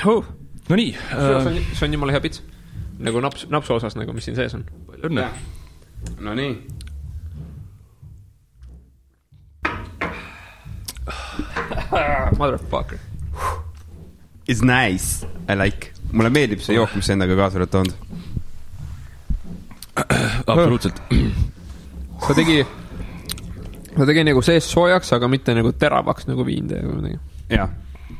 No nii. See on jumala hea pits. Nagu napsu osas, nagu mis siin sees on. Palju õnne. No nii. Motherfucker. It's nice. I like. Mulle meeldib see jook, mis endaga kaasa oled toonud. Absoluutselt. Ta tegi nagu sees soojaks, aga mitte nagu teravaks nagu viin teeb. Jah.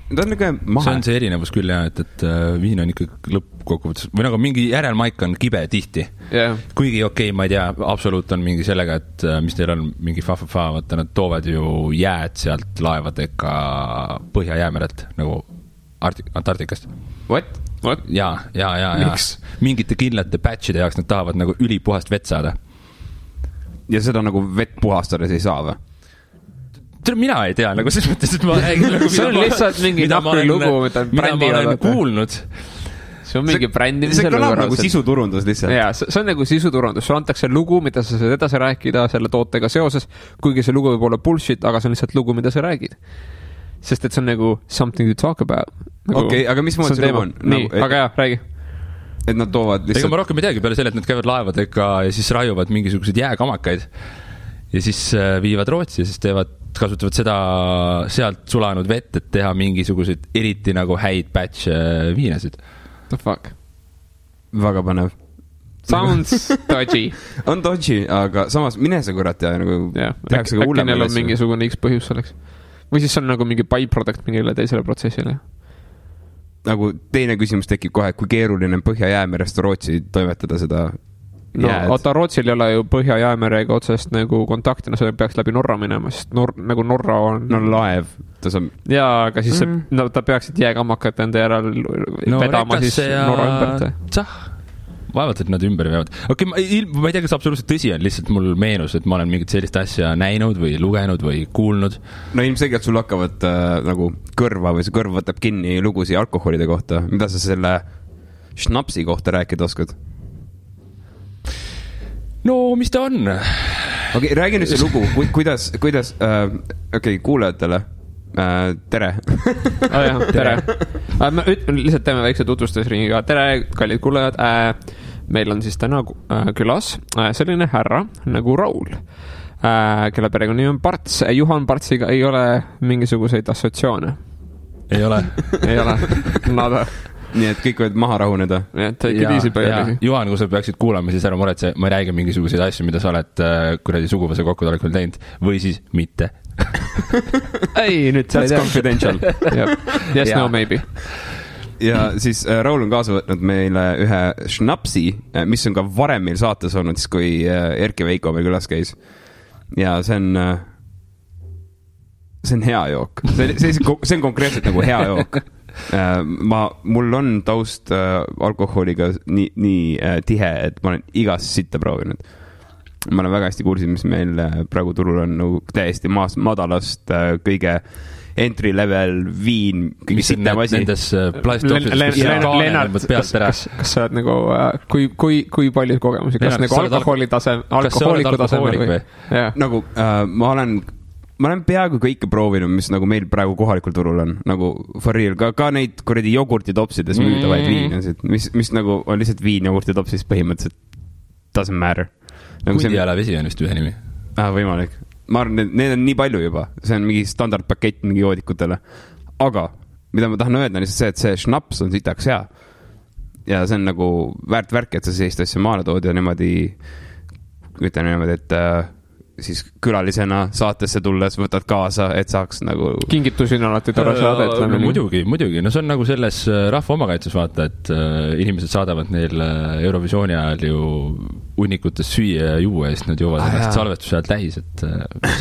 Ta on nagu mahe. See on see erinevus küll jah, et viin on ikka lõppkokkuvõttes või nagu mingi järelmaik on kibe tihti. Yeah. Kuigi okei, ma ei tea, absoluut on mingi sellega, et mis teil on mingi fa-fa-fa, vaata nad toovad ju jääd sealt laevadega Põhja-Jäämerelt nagu Antarktikast. What? Ja. Mingite kindlate batchide jaoks nad tahavad nagu ülipuhast vett saada. Ja seda nagu vett puhastades ei saa või? Mina ei tea, nagu selles mõttes, et ma räägin nagu, see on lihtsalt mingi nahkri lugu, mida ma olen kuulnud. See on mingi brändimise see kõlab nagu sisuturundus lihtsalt. Jaa, see on nagu sisuturundus. Sul antakse lugu, mida sa saad edasi rääkida selle tootega seoses, kuigi see lugu võib olla bullshit, aga see on lihtsalt lugu, mida sa räägid. Sest et see on nagu something to talk about. Nagu, okei, aga mis moodi see lugu on? Nii, aga jah, räägi. Et nad toovad lihtsalt... Ega ma rohkem ei teagi peale selle, et nad käivad laevadega ja siis raiuvad mingisugused jääkamakaid ja siis viivad Rootsi ja siis kasutavad seda sealt sulanud vett, et teha mingisuguseid eriti nagu häid batch viinasid. The fuck? Väga panev. Sounds dodgy. On dodgy, aga samas mine see kurat ja nagu tehakse ka hullem. Äkki neil on mingisugune X põhjus selleks. Või siis on nagu mingi byproduct mingile teisele protsessile. Nagu teine küsimus tekib kohe, kui keeruline Põhja-Jäämerest Rootsi toimetada seda jääd. Oota, Rootsil ei ole ju Põhja-Jäämerega otsest nagu kontakti, no see peaks läbi Norra minema, sest nagu Norra on... No laev. Jaa, aga siis ta peaksid jääkammakat enda järel vedama siis Norra ümbert. Vaevalt, et nad ümber veavad. Okei, ma ei tea, kas absoluutselt tõsi on, lihtsalt mul meenus, et ma olen mingit sellist asja näinud või lugenud või kuulnud. No ilmselgelt sul hakkavad nagu kõrva või see kõrv võtab kinni lugusi alkoholide kohta. Mida sa selle šnapsi kohta rääkida oskad? No, mis ta on? Okei, räägi nüüd see lugu. Kuidas okei, kuulajatele. Tere. Tere. Ma lihtsalt teeme väikse tutvustusringiga. Tere, kallid kuulajad. Meil on siis täna külas selline härra nagu Raul, kelle perekonnanimi on Parts. Juhan Partsiga ei ole mingisuguseid assotsiaane. Ei ole. Ei ole. Nada. Nii et kõik võid maha rahuneda. Juhan, kui sa peaksid kuulama, siis ära muretse, ma ei räägi mingisuguseid asju, mida sa oled kuradi suguvõse kokkutolekul teinud või siis mitte. Ei, nüüd sa ei tea. That's confidential. Yes, no, maybe. Ja siis Raul on kaasa võtnud meile ühe šnapsi, mis on ka varem meil saates olnud, siis kui Erki Veiko meil külas käis. Ja see on hea jook. See on konkreetselt nagu hea jook. Mul on taust alkoholiga nii tihe, et ma olen igas sitta proovinud. Ma olen väga hästi kursis, mis meil praegu turul on nagu täiesti madalast kõige entry level viin, kõige sitem asi. Nendes plastopsis kas sa oled nagu kui palju kogemusi, kas nagu alkohooliku tasemel või? Nagu ma olen peaaegu kõike proovinud, mis nagu meil praegu kohalikul turul on, nagu for real, ka neid kuradi jogurtitopsides müüdavaid viinasid, mis nagu on lihtsalt viin jogurtitopsis põhimõtteliselt doesn't matter. Kundiala vesi on vist ühe nimi. Võimalik. Ma arvan, need on nii palju juba. See on mingi standardpakett mingi joodikutele. Aga, mida ma tahan öelda, on lihtsalt see, et see šnaps on sitaks hea. Ja see on nagu väärt värk, et sa sellist asja maale tood ja niimoodi, ütlen niimoodi, et siis külalisena saatesse tulles võtad kaasa, et saaks nagu... Kingitusi on alati tore saada. No, muidugi. No see on nagu selles rahva omakaitses vaata, et inimesed saadavad neil Eurovisiooni ajal ju unnikutes süüa ja juua ja siis nad joovad ennast salvestuse ajal täis, et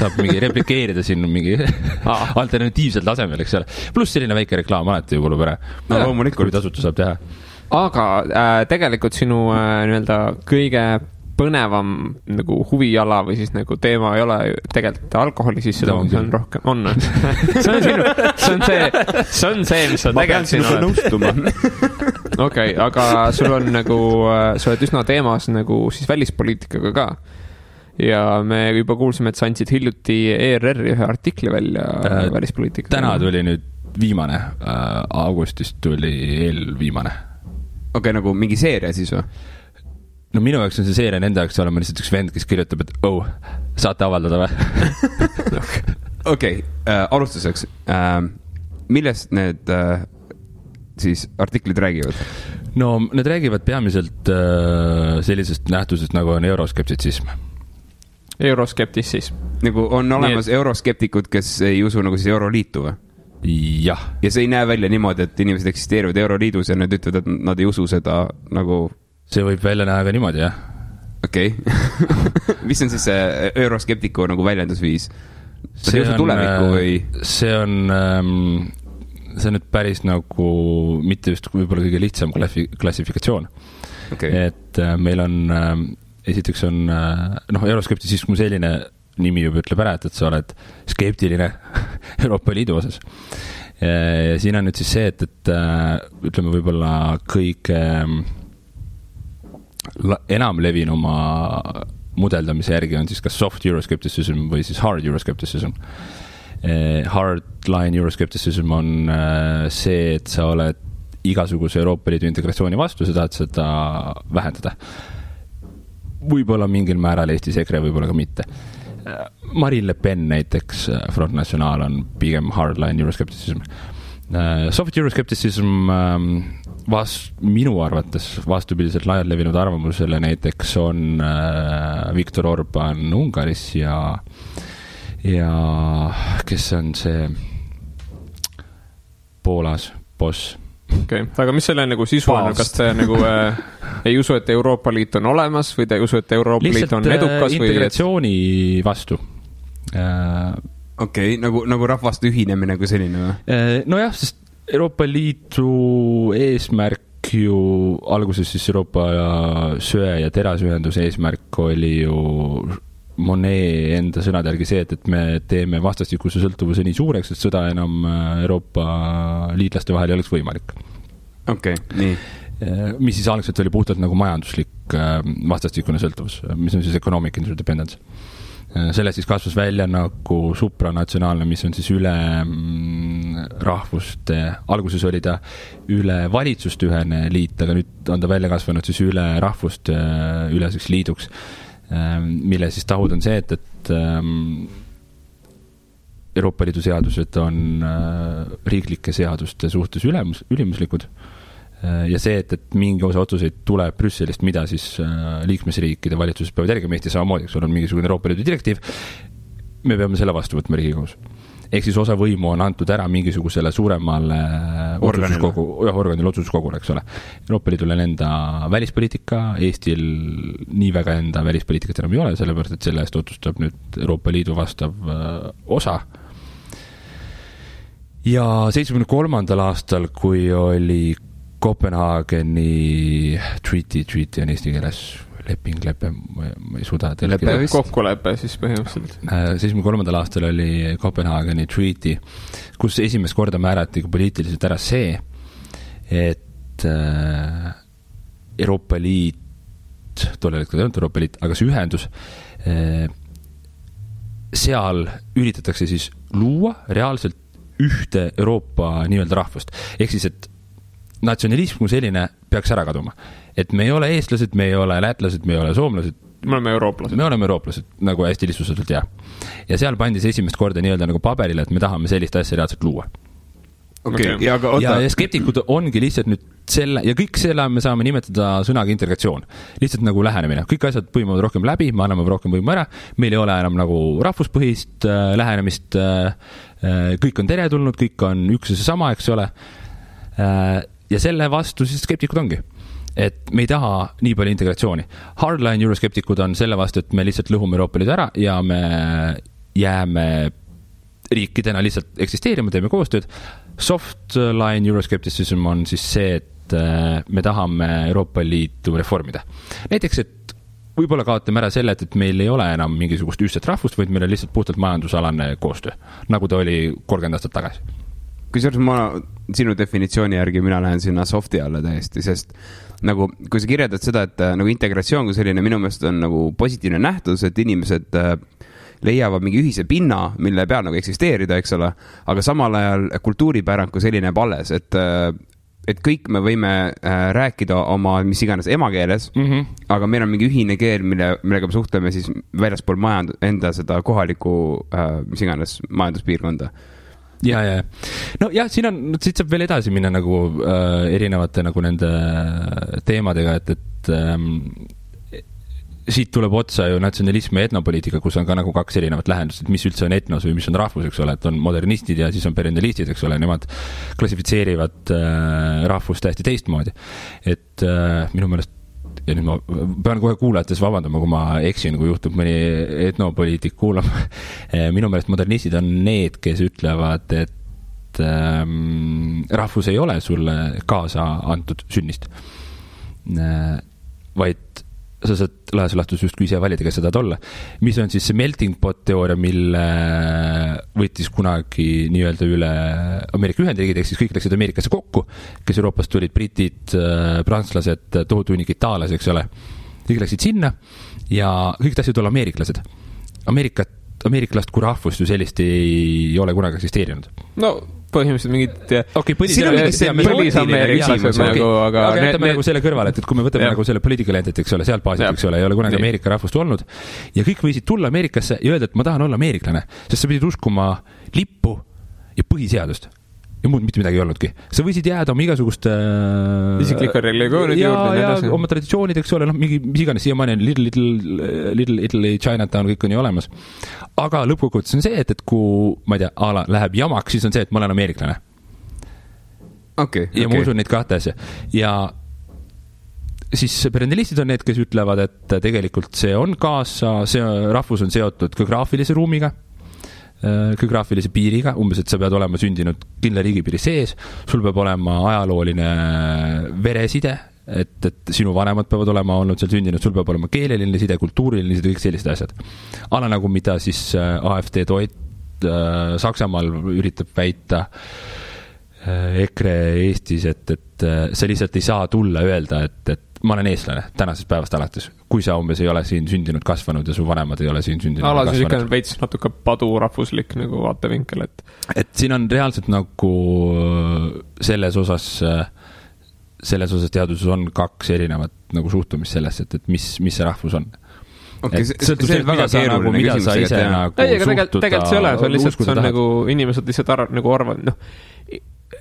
saab mingi replikeerida siin mingi alternatiivsel tasemel, eks ole. Pluss selline väike reklaam alati ju kulub ära. No loomulikult. Kui tasuta saab teha. Aga tegelikult sinu nii-öelda kõige põnevam nagu huvijala või siis nagu teema ei ole tegelikult alkoholi sisse tooma, see on rohkem, on. See on see, mis sa tegelikult siin oled. Okei, aga sul on nagu, sa oled üsna teemas nagu siis välispoliitikaga ka. Ja me juba kuulsime, et sa andsid hiljuti ERR-i ühe artikli välja välispoliitika. Täna tuli nüüd viimane, augustist tuli eelviimane. Okei, nagu mingi seeria siis või? No minu jaoks on see seeria, nende jaoks olema lihtsalt üks vend, kes kirjutab, et saate avaldada või? Okei, alustuseks. Millest need siis artiklid räägivad? No need räägivad peamiselt sellisest nähtusest, nagu on euroskeptitsism. Euroskeptitsism. Nagu on olemas euroskeptikud, kes ei usu nagu siis Euroliitu või? Jah. Ja see ei näe välja niimoodi, et inimesed eksisteerivad Euroliidus ja nad ütlevad, et nad ei usu seda nagu... See võib välja näha ka niimoodi, jah. Okei. Mis on siis see euroskeptiku nagu väljendusviis? See ei usu tulevikku või? See on nüüd päris nagu mitte just võib-olla kõige lihtsam klassifikatsioon. Okay. Et meil on, esiteks on, euroskeptitsism kui selline nimi juba ütleb ära, et sa oled skeptiline Euroopa Liidu osas. Ja siin on nüüd siis see, et ütleme võib-olla kõige enam levinuma mudeldamise järgi on siis kas soft euroskepticism või siis hard euroskepticism. Hardline euroskepticism on see, et sa oled igasuguse Euroopa Liidu integratsiooni vastu, sa tahad seda vähendada. Võib-olla mingil määral Eestis EKRE, võib-olla ka mitte. Marine Le Pen näiteks, Front National on pigem hardline euroskepticism. Soft euroskepticism minu arvates vastupidiselt laialt levinud arvamusele näiteks on Viktor Orban Ungaris ja kes on see Poolas boss. Okay. Aga mis selle nagu sisu on? Kas te nagu ei usu, et Euroopa Liit on olemas või te ei usu, et Euroopa Liit on edukas? Lihtsalt integratsiooni vastu. Okei, nagu rahvaste ühinemine kui selline või? Nojah, sest Euroopa Liidu eesmärk ju alguses siis Euroopa söe- ja terasühenduse eesmärk oli ju Monet enda sõnade järgi see, et me teeme vastastikuse sõltuvuse nii suureks, et sõda enam Euroopa liitlaste vahel ei oleks võimalik. Okei, nii. Mis siis algselt oli puhtalt nagu majanduslik vastastikune sõltuvus, mis on siis economic interdependence. Sellest siis kasvas välja nagu supranatsionaalne, mis on siis üle rahvuste, alguses oli ta üle valitsuste ühene liit, aga nüüd on ta välja kasvanud siis üle rahvuste üleseks liiduks, mille siis tahud on see, et Euroopa Liidu seadused on riiklike seaduste suhtes ülimuslikud ja see, et mingi osa otsuseid tuleb Brüsselist, mida siis liikmesriikide valitsuses peavad järgima Eesti samamoodi, eks on mingisugune Euroopa Liidu direktiiv, me peame selle vastu võtma Riigikogus. Ehk siis osa võimu on antud ära mingisugusele suuremale organile otsustuskogule, eks ole. Euroopa Liidul on enda välispoliitika, Eestil nii väga enda välispoliitikat enam ei ole, sellepärast, et selle eest otsustab nüüd Euroopa Liidu vastav osa. Ja 73. aastal, kui oli Kopenhaageni treaty on eesti keeles lepe, ma ei suuda kokkulepe siis põhimõtteliselt. 73. aastal oli Kopenhaageni treaty, kus esimest korda määrati poliitiliselt ära see, et Euroopa Liit, tollel hetkel ei olnud Euroopa Liit, aga see ühendus, seal üritatakse siis luua reaalselt ühte Euroopa nii-öelda rahvust. Ehk siis, et natsionalism kui selline peaks ära kaduma. Et me ei ole eestlased, me ei ole lätlased, me ei ole soomlased. Me oleme eurooplased, nagu hästi lihtsustatult, jah. Ja seal pandis esimest korda nii-öelda nagu paberile, et me tahame sellist asja reaalselt luua. Okay. Ja skeptikud ongi lihtsalt nüüd selle, ja kõik selle me saame nimetada sõnaga integratsioon. Lihtsalt nagu lähenemine. Kõik asjad põimuvad rohkem läbi, me anname rohkem võimu ära, meil ei ole enam nagu rahvuspõhist lähenemist, kõik on teretulnud, kõik on üks ja see sama, eks ole. Ja selle vastu siis skeptikud ongi. Et me ei taha nii palju integratsiooni. Hardline euroskeptikud on selle vastu, et me lihtsalt lõhume Euroopa Liidu ära ja me jääme riikidena lihtsalt eksisteerima, teeme koostööd. Softline euroskepticism on siis see, et me tahame Euroopa Liitu reformida. Näiteks, et võib-olla kaotame ära selle, et meil ei ole enam mingisugust ühtset rahvust, vaid meil on lihtsalt puhtalt majandusalane koostöö, nagu ta oli 30 aastat tagasi. Kusjuures ma sinu definitsiooni järgi mina lähen sinna softi alla täiesti, sest nagu, kui sa kirjeldad seda, et nagu integratsioon kui selline minu meelest on nagu positiivne nähtus, et inimesed leiavad mingi ühise pinna, mille peal nagu eksisteerida, eks ole, aga samal ajal kultuuripärand kui selline jääb alles, et kõik me võime rääkida oma mis iganes emakeeles, aga meil on mingi ühine keel, millega me suhtleme siis väljaspool enda seda kohalikku mis iganes majanduspiirkonda. Ja. No jah, siit saab veel edasi minna nagu erinevate nagu nende teemadega, et siit tuleb otsa ju natsionalism ja etnopoliitika, kus on ka nagu kaks erinevat lähendust, et mis üldse on etnos või mis on rahvus, eks ole, et on modernistid ja siis on perennialistid, eks ole, nemad klassifitseerivad rahvust täiesti teistmoodi. Et minu meelest, ja nüüd ma pean kohe kuulajates vabandama, kui ma eksin, kui juhtub mõni etnopoliitik kuulama. Minu meelest modernistid on need, kes ütlevad, et rahvus ei ole sulle kaasa antud sünnist, vaid sa saad laias laastus justkui ise valida, kes sa tahad olla. Mis on siis see melting pot teooria, mille võttis kunagi nii-öelda üle Ameerika Ühendriigid, ehk siis kõik läksid Ameerikasse kokku, kes Euroopast tulid, britid, prantslased, tohutu hunnik itaalasi, eks ole. Kõik läksid sinna ja kõik tahtsid olla ameeriklased. Ameeriklast kui rahvust ju sellist ei ole kunagi eksisteerinud. No põhimõtteliselt mingid põlisameeriklased nagu, aga jätame nagu selle kõrvale, et kui me võtame nagu selle political entity, eks ole, sealt baasit, eks ole, ei ole kunagi Ameerika rahvust olnud ja kõik võisid tulla Ameerikasse ja öelda, et ma tahan olla ameeriklane, sest sa pidid uskuma lippu ja põhiseadust ja muud mitte midagi ei olnudki. Sa võisid jääda oma igasuguste isikliku religioonid juurde ja oma traditsioonid, eks ole, mis iganes siiamaani on Little Italy, Chinatown, kõik on ju olemas. Aga lõppkokkuvõttes on see, et kui, ma ei tea, läheb jamaks, siis on see, et ma olen ameeriklane. Ja ma usun neid kahte asja. Ja siis perennialistid on need, kes ütlevad, et tegelikult see on kaasa, see rahvus on seotud geograafilise ruumiga, geograafilise piiriga, umbes, et sa pead olema sündinud kindla riigipiiri sees, sul peab olema ajalooline vereside, et sinu vanemad peavad olema olnud seal sündinud, sul peab olema keeleline side, kultuuriline side, kõik sellised asjad. Ala nagu mida siis AfD toit Saksamaal üritab väita EKRE Eestis, et sa lihtsalt ei saa tulla öelda, et ma olen eestlane tänasest päevast alates, kui sa umbes ei ole siin sündinud, kasvanud ja su vanemad ei ole siin sündinud. Alasis ikka on veits natuke padurahvuslik nagu vaatevinkel, et siin on reaalselt nagu selles osas teaduses on kaks erinevat nagu suhtumist sellesse, et mis see rahvus on. See on väga keeruline küsimus. Tegelikult see ole, see on lihtsalt, see on nagu inimesed lihtsalt arvavad,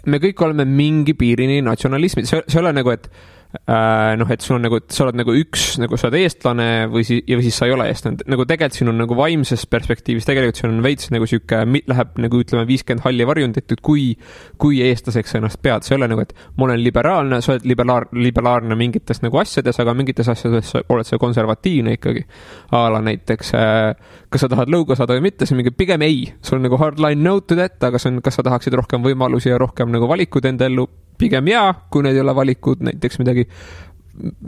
me kõik oleme mingi piirini natsionalismid, see ole nagu, et et sul on nagu, et sa oled nagu üks, nagu sa oled eestlane või siis sa ei ole eestlane. Nagu tegelikult siin on nagu vaimses perspektiivis, tegelikult siin on veits nagu siuke, läheb nagu ütleme 50 halli varjundit, et kui eestlaseks ennast pead, see ei ole nagu, et ma olen liberaalne, sa oled liberaalne mingites nagu asjades, aga mingites asjades oled sa konservatiivne ikkagi. Ala näiteks, kas sa tahad lõuga saada või mitte, see mingi pigem ei. Sul on nagu hardline no to that, aga see on, kas sa tahaksid rohkem võimalusi ja rohkem nagu valikud enda ellu, pigem jaa, kui need ei ole valikud, näiteks midagi,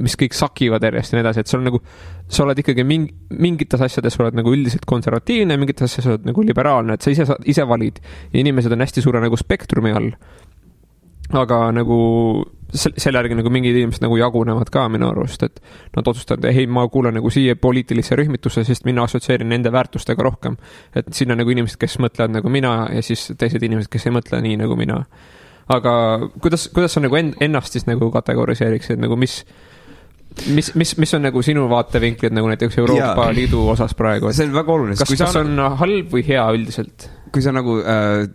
mis kõik sakivad järjest ja nii edasi, et sul nagu, sa oled ikkagi mingites asjades oled nagu üldiselt konservatiivne, mingites asjades oled nagu liberaalne, et sa ise valid ja inimesed on hästi suure nagu spektrumi all. Aga nagu selle järgi nagu mingid inimesed nagu jagunevad ka minu arust, et nad otsustavad, hei, ma kuulen nagu siia poliitilisse rühmitusse, sest mina assotsieerin nende väärtustega rohkem. Et siin on nagu inimesed, kes mõtlevad nagu mina ja siis teised inimesed, kes ei mõtle nii nagu mina. Aga kuidas sa nagu ennast siis nagu kategoriseeriksid, nagu mis on nagu sinu vaatevinklid nagu näiteks Euroopa Liidu osas praegu? See on väga oluline. Kas on halb või hea üldiselt? Kui sa nagu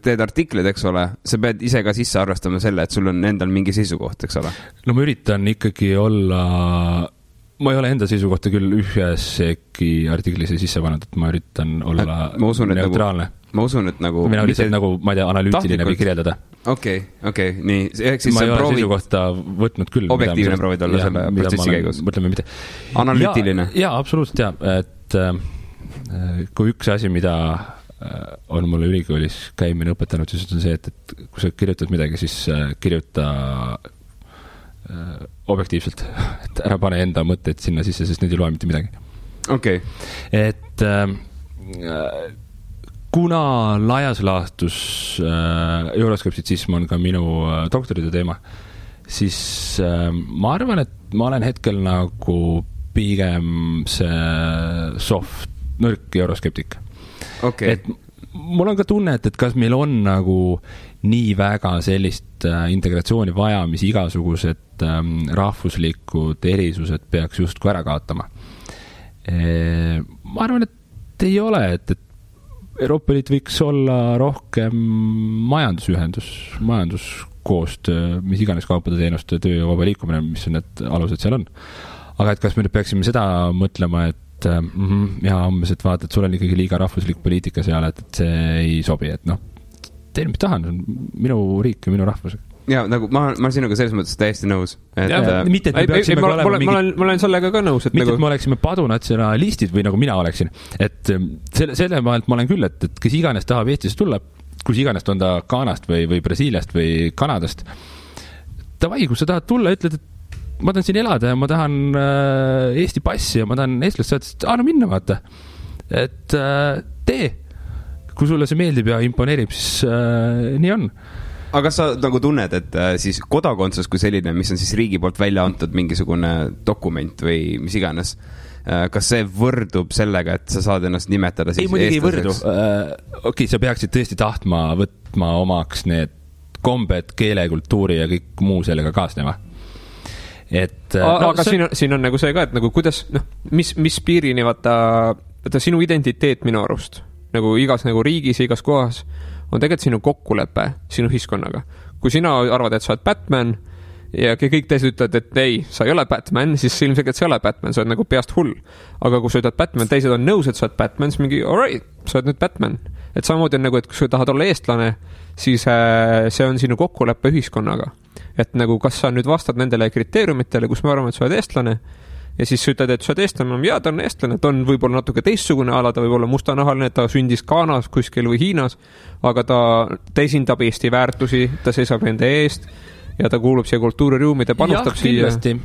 teed artiklid, eks ole, sa pead ise ka sisse arvestama selle, et sul on endal mingi seisukoht, eks ole? No ma üritan ikkagi olla, ma ei ole enda seisukohta küll ühesegi artiklisse sisse pannud, et ma üritan olla neutraalne. Ma usun, et nagu... Mina lihtsalt nagu, ma ei tea, analüütiline või kirjeldada. Okei, nii. Ma ei ole seisukohta võtnud küll. Objektiivne proovid olla selle protsessi käigus. Mõtleme mitte. Analüütiline. Jaa, absoluutselt jah. Et kui üks asi, mida on mulle ülikoolis käimine õpetanud, siis on see, et kui sa kirjutad midagi, siis kirjuta objektiivselt. Et ära pane enda mõtteid sinna sisse, sest need ei loe mitte midagi. Okei. Et kuna laias laastus euroskeptitsism on ka minu doktoritöö teema, siis ma arvan, et ma olen hetkel nagu pigem see soft, nõrk euroskeptik. Okay. Et mul on ka tunne, et kas meil on nagu nii väga sellist integratsiooni vaja, mis igasugused rahvuslikud erisused peaks justkui ära kaotama. Ma arvan, et ei ole, et Euroopa Liit võiks olla rohkem majanduskoostöö, mis iganes kaupade teenuste töö ja vaba liikumine, mis on need alused seal on. Aga et kas me nüüd peaksime seda mõtlema, et umbes, et vaata, et sul on ikkagi liiga rahvuslik poliitika seal, et see ei sobi, et teen, mis tahan, minu riik ja minu rahvus. Ja nagu ma sinuga selles mõttes täiesti nõus. Mitte, et me peaksime ma olen sellega ka nõus. Mitte, et me oleksime padunatsionalistid või nagu mina oleksin. Et selle maalt ma olen küll, et kes iganes tahab Eestisse tulla, kus iganes on ta Ghanast või Brasiiliast või Kanadast. Davai, kui sa tahad tulla, ütled, et ma tahan siin elada ja ma tahan Eesti passi ja ma tahan eestlast saada, et no minna vaata. Et tee. Kui sulle see meeldib ja imponeerib, siis nii on. Aga kas sa nagu tunned, et siis kodakondsus kui selline, mis on siis riigi poolt välja antud mingisugune dokument või mis iganes, kas see võrdub sellega, et sa saad ennast nimetada siis eestlaseks? Ei, muidugi ei võrdu. Okei, sa peaksid tõesti tahtma võtma omaks need kombed, keele, kultuuri ja kõik muu sellega kaasneva. Aga siin on nagu see ka, et nagu kuidas, mis piirini vaata sinu identiteet minu arust, nagu igas nagu riigis ja igas kohas on tegelikult sinu kokkulepe sinu ühiskonnaga. Kui sina arvad, et sa oled Batman ja kõik teised ütlevad, et ei, sa ei ole Batman, siis ilmselgelt sa ei ole Batman, sa oled nagu peast hull. Aga kui sa ütled Batman, teised on nõus, et sa oled Batman, siis mingi, alright, sa oled nüüd Batman. Et samamoodi on nagu, et kui sa tahad olla eestlane, siis see on sinu kokkulepe ühiskonnaga. Et nagu, kas sa nüüd vastad nendele kriteeriumitele, kus me arvame, et sa oled eestlane, ja siis sa ütled, et sa oled eestlane, ja ta on eestlane, ta on võib-olla natuke teistsugune ala, ta võib olla mustanahaline, ta sündis Ghanas kuskil või Hiinas, aga ta esindab Eesti väärtusi, ta seisab nende eest ja ta kuulub siia kultuuriruumi, ta panustab siia. Dave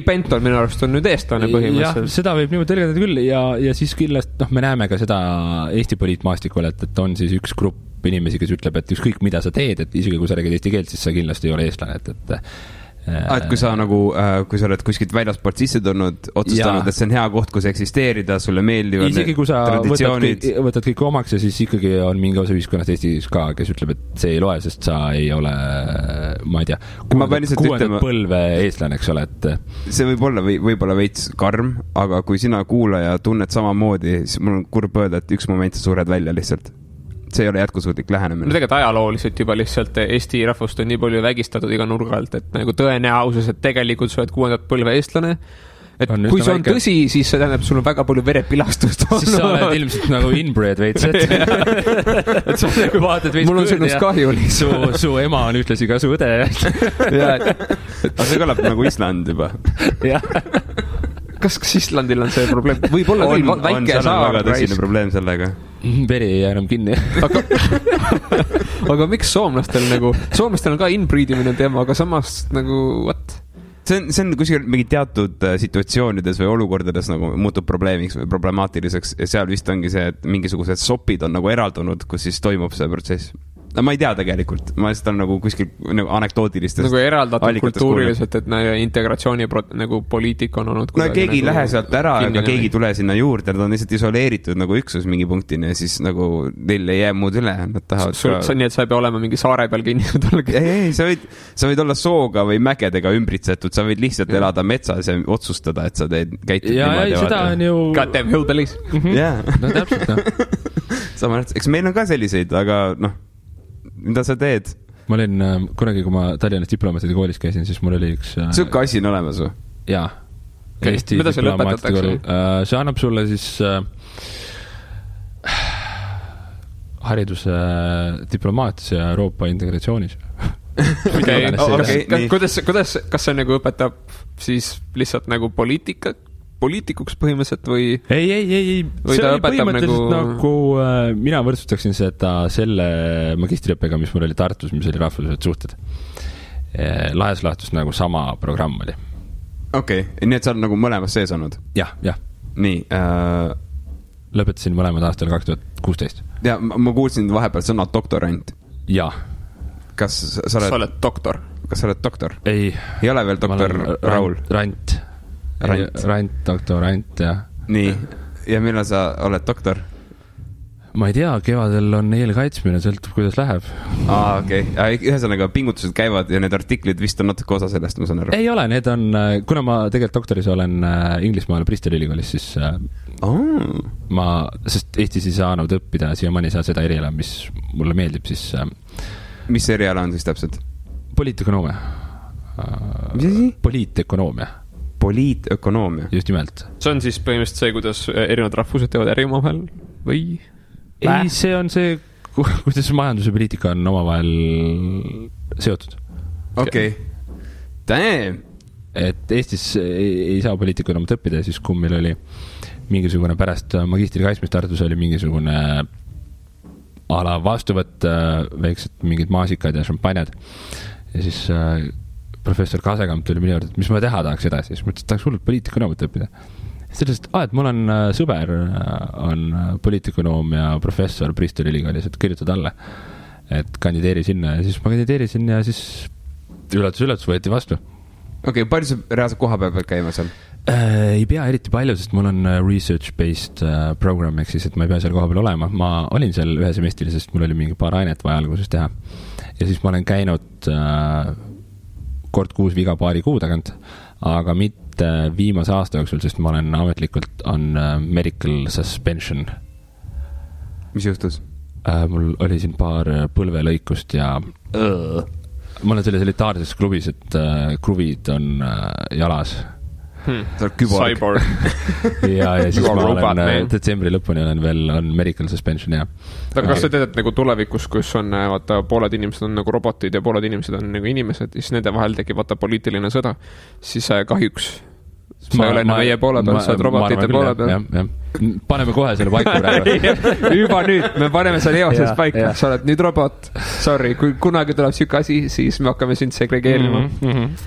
Benton minu arust on nüüd eestlane põhimõtteliselt. Jah, seda võib niimoodi tõlgendada küll ja siis kindlasti, me näeme ka seda Eesti poliitmaastikul, et on siis üks grupp inimesi, kes ütleb, et ükskõik mida sa teed, et isegi kui sa räägid eesti keelt, siis sa kindlasti ei ole eestlane, et kui sa nagu, kui sa oled kuskilt väljasport sisse tulnud, otsustanud, et see on hea koht, kus eksisteerida, sulle meeldivad isegi kui sa võtad kõik omaks ja siis ikkagi on mingi osa ühiskonnast Eestis ka, kes ütleb, et see ei loe, sest sa ei ole, ma ei tea, kuuendat põlve eestlane, eks ole, et see võib-olla veits karm, aga kui sina kuulaja tunned samamoodi, siis mul on kurb öelda, et üks moment sa suured välja lihtsalt. See ei ole jätkusuutlik lähenemine. No tegelikult ajalooliselt juba lihtsalt Eesti rahvust on nii palju vägistatud iga nurga alt, et nagu tõenäosus, et tegelikult sa oled kuuendat põlve eestlane, et kui see on tõsi, siis see tähendab, sul on väga palju verepilastust. Siis sa oled ilmselt nagu inbred veits, et sa nagu vaatad veits mul on sinust kahju lihtsalt. Su ema on ühtlasi ka su õde. Aga see kõlab nagu Island juba. Jah. Kas Islandil on see probleem? Võib-olla küll väike saar. On väga tõsine probleem sellega. Veri ei jää enam kinni. Aga miks soomlastel on ka inbreedimine teema, aga samas nagu, what? See on kuskil mingi teatud situatsioonides või olukordades nagu muutub probleemiks või problemaatiliseks ja seal vist ongi see, et mingisugused sopid on nagu eraldunud, kus siis toimub see protsess. No ma ei tea tegelikult, ma lihtsalt on nagu kuskil nagu anekdootilistest nagu eraldatud kultuuriliselt, et integratsiooni nagu poliitika on olnud no keegi nagu lähe sealt ära, aga keegi tule sinna juurde, nad on lihtsalt isoleeritud nagu üksus mingi punktini ja siis nagu neil ei jää muud üle, nad tahavad nii, et sa ei pea olema mingi saare peal kinnitud ei, sa võid olla sooga või mägedega ümbritsetud, sa võid lihtsalt elada metsas ja otsustada, et sa käitud niimoodi. Ja seda on ju goddamn hillbillies. Jah, no täpselt sama, eks meil on ka selliseid, aga mida sa teed? Ma olin kunagi, kui ma Tallinnas diplomaatide koolis käisin, siis mul oli üks Sükke asi on olemas või? Jaa. Eesti mida see lõpetatakse? See annab sulle siis hariduse diplomaatias ja Euroopa integratsioonis. Kuidas, kas see nagu õpetab siis lihtsalt nagu poliitikuks põhimõtteliselt või ei, või see oli põhimõtteliselt nagu mina võrdsustaksin seda selle magistriõppega, mis mul oli Tartus, mis oli rahvusvahelised suhted. Lahes lahtus nagu sama programm oli. Okei, nii et sa oled nagu mõlemas sees olnud? Jah. Nii. Lõpetasin mõlemad aastal 2016. Ja ma kuulsin vahepeal sõna doktorant. Jah. Kas sa oled doktor? Kas sa oled doktor? Ei ole veel doktor Raul? Rant, doktorant, jah. Nii, ja millal sa oled doktor? ma ei tea, kevadel on eelkaitsmine, sõltub, kuidas läheb. Okei. Ühesõnaga, pingutused käivad ja need artiklid vist on natuke osa sellest, ma saan aru. Ei ole, need on, kuna ma tegelikult doktoris olen Inglismaal Bristoli ülikoolis, siis sest Eestis ei saanud õppida, siiamaani ei saa seda eriala, mis mulle meeldib, siis mis eriala on siis täpselt? Poliitökonoomia. Mis asi? Poliitökonoomia. Poliitökonoomia. Just nimelt. See on siis põhimõtteliselt see, kuidas erinevad rahvused teevad äri omavahel või? Ei, see on see, kuidas majandus ja poliitika on omavahel seotud. Okei. Damn! Et Eestis ei saa poliitikonoomat õppida, siis kui meil oli mingisugune pärast magistri kaitsmist Tartus oli mingisugune ala vastuvõtt, väiksed mingid maasikad ja šampanjad. Ja siis professor Kasekamp tuli minu juurde, et mis ma teha tahaks edasi. Siis mõtlesin, et tahaks hullult poliitikonoomat õppida. Sellest, et mul on sõber, on poliitikonoomia professor Bristoli ülikoolis, et kirjutad alla, et kandideeri sinna. Ja siis ma kandideerisin ja siis üllatus võeti vastu. Okei, palju sa reaalselt koha peal käima seal? Ei pea eriti palju, sest mul on research-based program, ehk siis, et ma ei pea seal koha peal olema. Ma olin seal ühe semestri, sest mul oli mingi paar ainet vaja alguses teha. Ja siis ma olen käinud kord kuus viga paari kuu tagant, aga mitte viimase aasta jooksul, sest ma olen ametlikult on medical suspension. Mis juhtus? Mul oli siin paar põlvelõikust ja ma olen selles elitaarses klubis, et kruvid on jalas. Sa oled küborg. ja siis ma olen detsembri lõpuni on medical suspension, jah. Kas sa tead, et nagu tulevikus, kus on, vaata, pooled inimesed on nagu robotid ja pooled inimesed on nagu inimesed, siis nende vahel tekib, vaata, poliitiline sõda, siis kahjuks sa ei ole enam meie poole peal, sa oled robotite poole peal. Paneme kohe selle paiku praegu. Juba nüüd, me paneme selle eoses paika. Sa oled nüüd robot. Sorry, kui kunagi tuleb siuke asi, siis me hakkame sind segregeerima.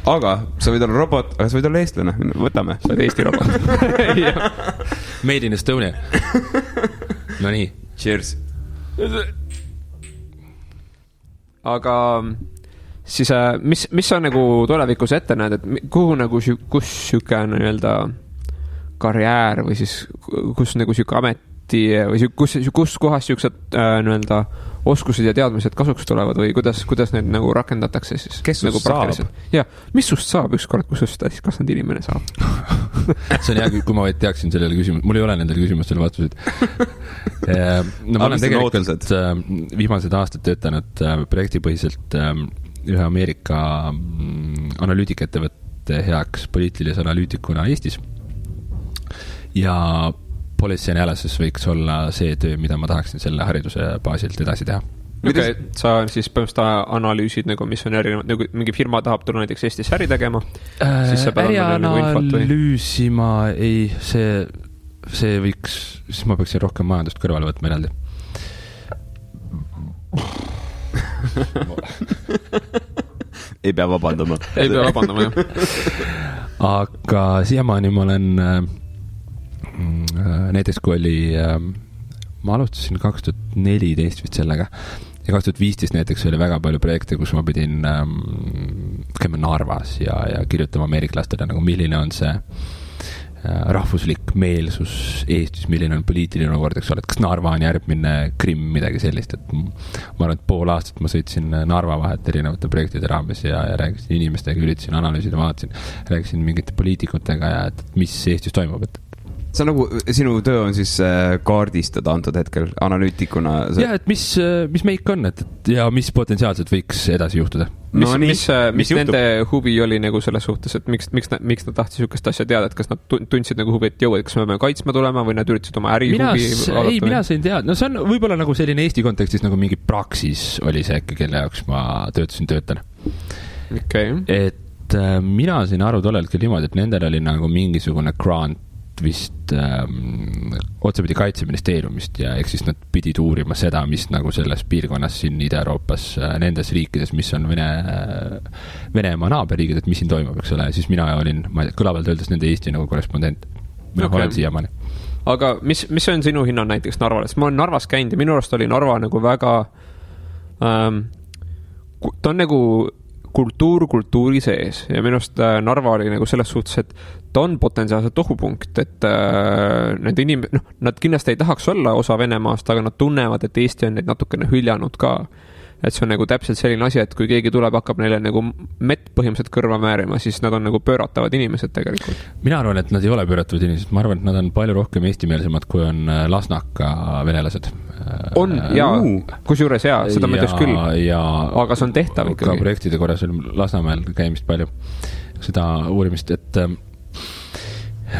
Aga sa võid olla robot, aga sa võid olla eestlane. Võtame. Sa oled Eesti robot. Made in Estonia. No nii. Cheers. Aga siis mis sa nagu tulevikus ette näed, et kuhu nagu, kus siuke nii-öelda karjäär või siis kus nagu siuke ameti või kus kohas siuksed nii-öelda oskused ja teadmised kasuks tulevad või kuidas need nagu rakendatakse siis? Kes nagu sust saab? Ja, mis sust saab ükskord, kus sust kasvanud inimene saab? See on hea, kui ma vaid teaksin sellele küsimus, mul ei ole nendele küsimustele vastuseid. No ma olen tegelikult viimased aastad töötanud projektipõhiselt ühe Ameerika analüütikettevõtte heaks poliitilise analüütikuna Eestis. Ja policy analysis võiks olla see töö, mida ma tahaksin selle hariduse baasilt edasi teha. Okay, sa siis põhimõtteliselt analüüsid, nagu, mis on erinevad, nagu mingi firma tahab tulla näiteks Eestis äri tegema, siis sa pead ärianalüüsima, ei, see võiks, siis ma peaksin rohkem majandust kõrvale võtma eraldi. Ei pea vabandama. Ei pea vabandama, jah. Aga siiamaani ma olen näiteks kui oli ma alustasin 2014 vist sellega ja 2015 näiteks oli väga palju projekte, kus ma pidin käima Narvas ja kirjutama ameeriklastele nagu milline on see rahvuslik meelsus Eestis, milline on poliitiline olukord, eks ole, et kas Narva on järgmine Krimm, midagi sellist, et ma arvan, et pool aastat ma sõitsin Narva vahet erinevate projektide raames ja rääkisin inimestega, üritasin analüüsida, vaatasin, rääkisin mingite poliitikutega ja et mis Eestis toimub, et see on nagu, sinu töö on siis kaardistada antud hetkel analüütikuna. Jah, et mis meik on, ja mis potentsiaalselt võiks edasi juhtuda. Mis nende huvi oli nagu selles suhtes, et miks nad tahtsid sükest asja teada, et kas nad tundsid nagu huvi, et jõu, et kas me peame kaitsma tulema või nad üritasid oma äri huvi? Ei, mina sain teada. No see on võib-olla nagu selline Eesti kontekstis nagu mingi praksis oli see, kelle jaoks ma töötan. Okay. Et mina sain aru tollelt küll niimoodi, et nendel oli nagu mingisugune grant vist otsapidi Kaitseministeeriumist ja eks siis nad pidid uurima seda, mis nagu selles piirkonnas siin Ida-Euroopas, nendes riikides, mis on Venemaa naaberriigid, et mis siin toimub, eks ole, siis mina olin, kõlavalt öeldes nende Eesti nagu korrespondent. Mina olen siiamaani. Aga mis on sinu hinna näiteks Narvale? Ma olen Narvas käinud ja minu arust oli Narva nagu väga ta on nagu kultuuri sees ja minu arust Narva oli nagu selles suhtes, et ta on potentsiaalselt ohupunkt, et need nad kindlasti ei tahaks olla osa Venemaast, aga nad tunnevad, et Eesti on neid natukene hüljanud ka. Et see on nagu täpselt selline asi, et kui keegi tuleb, hakkab neile nagu mett põhimõtteliselt kõrva määrima, siis nad on nagu pööratavad inimesed tegelikult. Mina arvan, et nad ei ole pööratavad inimesed, ma arvan, et nad on palju rohkem eestimeelsemad, kui on Lasnaka venelased. On, jaa, kusjuures jaa, seda ma ütleks küll, aga see on tehtav ikkagi. Ka projektide korras oli Lasnamäel käimist palju seda uurimist, et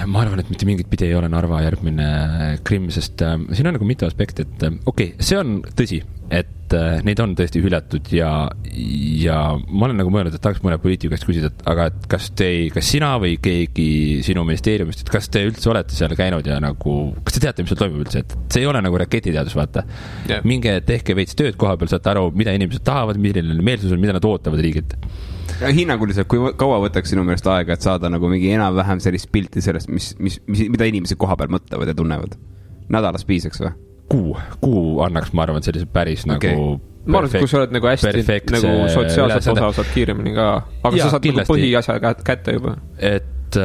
ma arvan, et mitte mingit pidi ei ole Narva järgmine Krimm, sest siin on nagu mitu aspekti, et okei, see on tõsi, et neid on tõesti hüljatud ja ma olen nagu mõelnud, et tahaks mõne poliitikast küsida, et aga et kas sina või keegi sinu ministeeriumist, et kas te üldse olete seal käinud ja nagu, kas te teate, mis seal toimub üldse, et see ei ole nagu raketiteadus, vaata. Yeah. Minge tehke veits tööd koha peal, saate aru, mida inimesed tahavad, milline meelsus on, mida nad ootavad riigilt. Ja hinnanguliselt, kui kaua võtaks sinu meelest aega, et saada nagu mingi enam-vähem sellist pilti sellest, mida inimesed koha peal mõtlevad ja tunnevad? Nädalas piisaks või? Kuu annaks, ma arvan, sellise päris okay. Nagu ma arvan, et kui sa oled nagu hästi nagu sotsiaalselt osa saad kiiremini ka, aga ja, sa saad nagu põhiasja kätte juba. Et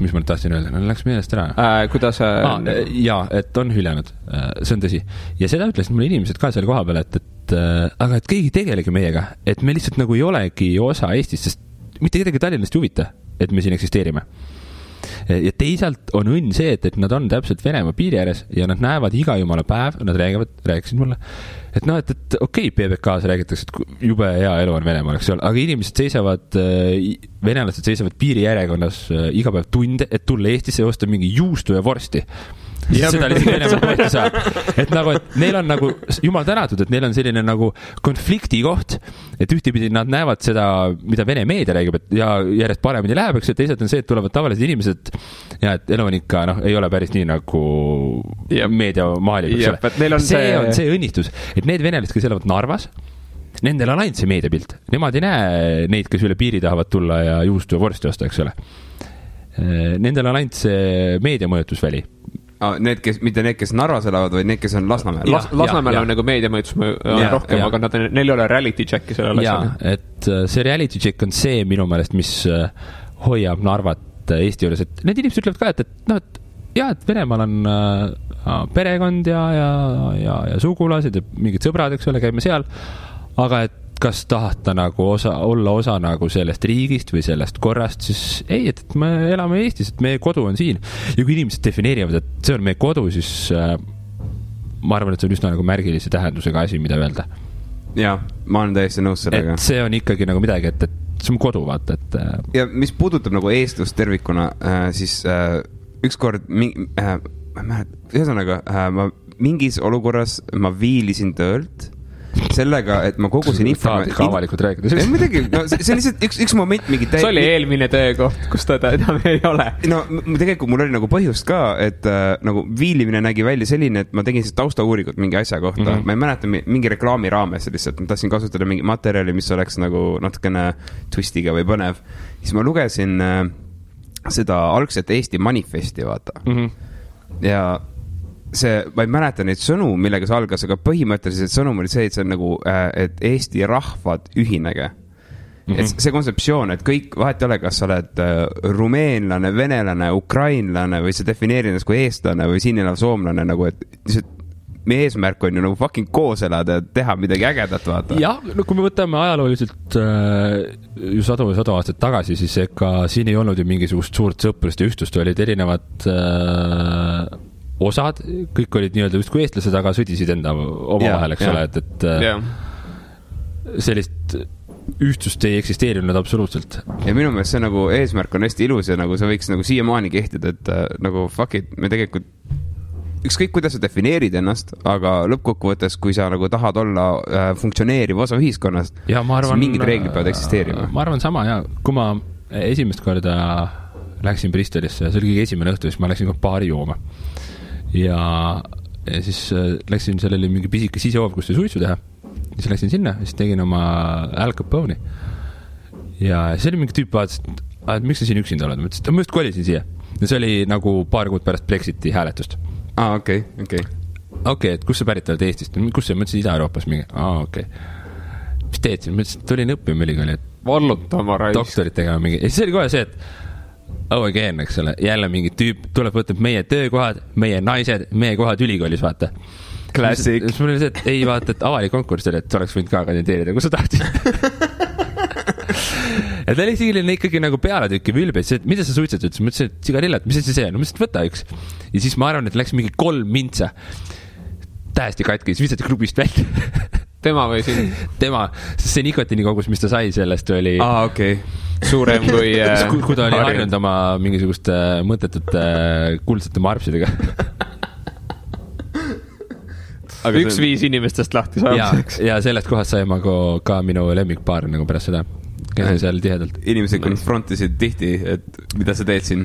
mis ma nüüd tahtsin öelda, läks meelest ära. Kuidas jaa, et on hüljanud, see on tõsi. Ja seda ütlesid mulle inimesed ka selle koha peal, et aga et keegi tegelegi meiega, et me lihtsalt nagu ei olegi osa Eestist, sest mitte kedagi Tallinnast ei huvita, et me siin eksisteerime. Ja teisalt on õnn see, et nad on täpselt Venemaa piiri ääres ja nad näevad iga jumala päev, nad rääkisid mulle, et noh, et okei, PBK-s räägitakse, et jube hea elu on Venemaal, eks ole, aga inimesed seisavad, venelased seisavad piiri järjekonnas iga päev tunde, et tulla Eestisse ja osta mingi juustu ja vorsti. Seda lihtsalt Venemaa kohti saab. Et nagu, et neil on nagu, jumal tänatud, et neil on selline nagu konflikti koht, et ühtipidi nad näevad seda, mida Vene meedia räägib, et ja järjest paremini läheb, eks, et teisalt on see, et tulevad tavalised inimesed ja et elu on ikka, ei ole päris nii nagu meedia maalib, eks ole. See on see õnnistus, et need venelased, kes elavad Narvas, nendel on ainult see meediapilt. Nemad ei näe neid, kes üle piiri tahavad tulla ja juustu ja vorsti osta, eks ole. Nendel on ainult see meediamõjutusväli. Mitte need, kes Narvas elavad, või need, kes on Lasnamäel. Lasnamäel on nagu meediamõjutus rohkem, aga neil ei ole reality check'i sellele asjale. Et see reality check on see minu meelest, mis hoiab Narvat Eesti juures, et need inimesed ütlevad ka, et Venemaal on perekond ja sugulased ja mingid sõbrad, eks ole, käime seal, aga et kas tahta nagu olla osa nagu sellest riigist või sellest korrast, siis ei, et me elame Eestis, et meie kodu on siin. Ja kui inimesed defineerivad, et see on meie kodu, siis ma arvan, et see on üsna nagu märgilise tähendusega asi, mida öelda. Jaa, ma olen täiesti nõus sellega. Et see on ikkagi nagu midagi, et see on kodu, vaata, et ja mis puudutab nagu eestlust tervikuna, siis ükskord ühesõnaga, ma mingis olukorras ma viilisin töölt sellega, et ma kogusin informatsiooni. Ka avalikult rääkides. Midagi, see on lihtsalt üks moment mingi see oli eelmine töökoht, kus ta ei ole. No tegelikult mul oli nagu põhjust ka, et nagu viilimine nägi välja selline, et ma tegin siis taustauuringut mingi asja kohta. Ma ei mäleta mingi reklaami raames lihtsalt. Ma tahtsin kasutada mingi materjali, mis oleks nagu natukene twistiga või põnev. Siis ma lugesin seda algset Eesti manifesti, vaata. Ja ma ei mäleta neid sõnu, millega see algas, aga põhimõtteliselt sõnum oli see, et see on nagu, et Eesti rahvad ühinege. Et see kontseptsioon, et kõik, vahet ei ole, kas sa oled rumeenlane, venelane, ukrainlane või sa defineerid ennast kui eestlane või siin elav soomlane, nagu, et meie eesmärk on ju nagu fucking koos elada ja teha midagi ägedat, vaata. Jah, no kui me võtame ajalooliselt ju sadu aastat tagasi, siis ega siin ei olnud ju mingisugust suurt sõprust ja ühtust, olid erinevad osad, kõik olid nii-öelda just kui eestlased, aga sõdisid enda oma vahel, eks ole, et sellist ühtsust ei eksisteerinud absoluutselt. Ja minu meelest see nagu eesmärk on hästi ilus ja nagu see võiks nagu siiamaani kehtida, et nagu fuck it, me tegelikult ükskõik kuidas sa defineerid ennast, aga lõppkokkuvõttes, kui sa nagu tahad olla funktsioneeriv osa ühiskonnast, siis mingid reeglid peavad eksisteerima. Ma arvan sama, ja kui ma esimest korda läksin Bristolisse, see oli kõige esimene õhtu, siis ma läksin ka baari jooma. Ja siis läksin sellele mingi pisike sisehoov, kus sai suitsu teha. Siis läksin sinna, siis tegin oma Al Capone'i. Ja see oli mingi tüüp vaatas, et miks sa siin üksinda oled? Ma ütlesin, ma just kolisin siia. Ja see oli nagu paar kuud pärast Brexiti hääletust. Okei, et kus sa pärit oled Eestist? Kus sa? Ma ütlesin Ida-Euroopas mingi. Okei. mis teed siin? Ma ütlesin, et tulin õppima ülikooli, et vallutama raisk. Doktorit tegema mingi. Ja siis oli kohe see, et again, eks ole, jälle mingi tüüp tuleb võtab meie töökohad, meie naised, meie kohad ülikoolis, vaata. Classic. Siis mul oli see, et ei vaata, et avalik konkurss oli, et sa oleks võinud ka kandideerida, kui sa tahtsid. Ja ta oli ikkagi nagu pealetükki vülbes, et mida sa suitsed, ütles, ma ütlesin, et sigarillat, mis see on? Ma ütlesin, et võta üks. Ja siis ma arvan, et läks mingi 3 mintsa. Tähesti katki, siis visati klubist välja. Tema või siin? Tema, sest see nikotiini kogus, mis ta sai sellest oli okei. Suurem kui kui ta oli harjunud oma mingisuguste mõttetute kuldsete marpsidega. Üks 5 inimestest lahti saamiseks. Ja sellest kohast sai ma ka minu lemmikpaar nagu pärast seda. Käsin seal tihedalt. Inimesed konfrontisid tihti, et mida sa teed siin?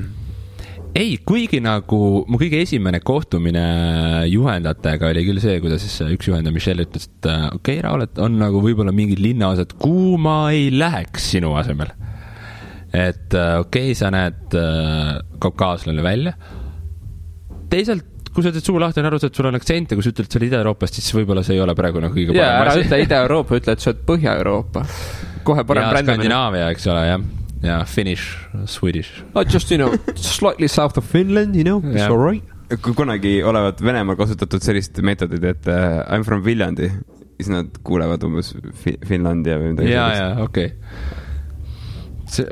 Ei, kuigi nagu mu kõige esimene kohtumine juhendajatega oli küll see, kuidas siis üks juhendaja Michelle ütles, et okei, Raul, et on nagu võib-olla mingid linnaosad, kuhu ma ei läheks sinu asemel. Et okei, sa näed kaukaaslane välja. Teisalt, kui sa ütled suu lahti, on aru, et sul on aktsent ja kui sa ütled, et sa oled Ida-Euroopast, siis võib-olla see ei ole praegu nagu kõige parem. Ära ütle Ida-Euroopa, ütle, et sa oled Põhja-Euroopa. Kohe parem brändamine. Skandinaavia, eks ole, jah. Ja Finnish, Swedish. Just, slightly south of Finland, it's all right. Kui kunagi olevat Venemaal kasutatud sellist meetodid, et I'm from Viljandi, siis nad kuulevad umbes Finlandia või midagi. Ja, okei. See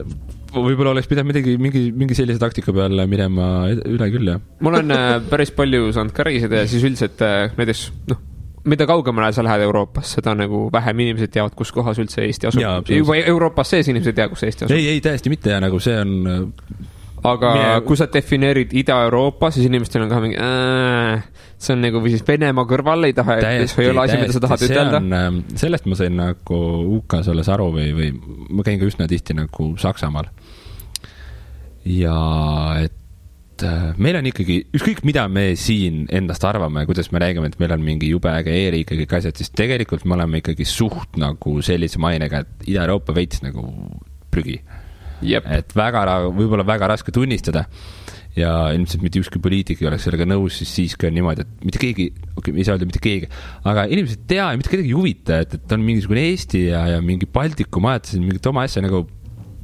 võib-olla oleks pidanud mingi sellise taktika peale minema üle küll, jah. Mul on päris palju saanud ka reisida ja siis üldiselt näiteks, mida kaugemale sa lähed Euroopas, seda nagu vähem inimesed teavad, kus kohas üldse Eesti asub. Juba Euroopas sees inimesed teavad, kus Eesti asub. Ei, täiesti mitte ja nagu see on... Aga kui sa defineerid Ida-Euroopa, siis inimestel on ka mingi... see on nagu või siis Venemaa kõrval ei taha, et see ei ole asi, mida sa tahad ütelda. Sellest ma sain nagu UK-s olles aru või ma käin ka üsna tihti nagu Saksamaal. Ja et meil on ikkagi, ükskõik mida me siin endast arvame, kuidas me räägime, et meil on mingi jube äge e-riik ja kõik asjad, siis tegelikult me oleme ikkagi suht nagu sellise mainega, et Ida-Euroopa veits nagu prügi. Jep. Et võib-olla väga raske tunnistada ja ilmselt mitte ükski poliitik ei oleks sellega nõus, siis ka on niimoodi, et mitte keegi, ei saa öelda mitte keegi, aga inimesed tea ja mitte kedagi juvita, et on mingisugune Eesti ja mingi Baltikum ajatasid mingit oma asja nagu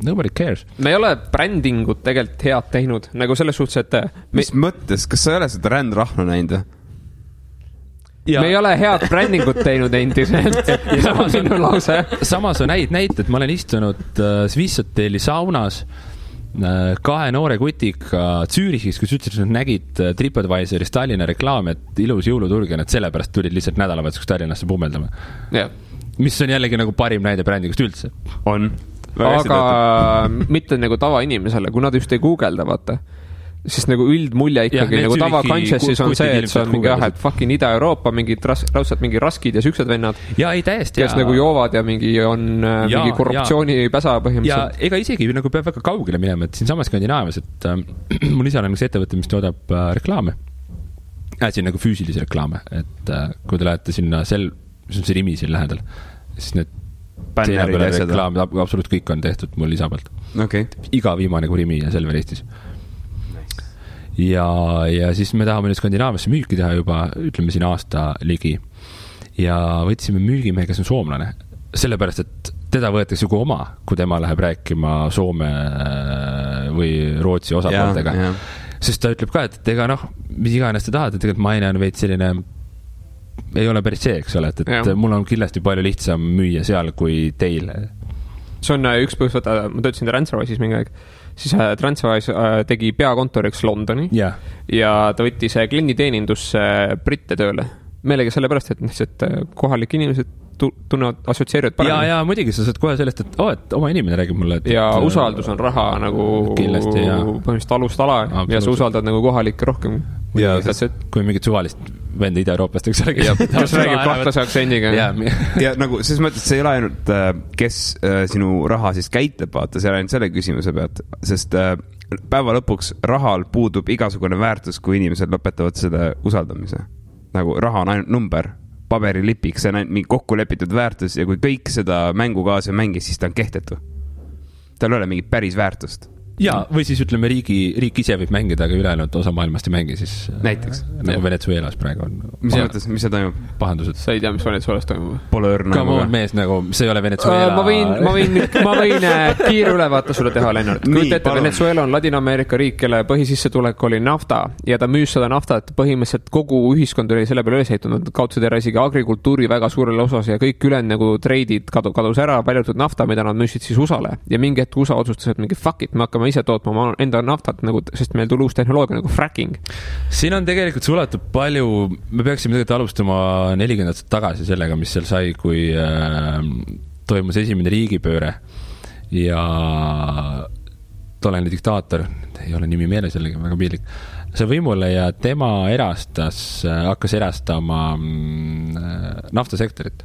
nobody cares. Me ei ole brändingut tegelikult head teinud, nagu selles suhtes, et... Mis mõttes? Kas sa ei ole seda rändrahnu näinud? Me ei ole head brändingut teinud endiselt. Samas on näited, ma olen istunud Swiss Hoteli saunas 2 noore kutiga Zürichis, kus ütlesid, et nad nägid TripAdvisoris Tallinna reklaam, et ilus jõuluturg ja nad sellepärast tulid lihtsalt nädalavahetuseks Tallinnasse pummeldama. Mis on jällegi nagu parim näide brändingust üldse. On. Aga mitte nagu tavainimesele, kui nad just ei guugelda, vaata. Siis nagu üldmulje ikkagi nagu tava consciousis on see, et see on mingi et fucking Ida-Euroopa, raudselt mingi raskid ja süksed vennad. Ja ei täiesti. Kes nagu joovad ja mingi on mingi korruptsiooni päsa põhimõtteliselt. Ja ega isegi nagu peab väga kaugele minema, et siin samas Skandinaavias, et mul isal on üks ettevõte, mis toodab reklaame. Siin nagu füüsilisi reklaame, et kui te lähete sinna mis on see Rimi siin lähedal, siis need reklaamid, absoluut kõik on tehtud mul isa pealt. Iga viimane kui Rimi ja Selver Eestis. Ja siis me tahame nüüd Skandinaaviasse müüki teha juba, ütleme siin aasta ligi. Ja võtsime müügimehe, kes on soomlane. Sellepärast, et teda võetakse ju oma, kui tema läheb rääkima Soome või Rootsi osapooltega. Sest ta ütleb ka, et ega mis iganes te tahate, et tegelikult maine on veid selline ei ole päris see, eks ole, et mul on kindlasti palju lihtsam müüa seal kui teil. See on üks põhjus, ma töötasin TransferWise'is mingi aeg, siis TransferWise tegi peakontoriks Londoni ja ta võttis klienditeenindusse britte tööle. Meelega sellepärast, et kohalik inimesed tunnevad, assotsieerivad paremini. Ja muidugi sa saad kohe sellest, et oma inimene räägib mulle. Ja usaldus on raha nagu kindlasti, põhimõtteliselt alust ala ja sa usaldad nagu kohalikke rohkem. Ja kui mingit suvalist venda Ida-Euroopast, eks ole, kes räägib kahtlase aktsendiga. Ja nagu, selles mõttes, see ei ole ainult, kes sinu raha siis käitleb, vaata, see on ainult selle küsimuse pealt, sest päeva lõpuks rahal puudub igasugune väärtus, kui inimesed lõpetavad selle usaldamise. Nagu raha on ainult number, paberilipiks, see on ainult mingi kokku lepitud väärtus ja kui kõik seda mängu kaasa mängis, siis ta on kehtetu. Tal ei ole mingit päris väärtust. ja, või siis ütleme, riik ise võib mängida, aga ülejäänud osa maailmast ei mängi, siis näiteks. Nagu Venezuelas praegu on. Mis mõttes, mis see toimub? Pahandused. Sa ei tea, mis Venezuelas toimub? Pole õrna. Come on, mees, nagu see ei ole Venezuela. Ma võin kiire ülevaate sulle teha, Lennart. Kuid ette, Venezuela on Ladina-Ameerika riik, kelle põhisissetulek oli nafta ja ta müüs seda naftat, põhimõtteliselt kogu ühiskond oli selle peale üles ehitunud, kaudselt ära isegi agrikultuuri väga suurele osas ja kõik ülejäänud nagu treidid kadus ära, paljutud nafta, mida nad müüsid siis USA-le ja mingi hetk USA otsustas, et mingi fuck it, me hakkame ise tootma oma enda naftat nagu, sest meil tuli uus tehnoloogia nagu fracking. Siin on tegelikult suletud palju, me peaksime tegelikult alustama 40 aastat tagasi sellega, mis seal sai, kui toimus esimene riigipööre ja tollane diktaator, ei ole nimi meeles jällegi, väga piinlik, see võimule ja tema hakkas erastama naftasektorit.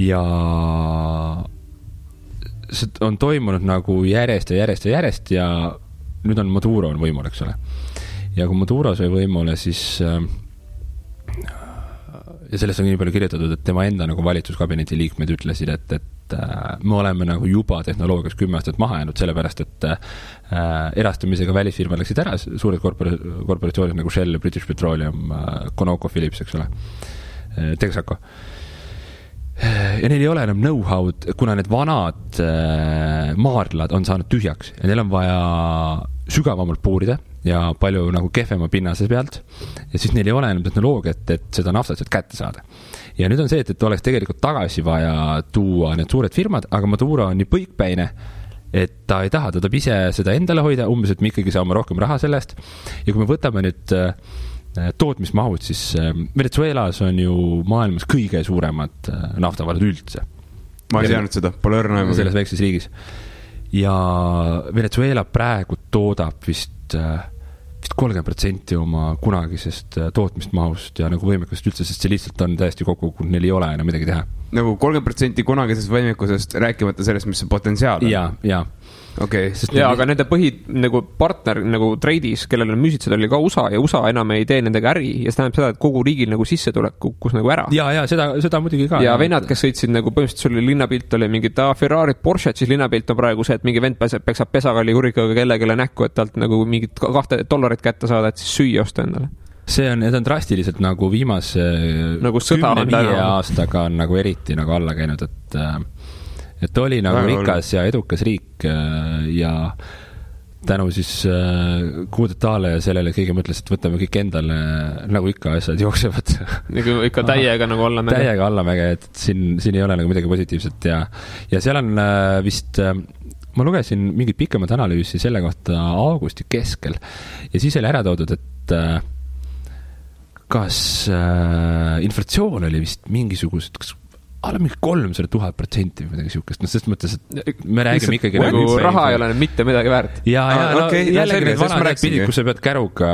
Ja see on toimunud nagu järjest ja nüüd on Maduro on võimul, eks ole. Ja kui Maduro sai võimule, siis ja sellest on nii palju kirjutatud, et tema enda nagu valitsuskabineti liikmed ütlesid, et me oleme nagu juba tehnoloogias 10 aastat maha jäänud, sellepärast, et erastamisega välisfirma läksid ära, suured korporatsioonid nagu Shell, British Petroleum, Conoco, Philips, eks ole, Texaco. Ja neil ei ole enam know-how'd, kuna need vanad maardlad on saanud tühjaks ja neil on vaja sügavamalt puurida ja palju nagu kehvema pinnase pealt ja siis neil ei ole enam tehnoloogiat, et seda naftat kätte saada. Ja nüüd on see, et oleks tegelikult tagasi vaja tuua need suured firmad, aga Maduro on nii põikpäine, et ta ei taha, ta tahab ise seda endale hoida, umbes, et me ikkagi saame rohkem raha sellest ja kui me võtame nüüd tootmismahud, siis Venezuelas on ju maailmas kõige suuremad naftavarad üldse. Ma ei teadnud seda, pole õrna. Selles väikses riigis. Ja Venezuela praegu toodab vist 30% oma kunagisest tootmismahust ja nagu võimekust üldse, sest see lihtsalt on täiesti kokku, kui neil ei ole enam midagi teha. Nagu 30% kunagisest võimekusest, rääkimata sellest, mis see potentsiaal on. Ja. Okay. Ja, aga nende nagu partner nagu treidis, kellele müüsid seda oli ka USA ja USA enam ei tee nendega äri ja see tähendab seda, et kogu riigil nagu sissetulek kukkus nagu ära. Ja seda muidugi ka. Ja vennad, kes sõitsid nagu põhimõtteliselt sul linnapilt oli mingi Ferrari, Porsche, siis linnapilt on praegu see, et mingi vend peksab pesakalli kurikaga kellelegi näkku, et talt nagu mingit $2 kätte saada, et siis süüa osta endale. Need on drastiliselt nagu viimase nagu 10 aastaga on nagu eriti nagu alla käinud, et oli nagu rikas ja edukas riik ja tänu siis kuudetaale ja sellele kõige mõtles, et võtame kõik endale, nagu ikka asjad jooksevad. Nagu ikka täiega nagu allamäge. Täiega allamäge, et siin ei ole nagu midagi positiivset ja seal on vist, ma lugesin mingit pikemat analüüsi selle kohta augusti keskel ja siis oli ära toodud, et kas inflatsioon oli vist mingisugused, kas alla mingi 300,000% või midagi siukest, sest mõttes, et me räägime ikkagi nagu raha ei ole mitte midagi väärt. Ja jällegi need vanad pidid, kus sa pead käruga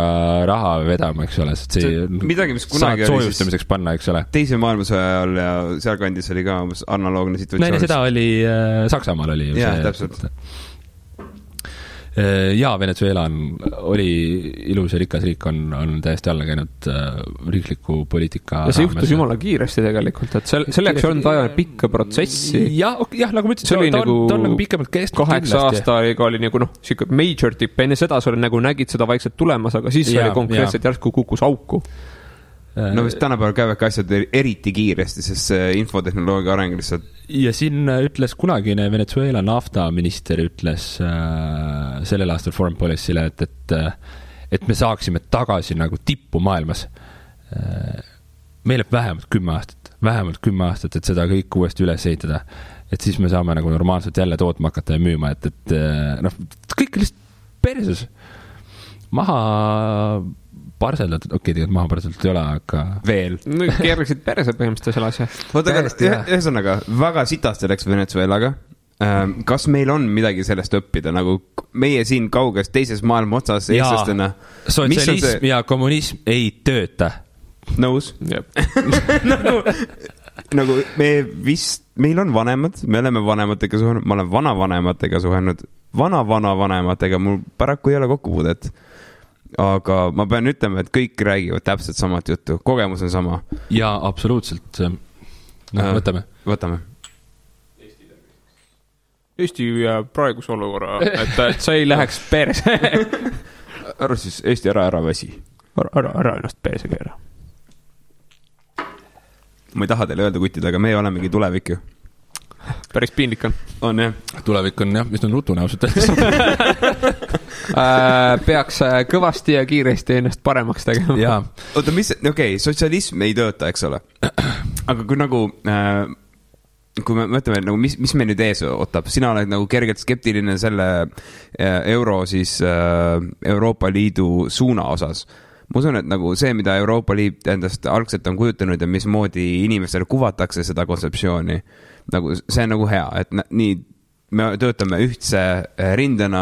raha vedama, eks ole, sest midagi, mis kunagi oli soojustamiseks panna, eks ole. Teise maailmasõja ajal ja sealkandis oli ka analoogne situatsioon. Näine seda oli, Saksamaal oli. Jaa, täpselt. Ja Venezuela oli ilus ja rikas riik, on täiesti alla käinud riikliku poliitika ja see juhtus jumala kiiresti tegelikult, et selleks on vaja pikka protsessi. Jah, nagu ma ütlesin, ta on nagu pikemalt kestnud 8 aastaga oli nagu siuke major tip, enne seda sa nägid seda vaikselt tulemas, aga siis oli konkreetselt järsku kukkus auku. No vist tänapäeval käivadki asjad eriti kiiresti, sest see infotehnoloogia areng lihtsalt. Ja siin ütles kunagine Venezuela naftaminister ütles sellel aastal Foreign Policy'le, et me saaksime tagasi nagu tippu maailmas. Meil läheb vähemalt 10 aastat, et seda kõik uuesti üles ehitada. Et siis me saame nagu normaalselt jälle tootma hakata ja müüma, et kõik lihtsalt perses. Maha parseldatud, tegelikult maha parseldatud ei ole, aga veel. No keerliksid perse põhimõtteliselt selle asja. Ühesõnaga, väga sitasti läks Venezuelaga. Kas meil on midagi sellest õppida, nagu meie siin kauges teises maailma otsas eestlastena? Sotsialism ja kommunism ei tööta. Nõus? Nagu meil on vanemad, me oleme vanematega suhenud, ma olen vanavanematega suhenud, vanavanematega, mul paraku ei ole kokkupuudet. Aga ma pean ütlema, et kõik räägivad täpselt samat juttu. Kogemus on sama. Ja absoluutselt. Võtame. Eesti praeguse olukorra, et sa ei läheks perse. Arva siis Eesti ära väsi. Ära ennast perse keera. Ma ei taha teile öelda, kutid, aga me olemegi tulevik ju. Päris piinlik on. On jah. Tulevik on jah, mis on rutune ausalt. Peaks kõvasti ja kiiresti ennast paremaks tegema. Jaa. Oota, sotsialism ei tööta, eks ole. Aga kui nagu, kui me mõtleme, nagu, mis me nüüd ees ootab, sina oled nagu kergelt skeptiline selle euro siis Euroopa Liidu suuna osas. Ma usun, et nagu see, mida Euroopa Liit endast algselt on kujutanud ja mismoodi inimestele kuvatakse seda kontseptsiooni, nagu see on nagu hea, et nii me töötame ühtse rindena,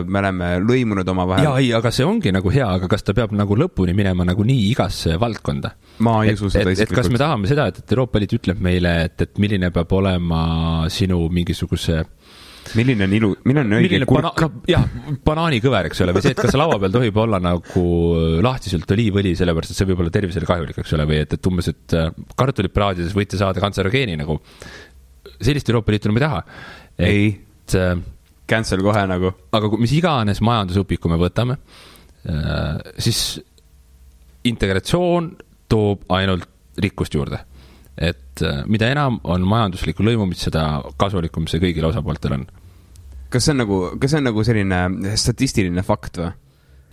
me oleme lõimunud oma vahel. Jaa, ei, aga see ongi nagu hea, aga kas ta peab nagu lõpuni minema nagu nii igasse valdkonda? Ma ei usu seda isiklikult. Kas me tahame seda, et Euroopa Liit ütleb meile, et milline peab olema sinu mingisuguse milline on õige kurk? Jah, banaanikõver, eks ole, või see, et kas laua peal tohib olla nagu lahtiselt oliivõli, sellepärast, et see võib olla tervisele kahjulik, eks ole, või et umbes, et kartulipraadides võite saada kantserogeeni nagu. Sellist Euroopa Liitu me ei taha. Ei, cancel kohe nagu. Aga mis iganes majandusõpiku me võtame, siis integratsioon toob ainult rikkust juurde. Et mida enam on majanduslikku lõimumist, seda kasulikum see kõigil osapooltel on. Kas see on nagu selline statistiline fakt või?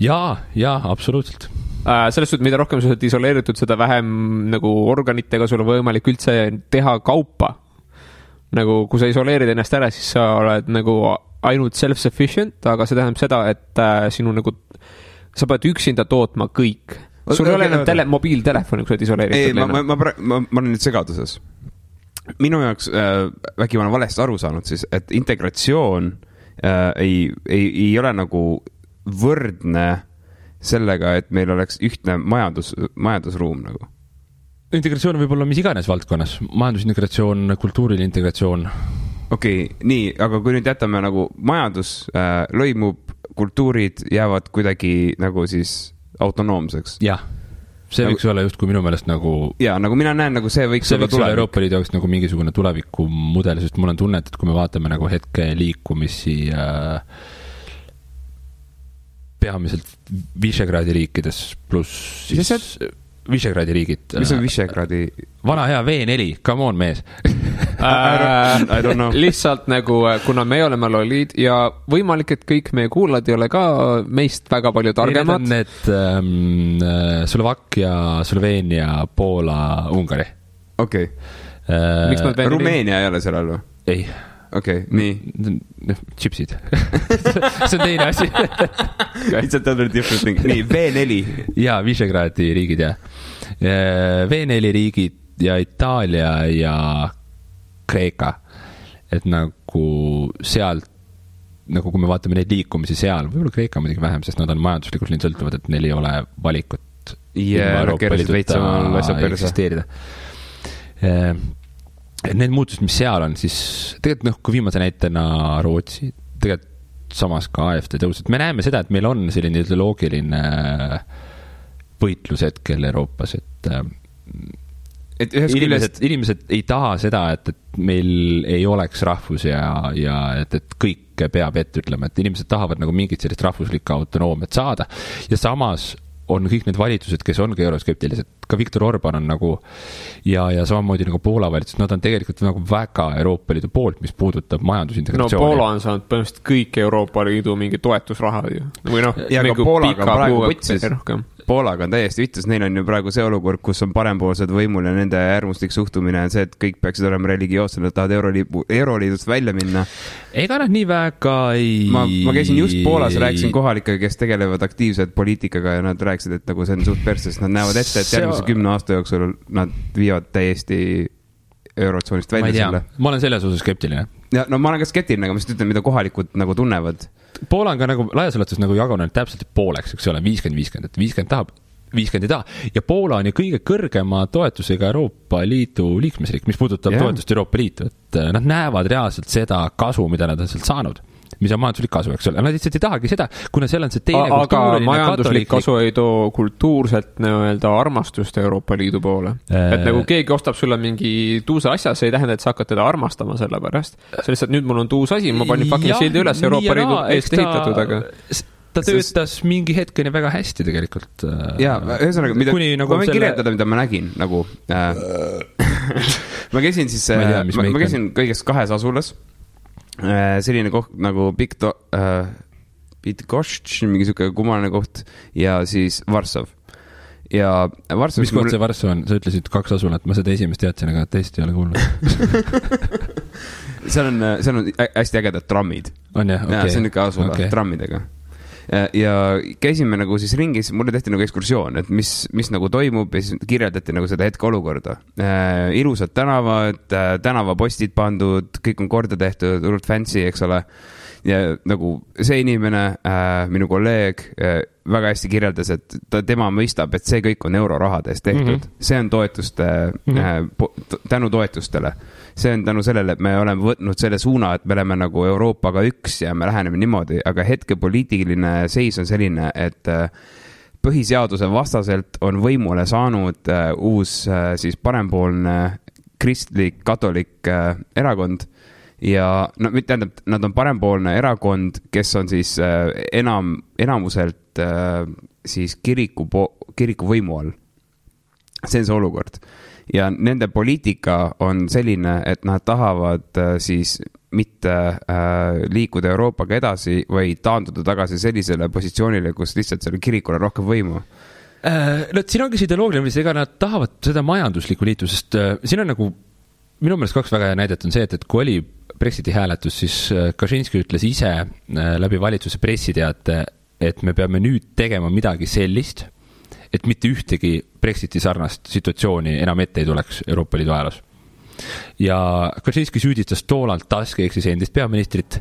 Jaa, absoluutselt. Selles suhtes, mida rohkem sa oled isoleeritud, seda vähem nagu organitega sul on võimalik üldse teha kaupa. Nagu kui sa isoleerid ennast ära, siis sa oled nagu ainult self-sufficient, aga see tähendab seda, et sinu nagu, sa pead üksinda tootma kõik. Sul ei ole enam mobiiltelefoni, kui sa oled isoleeritud. Ei, ma olen nüüd segaduses. Minu jaoks vägi ma olen valesti aru saanud siis, et integratsioon ei ole nagu võrdne sellega, et meil oleks ühtne majandusruum nagu. Integratsioon võib olla mis iganes valdkonnas. Majandusintegratsioon, kultuuriline integratsioon. Okei, nii, aga kui nüüd jätame nagu majandus lõimub, kultuurid jäävad kuidagi nagu siis autonoomseks. Jah, see võiks olla just kui minu meelest nagu... Jaa, nagu mina näen, nagu see võiks olla tulevik. Euroopa Liidu jaoks nagu mingisugune tulevikumudel, sest mul on tunnet, et kui me vaatame nagu hetke liikumisi peamiselt Visegradi riikides pluss siis... Visegradi riigid. Mis on Visegradi? Vana hea V4, come on mees. I don't know. Lihtsalt nagu, kuna me oleme lollid ja võimalik, et kõik meie kuulad ei ole ka meist väga palju targemad. Need Slovakkia, Sloveenia, Poola, Ungari. Okei. Rumeenia ei ole seal all või? Ei. Okei, nii. Chipsid. See on teine asi. It's a totally different thing. Nii, V4. Jaa, Visegradi riigid, jah. V4 riigid ja Itaalia ja Kreeka. Et nagu sealt, nagu kui me vaatame neid liikumisi seal, võib-olla Kreeka muidugi vähem, sest nad on majanduslikult nii sõltuvad, et neil ei ole valikut Euroopa Liiduta eksisteerida. Need muutused, mis seal on, siis tegelikult kui viimase näitena Rootsi, tegelikult samas ka AFD tõused. Me näeme seda, et meil on selline ideoloogiline võitlus hetkel Euroopas, et inimesed ei taha seda, et meil ei oleks rahvus ja et kõik peab ette ütlema, et inimesed tahavad nagu mingit sellist rahvuslikku autonoomiat saada ja samas on kõik need valitsused, kes ongi euroskeptilised, ka Viktor Orban on nagu ja samamoodi nagu Poola valitsus, nad on tegelikult nagu väga Euroopa Liidu poolt, mis puudutab majandusintegratsiooni. No Poola on saanud põhimõtteliselt kõik Euroopa Liidu mingi toetusraha või noh, ja ka Poolaga on praegu võtsis. Poolaga on täiesti vittus, neil on ju praegu see olukord, kus on parempoolsed võimul ja nende äärmuslik suhtumine on see, et kõik peaksid olema religioossed, nad tahavad Euroliidust välja minna. Ega nad nii väga ei... Ma käisin just Poolas, rääkisin kohalikega, kes tegelevad aktiivselt poliitikaga ja nad rääkisid, et nagu see on suht perses, nad näevad ette, et järgmise 10 aasta jooksul nad viivad täiesti eurotsoonist välja selle. Ma olen selles osas skeptiline. Ja, no ma olen ka skeptiline, aga ma ütlen, mida kohalikud nagu tunnevad. Poola on ka nagu laias laastus nagu jagunenud täpselt pooleks, eks ole, 50-50, et 50 tahab, 50 ei taha. Ja Poola on ju kõige kõrgema toetusega Euroopa Liidu liikmesriik, mis puudutab toetust Euroopa Liitu, et nad näevad reaalselt seda kasu, mida nad on sealt saanud. mis on majanduslik kasu, eks ole. Nad lihtsalt ei tahagi seda, kuna seal on see teine aga majanduslik kasu ei too kultuurselt nii-öelda armastust Euroopa Liidu poole. Et nagu keegi ostab sulle mingi tuusa asja, see ei tähenda, et sa hakkad teda armastama selle pärast. See lihtsalt nüüd mul on tuus asi, ma panin fucking sildi üles Euroopa Liidu eest ehitatud, aga ta töötas mingi hetkeni väga hästi tegelikult. Jaa, ühesõnaga, ma võin kirjeldada, mida ma nägin, nagu ma käisin siis, ma käisin kõigest 2 asulas. Selline koht nagu Bydgoszcz, mingi siuke kummaline koht ja siis Varssav. Ja Varssav, mis koht see Varssav on? Sa ütlesid 2 asulat, ma seda esimest teadsin, aga teist ei ole kuulnud. seal on hästi ägedad trammid. On jah, okei. Ja, see on ikka asula trammidega. Ja käisime nagu siis ringis, mulle tehti nagu ekskursioon, et mis nagu toimub ja siis kirjeldati nagu seda hetke olukorda. Ilusad tänavad, tänavapostid pandud, kõik on korda tehtud, urut fancy, eks ole. Ja nagu see inimene, minu kolleeg, väga hästi kirjeldas, et tema mõistab, et see kõik on eurorahades tehtud. See on toetuste, tänu toetustele. See on tänu sellele, et me oleme võtnud selle suuna, et me oleme nagu Euroopaga üks ja me läheneme niimoodi, aga hetke poliitiline seis on selline, et põhiseaduse vastaselt on võimule saanud uus siis parempoolne kristlik, katolik erakond ja no, tähendab, nad on parempoolne erakond, kes on siis enamuselt siis kiriku võimu all. See on see olukord. Ja nende poliitika on selline, et nad tahavad siis mitte liikuda Euroopaga edasi või taanduda tagasi sellisele positsioonile, kus lihtsalt selle kirikule rohkem võimu. No, siin ongi see ideoloogiline, ega nad tahavad seda majanduslikku liitu, sest siin on nagu, minu meelest 2 väga hea näidet on see, et kui oli Brexiti hääletus, siis Kaczynski ütles ise läbi valitsuse pressiteate, et me peame nüüd tegema midagi sellist, et mitte ühtegi Brexiti sarnast situatsiooni enam ette ei tuleks Euroopa Liidu ajaloos. Ja Kaczynski süüdistas Donald Tusk, ehk siis endist peaministrit,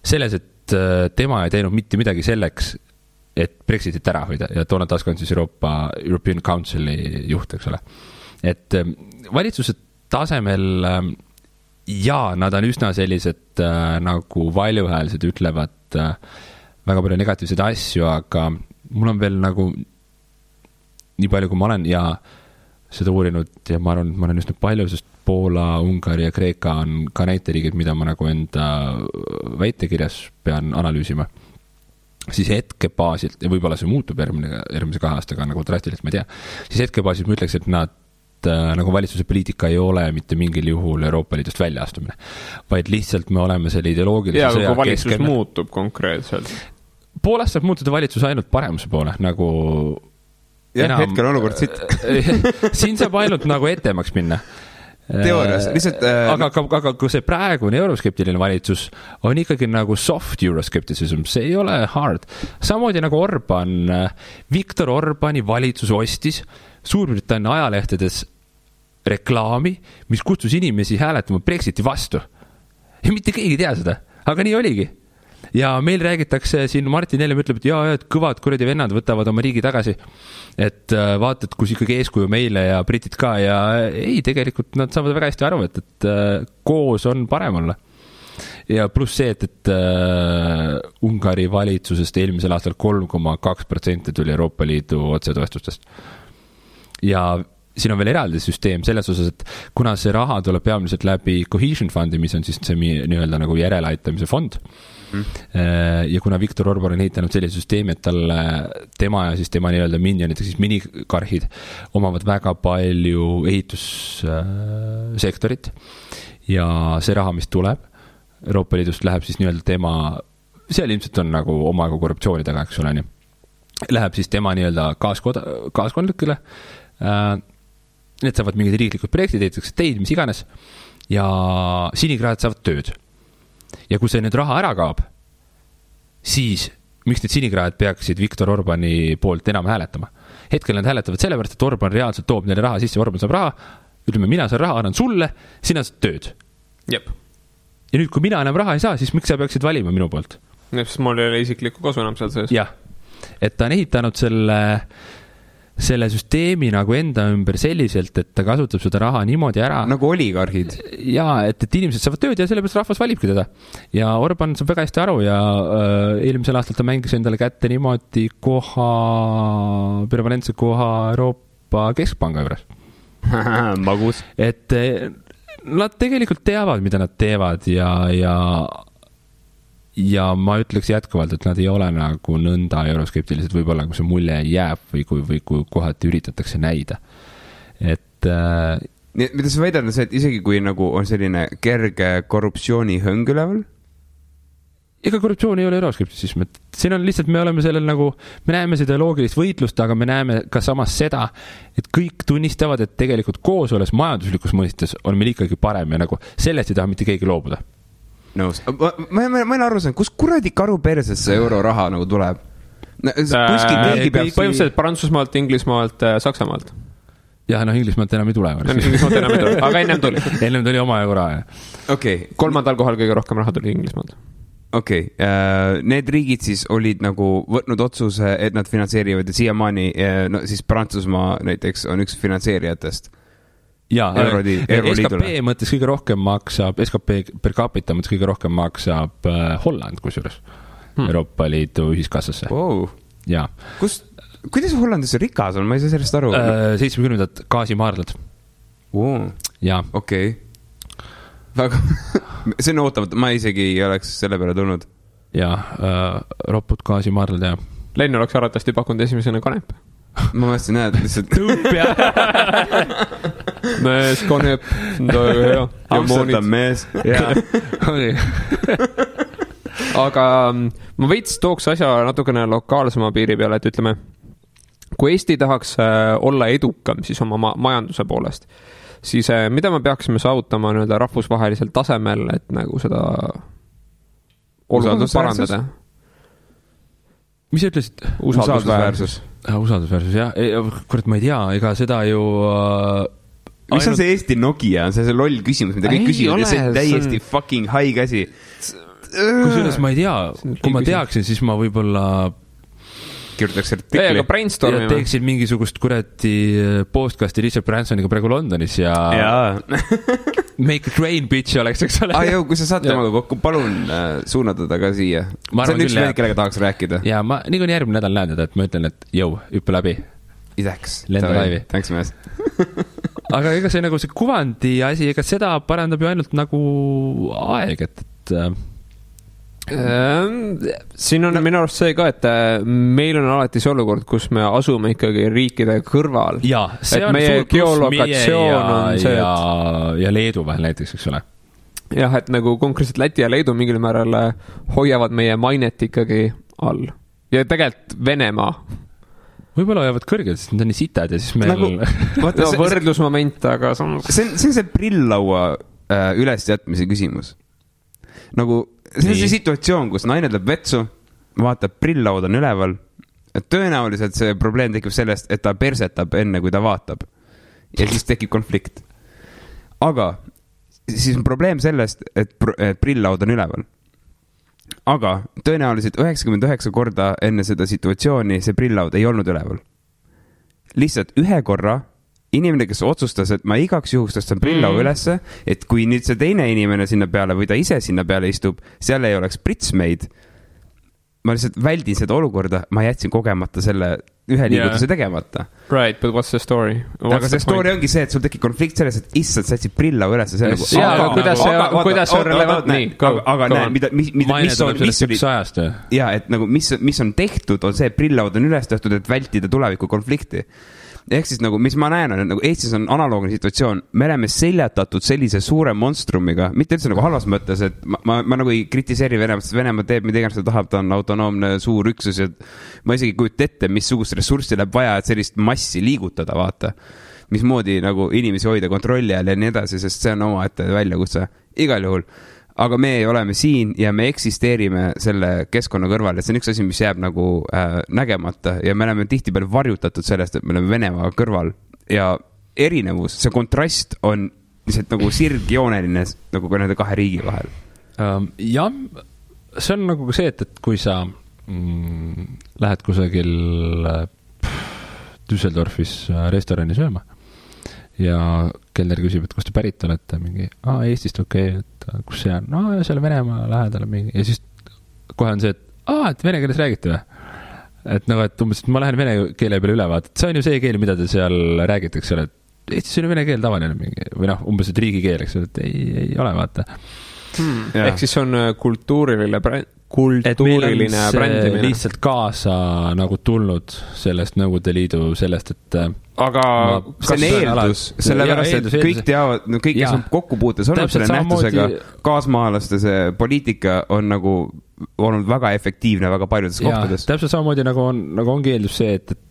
selles, et tema ei teinud mitte midagi selleks, et Brexitit ära hoida. Ja Donald Tusk on siis European Councili juht, eks ole. Et valitsuse tasemel nad on üsna sellised nagu valjuhäälsed ütlevad väga palju negatiivseid asju, aga mul on veel nagu nii palju, kui ma olen ja seda uurinud ja ma arvan, et ma olen üsna palju, sest Poola, Ungari ja Kreeka on ka näiteriigid, mida ma nagu enda väitekirjas pean analüüsima. Siis hetkebaasilt, ja võib-olla see muutub järgmise 2 aastaga nagu drastiliselt, ma ei tea, siis hetkebaasilt ma ütleks, et nad nagu valitsuse poliitika ei ole mitte mingil juhul Euroopa Liidust välja astumine, vaid lihtsalt me oleme selle ideoloogilise sõja keskel. Ja kui valitsus muutub konkreetselt. Poolast saab muutuda valitsus ainult paremuse poole, nagu hetkel olukord siit. Siin saab ainult nagu etemaks minna. Teoorias, lihtsalt aga kui see praegune euroskeptiline valitsus on ikkagi nagu soft euroskepticism, see ei ole hard. Samamoodi nagu Viktor Orbani valitsus ostis Suurbritannia ajalehtedes reklaami, mis kutsus inimesi hääletama Brexiti vastu. Ja mitte keegi ei tea seda, aga nii oligi. Ja meil räägitakse siin, Martin Helme ütleb, et kõvad kuradi vennad võtavad oma riigi tagasi, et vaatad, kus ikkagi eeskuju meile ja britid ka ja ei, tegelikult nad saavad väga hästi aru, et koos on parem olla. Ja pluss see, et Ungari valitsusest eelmisel aastal 3,2% tuli Euroopa Liidu otsetoestustest. Ja siin on veel eraldi süsteem selles osas, et kuna see raha tuleb peamiselt läbi Cohesion Fundi, mis on siis see nii-öelda nagu järeleaitamise fond, ja kuna Viktor Orban on ehitanud sellise süsteemi, et tema ja siis tema nii-öelda minionid, siis minikarhid omavad väga palju ehitussektorit ja see raha, mis tuleb Euroopa Liidust, läheb siis nii-öelda tema, seal ilmselt on nagu omaga korruptsiooni taga, eks ole, läheb siis tema nii-öelda kaaskondlikele, need saavad mingid riiklikud projektid, ehitatakse teid, mis iganes, ja sinikraad saavad tööd. Ja kui see nüüd raha ära kaob, siis miks need sinikraad peaksid Viktor Orbani poolt enam hääletama? Hetkel nad hääletavad sellepärast, et Orban reaalselt toob neile raha sisse, Orban saab raha, ütleme, mina saan raha, annan sulle, sina saad tööd. Jep. Ja nüüd, kui mina enam raha ei saa, siis miks sa peaksid valima minu poolt? Sest mul ei ole isiklikku kasu enam seal sees. Jah, et ta on ehitanud selle selle süsteemi nagu enda ümber selliselt, et ta kasutab seda raha niimoodi ära. Nagu oligarhid. Jaa, et inimesed saavad tööd ja sellepärast rahvas valibki teda. Ja Orban saab väga hästi aru ja eelmisel aastal ta mängis endale kätte niimoodi permanentse koha Euroopa Keskpanga juures. Magus. Et nad tegelikult teavad, mida nad teevad ja ma ütleks jätkuvalt, et nad ei ole nagu nõnda euroskeptilised, võib-olla kui see mulje jääb või kui kohati üritatakse näida. Et mida sa väidad, on see, et isegi kui nagu on selline kerge korruptsioonihõng üleval? Ega korruptsioon ei ole euroskeptisism, et siin on lihtsalt, me oleme sellel nagu, me näeme seda loogilist võitlust, aga me näeme ka samas seda, et kõik tunnistavad, et tegelikult koos olles majanduslikus mõistes on meil ikkagi parem ja nagu sellest ei taha mitte keegi loobuda. Nõus. Ma olen aru saanud, kus kuradi karu perses see euroraha nagu tuleb? Põhimõtteliselt Prantsusmaalt, Inglismaalt, Saksamaalt. Ja Inglismaalt enam ei tule. Inglismaalt enam ei tule, aga ennem tuli. Ennem tuli oma euroraha. Okay. 3. kohal kõige rohkem raha tuli Inglismaalt. Okei, need riigid siis olid nagu võtnud otsuse, et nad finantseerivad ja siiamaani, no siis Prantsusmaa näiteks on üks finantseerijatest. Jaa, SKP mõttes kõige rohkem maksab, SKP per capita mõttes kõige rohkem maksab Holland kusjuures Euroopa Liidu ühiskassasse. Wow. Jaa. Kuidas Hollandis rikas on? Ma ei saa sellest aru. 70 gaasimaardlad. Wow. Jaa. Okei. Väga, see on ootamata, ma isegi ei oleks selle peale tulnud. Jaa, ropud gaasimaardlad ja. Lenn oleks arvatavasti pakkunud esimesena kanep. Ma mõtlesin, näed, lihtsalt tõup ja mees, kanep, hea. Amsterdam mees. Aga ma veits tooks asja natukene lokaalsema piiri peale, et ütleme, kui Eesti tahaks olla edukam siis oma majanduse poolest, siis mida me peaksime saavutama nii-öelda rahvusvahelisel tasemel, et nagu seda olukorda parandada? Mis sa ütlesid? Usaldusväärsus. Usaldusväärsus, jah. Kurat, ma ei tea, ega seda ju... Mis on see Eesti Nokia? See loll küsimus, mida kõik küsivad ja see täiesti fucking high käsi. Kusjuures ma ei tea, kui ma teaksin, siis ma võib-olla... kirjutaks artikli. Ja teeksid mingisugust kurati podcasti Richard Bransoniga praegu Londonis ja Make a Train bitch oleks, eks ole. Jõu, kui sa saad temaga kokku, palun suunata ta ka siia. See on üks mehed, kellega tahaks rääkida. Ja ma nii kui järgmine nädal näen, et ma ütlen, et jõu, hüppe läbi. Ideks. Lenda laivi. Thanks, mees. Aga ega see nagu see kuvandi asi, ega seda parandab ju ainult nagu aeg, et siin on minu arust see ka, et meil on alati see olukord, kus me asume ikkagi riikide kõrval. Ja, see on suur pluss meie ja Leedu vahel näiteks, eks ole. Jah, et nagu konkreetselt Läti ja Leedu mingil määral hoiavad meie mainet ikkagi all. Ja tegelikult Venemaa. Võib-olla hoiavad kõrgelt, sest need on nii sitad ja siis meil... Nagu, võrdlusmoment, aga... See on see prillaua ülesjätmise küsimus. Nagu... See on see situatsioon, kus naine tuleb vetsu, vaatab, prillaud on üleval. Tõenäoliselt see probleem tekib sellest, et ta persetab enne, kui ta vaatab. Ja siis tekib konflikt. Aga siis on probleem sellest, et prillaud on üleval. Aga tõenäoliselt 99 korda enne seda situatsiooni see prillaud ei olnud üleval. Lihtsalt ühe korra inimene, kes otsustas, et ma igaks juhust tõstan prillau ülesse, et kui nüüd see teine inimene sinna peale või ta ise sinna peale istub, seal ei oleks pritsmeid. Ma lihtsalt väldin seda olukorda, ma jätsin kogemata selle ühe liigutuse tegemata. Right, but what's the story? Aga see story ongi see, et sul tekib konflikt selles, et issand, sa jätsid prillau üles. Aga kuidas see on relevant? Aga näe, mis oli... Ja, et nagu, mis on tehtud, on see, et prillaud on üles tehtud, et vältida tuleviku konflikti. Ehk siis nagu, mis ma näen, on, nagu Eestis on analoogne situatsioon. Me oleme seljatatud sellise suure monstrumiga, mitte üldse nagu halvas mõttes, et ma nagu ei kritiseeri Venemaa, sest Venemaa teeb, mida iganes ta tahab, ta on autonoomne suur üksus ja ma isegi kujuta ette, missugust ressurssi läheb vaja, et sellist massi liigutada, vaata. Mismoodi nagu inimesi hoida kontrolli all ja nii edasi, sest see on oma ette väljakutse. Igal juhul. Aga me oleme siin ja me eksisteerime selle keskkonna kõrval ja see on üks asi, mis jääb nagu nägemata ja me oleme tihtipeale varjutatud sellest, et me oleme Venemaa kõrval ja erinevus, see kontrast on lihtsalt nagu sirgjooneline nagu ka nende kahe riigi vahel. Jah, see on nagu see, et kui sa lähed kusagil Düsseldorfis restorani sööma ja kelner küsib, et kust te pärit olete, mingi, Eestist, okei, et kus see on, ja seal Venemaa lähedal mingi, ja siis kohe on see, et vene keeles räägite või? Et nagu, et umbes, et ma lähen vene keele peale üle, vaata, et see on ju see keel, mida te seal räägite, eks ole, et Eestis on ju vene keel tavaline mingi, või noh, umbes, et riigikeel, eks ole, et ei ole, vaata. Ehk siis on kultuuriline brändimine. Lihtsalt kaasa nagu tulnud sellest Nõukogude Liidu sellest, et aga see on eeldus, sellepärast, et kõik teavad, no kõik, kes on kokkupuutes olnud selle nähtusega, kaasmaalaste see poliitika on nagu olnud väga efektiivne väga paljudes kohtades. Täpselt samamoodi nagu ongi eeldus see, et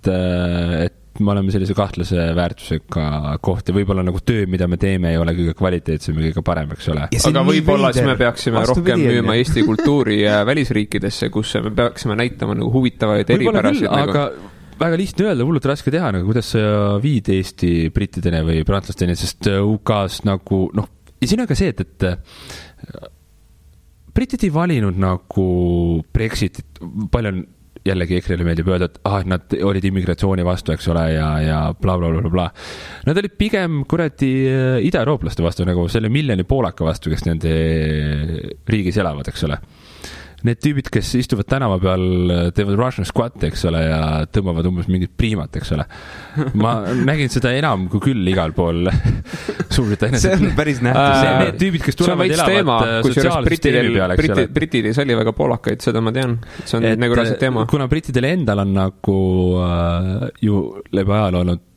me oleme sellise kahtlase väärtusega koht ja võib-olla nagu töö, mida me teeme, ei ole kõige kvaliteetsem ja kõige parem, eks ole. Aga võib-olla siis me peaksime rohkem müüma Eesti kultuuri välisriikidesse, kus me peaksime näitama nagu huvitavaid eripärasid. Aga väga lihtne öelda, hullult raske teha, nagu kuidas sa viid Eesti brittideni või prantslasteni, sest UK-s nagu, ja siin on ka see, et britid ei valinud nagu Brexitit, palju on jällegi EKRE-le meeldib öelda, et nad olid immigratsiooni vastu, eks ole, ja bla, bla, bla, bla. Nad olid pigem kuradi ida-eurooplaste vastu, nagu selle miljoni poolaka vastu, kes nende riigis elavad, eks ole. Need tüübid, kes istuvad tänava peal, teevad Russian squat, eks ole, ja tõmbavad umbes mingit priimat, eks ole. Ma nägin seda enam kui küll igal pool Suurbritannias. See on päris nähtus. Need tüübid, kes tulevad elavad sotsiaalsüsteemi peale, eks ole. Britidis oli väga poolakaid, seda ma tean. See on nagu rasid teema. Kuna brittidel endal on nagu ju läbi ajal olnud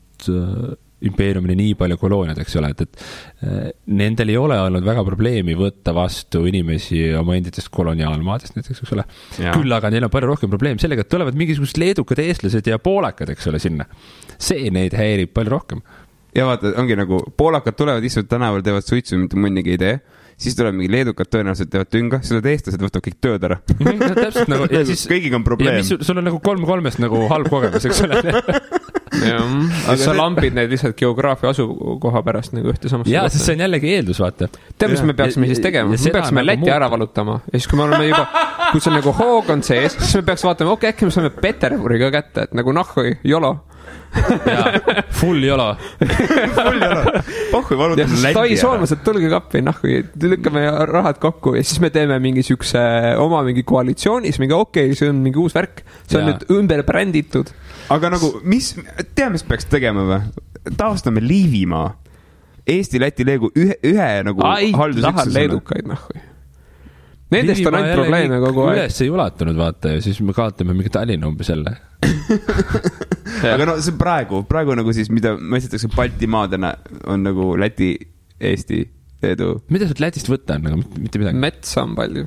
impeeriumini nii palju kolooniad, eks ole, et nendel ei ole olnud väga probleemi võtta vastu inimesi oma enditest koloniaalmaadest näiteks, eks ole. Küll aga neil on palju rohkem probleem sellega, et tulevad mingisugused leedukad eestlased ja poolakad, eks ole, sinna. See neid häirib palju rohkem. Ja vaata, ongi nagu poolakad tulevad, istuvad tänaval, teevad suitsu, mitte mõnigi idee. Siis tuleb mingi leedukad tõenäoliselt teevad tünga, siis eestlased võtavad kõik töö ära. Täpselt nagu, ja siis kõigiga on probleem. Ja sul on nagu 3-3-st nagu halb kogemus, eks ole. Aga sa lampid neid lihtsalt geograafia asukoha pärast nagu ühte samasse. Jaa, sest see on jällegi eeldus, vaata. Tead, mis me peaksime siis tegema? Me peaksime Läti ära valutama. Ja siis, kui me oleme juba, kui see on nagu hoog on sees, siis me peaks vaatama, äkki me saame Peterburi ka kätte, et nagu nahhui, jolo. Full jolo. Pohhui valutame Läti ära. Tai soolmased, tulge kappi, nahhui, lükkame rahad kokku ja siis me teeme mingi sükse oma mingi koalitsioonis, mingi see on mingi uus värk. See on nüüd ümber bränditud. Aga nagu, mis peaks tegema või? Taastame Liivimaa. Eesti, Läti, Leegu ühe nagu haldusüksusena. Tahan leedukaid, nahhui. Nendest on ainult probleeme kogu aeg. Üles ei ulatunud, vaata, ja siis me kaotame mingi Tallinna umbes jälle. Aga no see praegu nagu siis, mida mõistetakse Baltimaadena, on nagu Läti, Eesti, Leedu. Mida sealt Lätist võtta on, aga mitte midagi? Metsa on palju.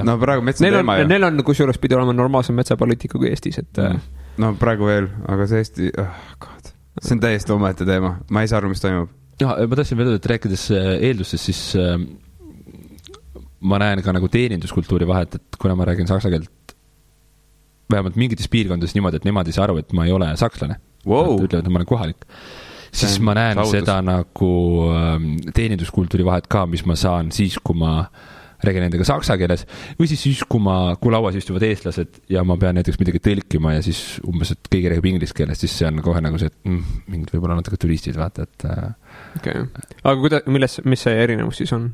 No praegu metsa on teema, jah. Neil on kusjuures pidi olema normaalsem metsapoliitika kui Eestis, et... No praegu veel, aga see Eesti... See on täiesti omaette teema. Ma ei saa aru, mis toimub. Ma tahtsin veel öelda, et rääkides eeldustest, siis ma näen ka nagu teeninduskultuuri vahet, et kuna ma räägin saksa keelt vähemalt mingites piirkondades niimoodi, et nemad ei saa aru, et ma ei ole sakslane. Ütlevad, et ma olen kohalik. Siis ma näen seda nagu teeninduskultuuri vahet ka, mis ma saan siis, kui ma räägin nendega saksa keeles, või siis kui lauas istuvad eestlased ja ma pean näiteks midagi tõlkima ja siis umbes, et keegi räägib inglise keeles, siis see on kohe nagu see, et mingid võib-olla natuke turistid, vaata, et... Okay. Aga mis see erinevus siis on?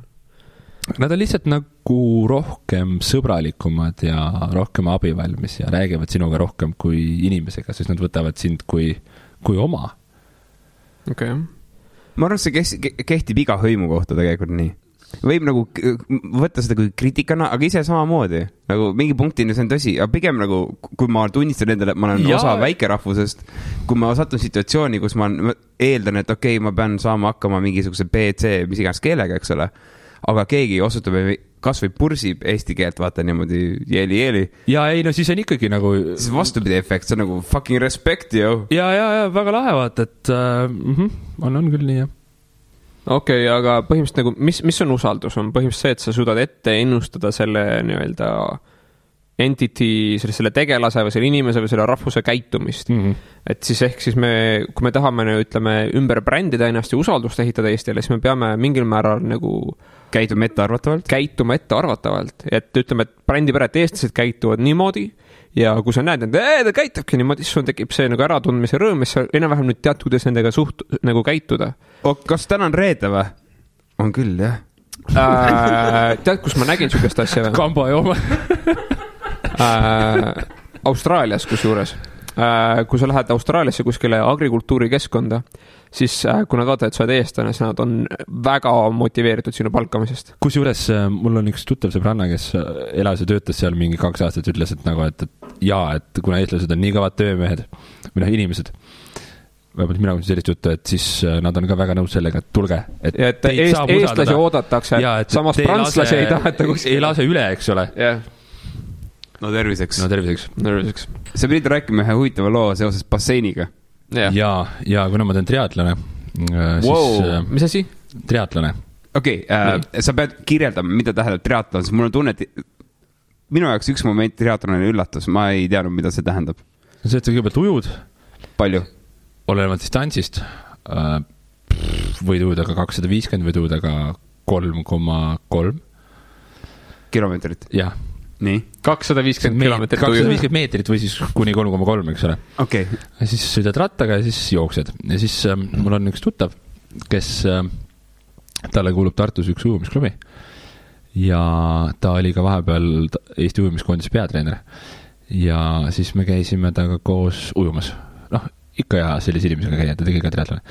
Nad on lihtsalt nagu rohkem sõbralikumad ja rohkem abivalmis ja räägivad sinuga rohkem kui inimesega, sest nad võtavad sind kui oma. Okay. Ma arvan, see kehtib iga hõimu kohta tegelikult nii. Võib nagu võtta seda kui kriitikana, aga ise samamoodi. Nagu mingi punktini see on tõsi, aga pigem nagu, kui ma tunnistan endale, et ma olen osa väikerahvusest, kui ma satun situatsiooni, kus ma eeldan, et okei, ma pean saama hakkama mingisuguse BC, mis iganes keelega, eks ole, aga keegi osutab kas või pursib eesti keelt, vaata niimoodi jeeli. Ja ei, no siis on ikkagi nagu... Siis vastupidi efekt, see on nagu fucking respect, jo. Ja, väga lahe vaata, et on küll nii, jah. Okei, aga põhimõtteliselt nagu, mis on usaldus? On põhimõtteliselt see, et sa suudad ette ennustada selle nii-öelda entity, selle tegelase või selle inimese või selle rahvuse käitumist. Et siis ehk siis kui me tahame, ütleme, ümber brändida ennast ja usaldust ehitada Eestile, siis me peame mingil määral nagu käituma ettearvatavalt. Et ütleme, et brändipere, et eestlased käituvad niimoodi ja kui sa näed, et ta käitubki niimoodi, siis sul tekib see nagu äratundmise rõõm, mis sa enam-vähem nüüd tead, kuidas nendega nagu käituda. Kas täna on reede või? On küll, jah. Tead, kus ma nägin sükest asja või? Kamba jooma. Austraalias kusjuures. Kui sa lähed Austraaliasse kuskile agrikultuurikeskkonda, siis kui nad vaatavad, et sa oled eestlane, siis nad on väga motiveeritud sinu palkamisest. Kusjuures mul on üks tuttav sõbranna, kes elas ja töötas seal mingi 2 aastat, ütles, et nagu, et kuna eestlased on nii kõvad töömehed või inimesed, vähemalt mina kuulsin sellist juttu, et siis nad on ka väga nõus sellega, et tulge. Et eestlasi oodatakse, samas prantslasi ei taheta ei lase üle, eks ole. No terviseks. Sa pidid rääkima ühe huvitava loo seoses basseiniga. Ja kuna ma teen triatlane, siis... Mis asi? Triatlane. Okei, sa pead kirjeldama, mida tähendab triatlon, sest mul on tunne, et minu jaoks üks moment triatlonile üllatus, ma ei teadnud, mida see tähendab. See, et sa kõigepealt ujud. Palju? Olenevalt distantsist. Võid ujuda ka 250, võid ujuda ka 3,3 kilomeetrit. Jah. Nii. 250 kilomeetrit 250 meetrit või siis kuni 3,3, eks ole. Okay. Ja siis sõidad rattaga ja siis jooksed. Ja siis mul on üks tuttav, kes talle kuulub Tartus üks ujumisklubi. Ja ta oli ka vahepeal Eesti ujumiskoondise peatreener. Ja siis me käisime taga koos ujumas. Ikka ja sellise inimesega käia, ta tegi ka triatlone.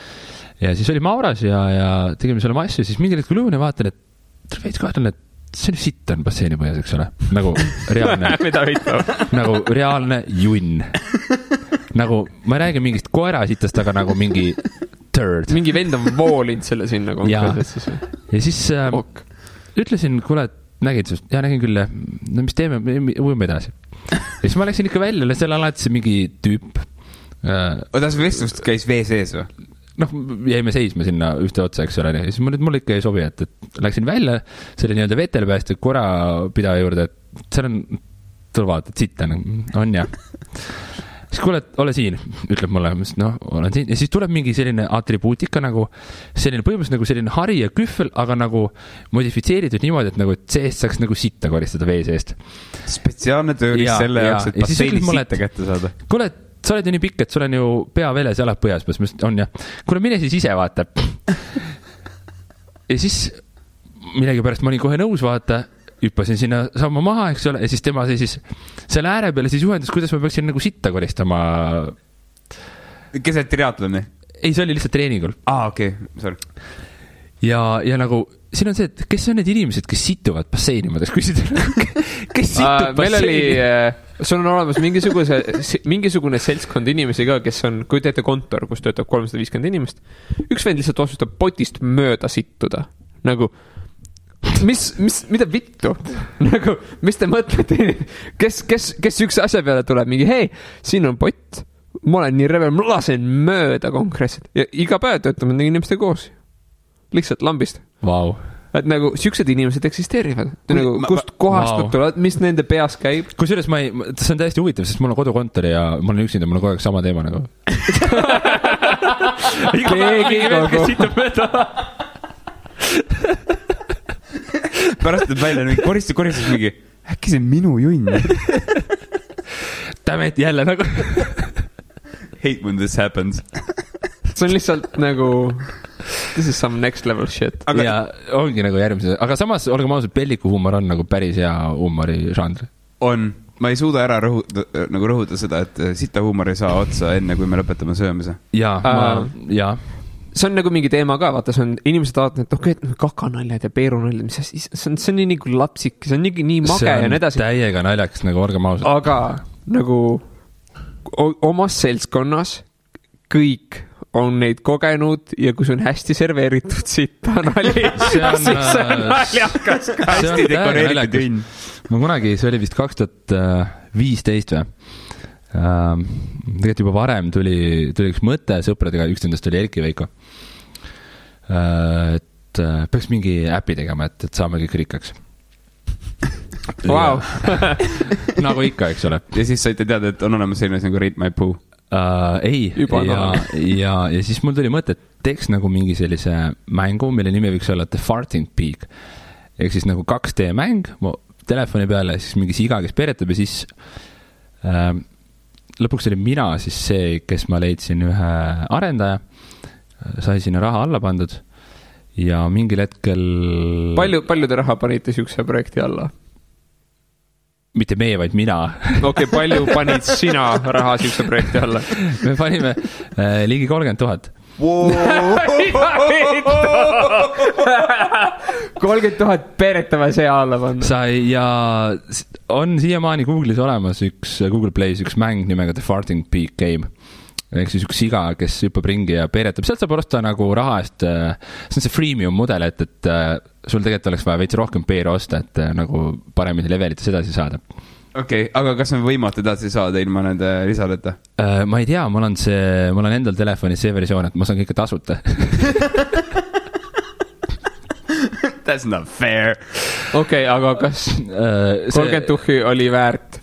Ja siis oli Mauras ja tegime selle massi, siis mingil hetkel ujun ja vaatan, et veits kahtlen, et see on sitt on basseini põhjas, eks ole. Nagu reaalne nagu reaalne junn. Nagu, ma ei räägi mingist koerasitast, aga nagu mingi turd. Mingi vend on voolinud selle sinna konkreetselt. Ja siis ütlesin, kuule, nägid sest? Ja nägin küll, no mis teeme, ujume edasi. Ja siis ma läksin ikka välja, seal alati see mingi tüüp. Odas vestlust käis vee sees või? Jäime seisma sinna ühte otsa, eks ole. Ja siis mul ikka ei sobi, et läksin välja selle nii-öelda vetelpääste korapidaja juurde, et seal on, tule vaata, et sitt on ja. Siis kuule, ole siin, ütleb mulle, olen siin. Ja siis tuleb mingi selline atribuutika nagu, selline põhimõtteliselt nagu selline hari ja kühvel, aga nagu modifitseeritud niimoodi, et nagu seest saaks nagu sitta koristada vee seest. Spetsiaalne tööris selle jaoks, et basseini sitta kätte saada. Kuule, sa oled ju nii pikk, et sul on ju pea veles ja jalad põhjas, on ja. Kuule, mine siis ise vaata. Ja siis millegi pärast ma olin kohe nõus vaata, hüppasin sinna samma maha, eks ole, ja siis tema siis selle ääre peale siis juhendas, kuidas ma peaksin nagu sitta koristama. Keset triatloni? Ei, see oli lihtsalt treeningul. Okei, sorry. Ja nagu, siin on see, et kes on need inimesed, kes situvad basseini, ma tahaks küsida. Kes situb basseini? Sul on olemas mingisugune seltskond inimesi ka, kes on, kui teete kontor, kus töötab 350 inimest, üks vend lihtsalt otsustab potist mööda sittuda. Nagu, mida vittu? Nagu, mis te mõtlete? Kes üks asja peale tuleb? Mingi, hei, siin on pott. Ma olen nii revel, ma lasen mööda konkreetselt. Ja iga päev töötame nende inimeste koos. Lihtsalt lambist. Vau. Et nagu siuksed inimesed eksisteerivad. Nagu, kust kohast nad tulevad, mis nende peas käib. Kusjuures see on täiesti huvitav, sest mul on kodukontor ja mul on üksinda, mul on kogu aeg sama teema nagu. Keegi kogu. Pärast tuleb välja mingi koristus mingi, äkki see on minu junn. Damn it, jälle nagu. Hate when this happens. See on lihtsalt nagu this is some next level shit. Ja ongi nagu järgmise. Aga samas, olgem ausalt, pelliku huumor on nagu päris hea huumori žanr. On. Ma ei suuda ära rõhuda seda, et sita huumor ei saa otsa enne, kui me lõpetame söömise. Ja. See on nagu mingi teema ka, vaata, see on inimesed vaatavad, et okei, kakanaljad ja peerunaljad, see on nii nagu lapsik, see on nii mage ja nii edasi. See on täiega naljaks, nagu olgem ausalt. Aga nagu omas seltskonnas kõik on neid kogenud ja kui see on hästi serveeritud sita nali, siis see on naljakas. Hästi dekoreeritud junn. Ma kunagi, see oli vist 2015 või? Tegelikult juba varem tuli üks mõte sõpradega, üks nendest oli Erki Veiko. Et peaks mingi äpi tegema, et saame kõik rikkaks. Wow. Nagu ikka, eks ole. Ja siis saite teada, et on olemas selline nagu Rate My Poo. Ei, ja siis mul tuli mõte, et teeks nagu mingi sellise mängu, mille nimi võiks olla The Farting Pig. Ehk siis nagu 2D mäng telefoni peale, siis mingi siga, kes peretab ja siis lõpuks oli mina siis see, kes ma leidsin ühe arendaja, sai sinna raha alla pandud ja mingil hetkel... Palju te raha panite siukse projekti alla? Mitte meie, vaid mina. Okei, palju panid sina raha siukse projekti alla? Me panime ligi 30,000. Wow. 30,000 peretava see alla panna. Sai ja on siiamaani Google'is olemas Google Play's üks mäng nimega The Farting Pig Game. Ehk siis üks siga, kes hüppab ringi ja peeretab. Sealt saab osta nagu raha eest, see on see freemium mudel, et sul tegelikult oleks vaja veits rohkem peere osta, et nagu paremini levelites edasi saada. Okei, aga kas on võimatu edasi saada ilma nende lisadeta? Ma ei tea, mul on endal telefonis see versioon, et ma saan kõike tasuta. That's not fair. Okei, aga kas 30 tuhhi oli väärt?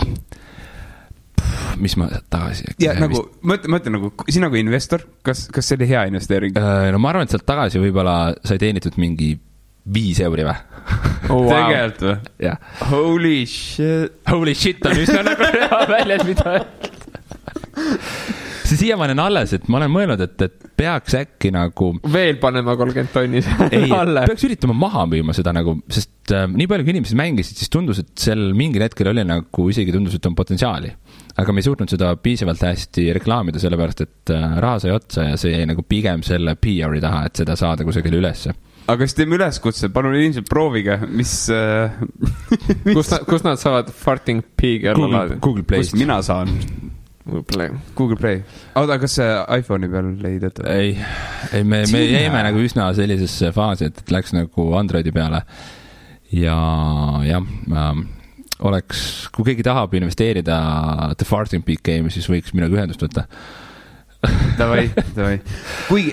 Mis ma tagasi... Ja nagu, mõtle nagu, sina kui investor, kas see oli hea investeering? No ma arvan, et sealt tagasi võib-olla sai teenitud mingi 5 euri või? Oh, wow. Tegelikult või? Jah. Holy shit on üsna nagu hea väljas, mida see siiamaani on alles, et ma olen mõelnud, et peaks äkki nagu... Veel panema 30 tonni alle. Peaks üritama maha müüma seda nagu, sest nii palju kui inimesed mängisid, siis tundus, et seal mingil hetkel oli nagu isegi tundus, et on potentsiaali. Aga me ei suutnud seda piisavalt hästi reklaamida, sellepärast, et raha sai otsa ja see jäi nagu pigem selle PR-i taha, et seda saada kusagile ülesse. Aga siis teeme üleskutse, palun ilmselt proovige, mis... Kus nad saavad Farting Pig Google Play'st. Kust mina saan? Google Play. Aga kas see iPhone'i peal ei tööta? Ei, me jäime nagu üsna sellisesse faasi, et läks nagu Androidi peale. Ja oleks, kui keegi tahab investeerida The Farting Pig Game, siis võiks minuga ühendust võtta. Davai. Kui,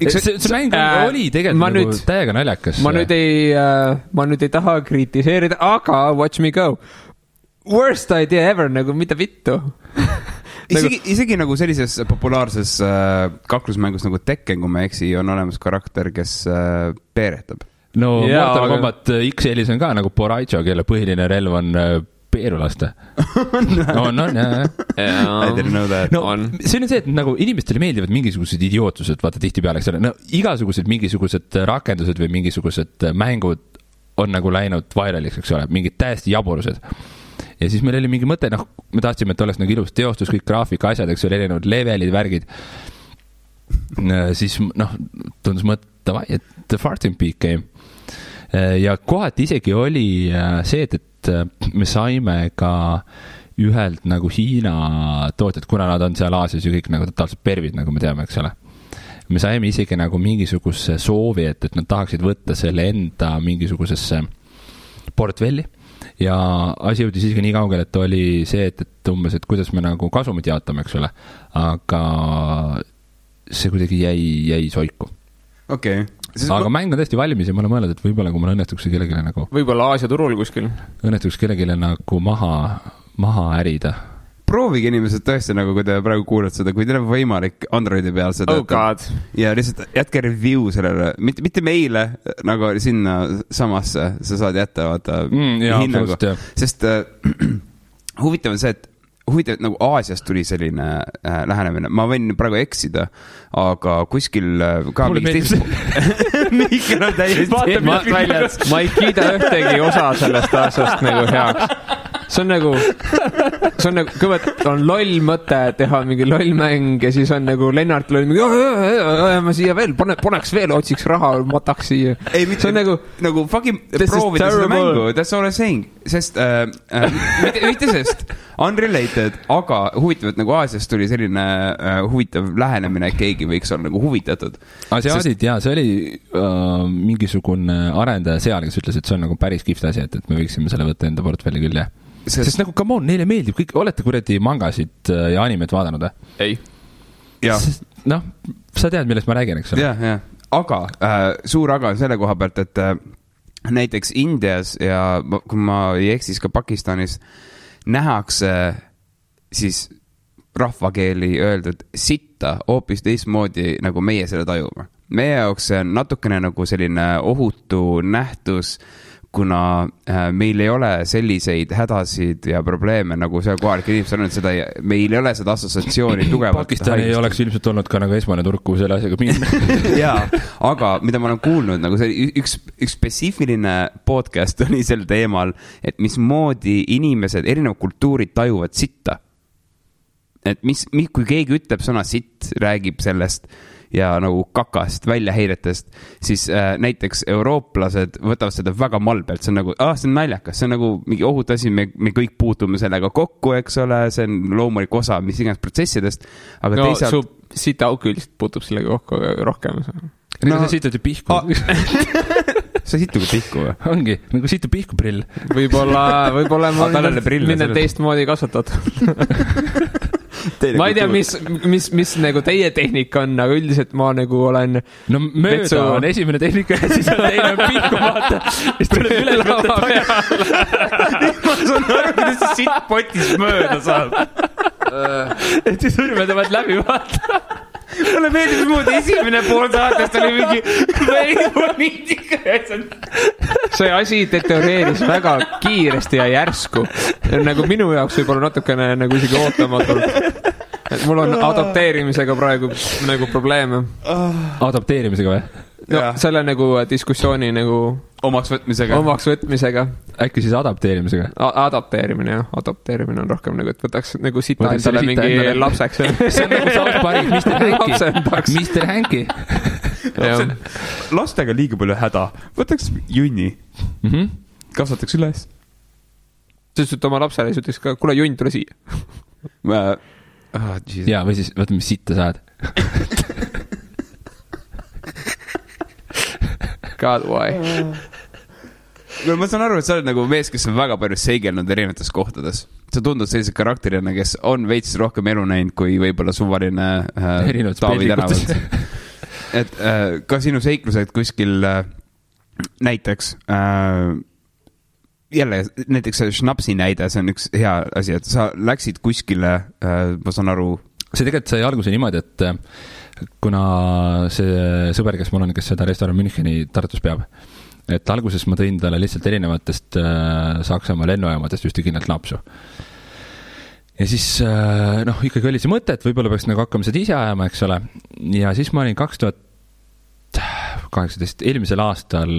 see mäng oli tegelikult nagu täiega naljakas. Ma nüüd ei taha kritiseerida, aga watch me go. Worst idea ever, nagu mida vittu. Isegi nagu sellises populaarses kaklusmängus nagu Tekken, kui ma eksi, on olemas karakter, kes peeretab. No Mortal Kombat X-elis on ka nagu Boraicho, kelle põhiline relv on peerulaste. On, jah. I didn't know that. No, see on see, et nagu inimestele meeldivad mingisugused idiootsused, vaata tihti peale, eks ole. No, igasugused mingisugused rakendused või mingisugused mängud on nagu läinud vairaliks, eks ole, mingid täiesti jaburused. Ja siis meil oli mingi mõte, me tahtsime, et oleks nagu ilus teostus, kõik graafika asjad, eks ole, erinevad levelid, värgid. Siis, tundus mõte, et The Farting Pig Game. Ja kohati isegi oli see, et me saime ka ühelt nagu Hiina tootjad, kuna nad on seal Aasias ju kõik nagu totaalselt pervid, nagu me teame, eks ole. Me saime isegi nagu mingisuguse soovi, et nad tahaksid võtta selle enda mingisugusesse portfelli. Ja asi jõudis isegi nii kaugel, et oli see, et umbes, et kuidas me nagu kasumit jaotame, eks ole. Aga see kuidagi jäi soiku. Okei. Aga mäng on tõesti valmis ja ma olen mõelnud, et võib-olla kui mul õnnestuks kellelegi nagu... Võib-olla Aasia turul kuskil. Õnnestuks kellelegi nagu maha ärida. Proovige inimesed tõesti nagu, kui te praegu kuulad seda, kui teil on võimalik Androidi peal seda. Oh god. Ja lihtsalt jätke review sellele, mitte meile nagu sinna samasse, sa saad jätta vaata hinnagu. Sest huvitav on see, et nagu Aasiast tuli selline lähenemine. Ma võin praegu eksida, aga kuskil ka mingis Mihkel on täiesti ma ei kiida ühtegi osa sellest aastast nagu heaks. See on nagu kõigepealt on loll mõte teha mingi lollmäng ja siis on nagu Lennart loll mingi ma siia veel, poneks veel, otsiks raha, mataks siia. Ei, see on nagu fucking proovida seda mängu, that's all I'm saying. Sest, mitte sest, unrelated, aga huvitav, et nagu Aasiast tuli selline huvitav lähenemine, et keegi võiks olla nagu huvitatud. Asiaadid, jaa, see oli mingisugune arendaja seal, kes ütles, et see on nagu päris kihvt asi, et me võiksime selle võtta enda portfelli küll, jah. Sest nagu, come on, neile meeldib kõik, olete kuradi mangasid ja animet vaadanud, Ei. Sa tead, millest ma räägin, eks ole? Jah. Aga, suur aga on selle koha pealt, et näiteks Indias ja kui ma ei eksis ka Pakistanis nähakse siis rahvakeeli öeldud sitta hoopis teistmoodi, nagu meie selle tajume. Meie jaoks see on natukene nagu selline ohutu nähtus, kuna meil ei ole selliseid hädasid ja probleeme, nagu see kohalik inimesed on, seda, meil ei ole seda assotsiatsiooni tugevalt. Pakistan ei oleks ilmselt olnud ka nagu esmane turg, kuhu selle asjaga minna. Jaa, aga mida ma olen kuulnud, nagu see üks spetsiifiline podcast oli sel teemal, et mismoodi inimesed, erinevad kultuurid tajuvad sitta. Et kui keegi ütleb sõna sitt, räägib sellest ja nagu kakast, väljaheiretest, siis näiteks eurooplased võtavad seda väga malbelt, see on nagu, see on naljakas, see on nagu mingi ohut asi, me kõik puutume sellega kokku, eks ole, see on loomulik osa mis iganes protsessidest, aga no, teisalt... su sitaauk üldiselt puutub sellega kokku rohkem. No, sa sitad ju pihku. Sa situ ka pihku või? Ongi, nagu situ pihku prill. Võib-olla ma olen teistmoodi kasvatatud. Ma ei tea, mis nagu teie tehnika on, aga üldiselt ma nagu olen... No mööda on esimene tehnika ja siis on teine pihku vaata. Siis tuleb üle lava peale. Ma saan aru, kuidas see sitt potis mööda saab. Et siis sõrmede vaat läbi vaata. Mulle meeldib moodi esimene pool saatest oli mingi poliitika. See asi deterioreeris väga kiiresti ja järsku. Nagu minu jaoks võib-olla natukene nagu isegi ootamatult. Et mul on adapteerimisega praegu nagu probleeme. Adapteerimisega või? No, selle nagu diskussiooni nagu omaks võtmisega. Äkki siis adapteerimisega? Adapteerimine, jah. Adapteerimine on rohkem nagu, et võtaks nagu sita endale mingi lapseks. See on nagu South Park, Mr. Hanky. Lastega liiga palju häda. Võtaks junni. Kasvataks üles. Sest et oma lapsele siis ütleks ka, kuule junn, tule siia. Jaa, või siis võtame, mis sitta saad. God, why? No, ma saan aru, et sa oled nagu mees, kes on väga palju seigelnud erinevates kohtades. Sa tundud sellise karakterina, kes on veits rohkem elu näinud kui võib-olla suvaline Taavi tänavalt. Et ka sinu seiklused kuskil näiteks jälle, näiteks Schnapsi näide, see on üks hea asi, et sa läksid kuskile, ma saan aru... See tegelikult sai alguse niimoodi, et kuna see sõber, kes mul on, kes seda restoran Müncheni Tartus peab, et alguses ma tõin talle lihtsalt erinevatest Saksamaa lennujaamadest ühte kindlalt napsu. Ja siis, ikkagi oli see mõte, et võib-olla peaks nagu hakkama seda ise ajama, eks ole. Ja siis ma olin 2018, eelmisel aastal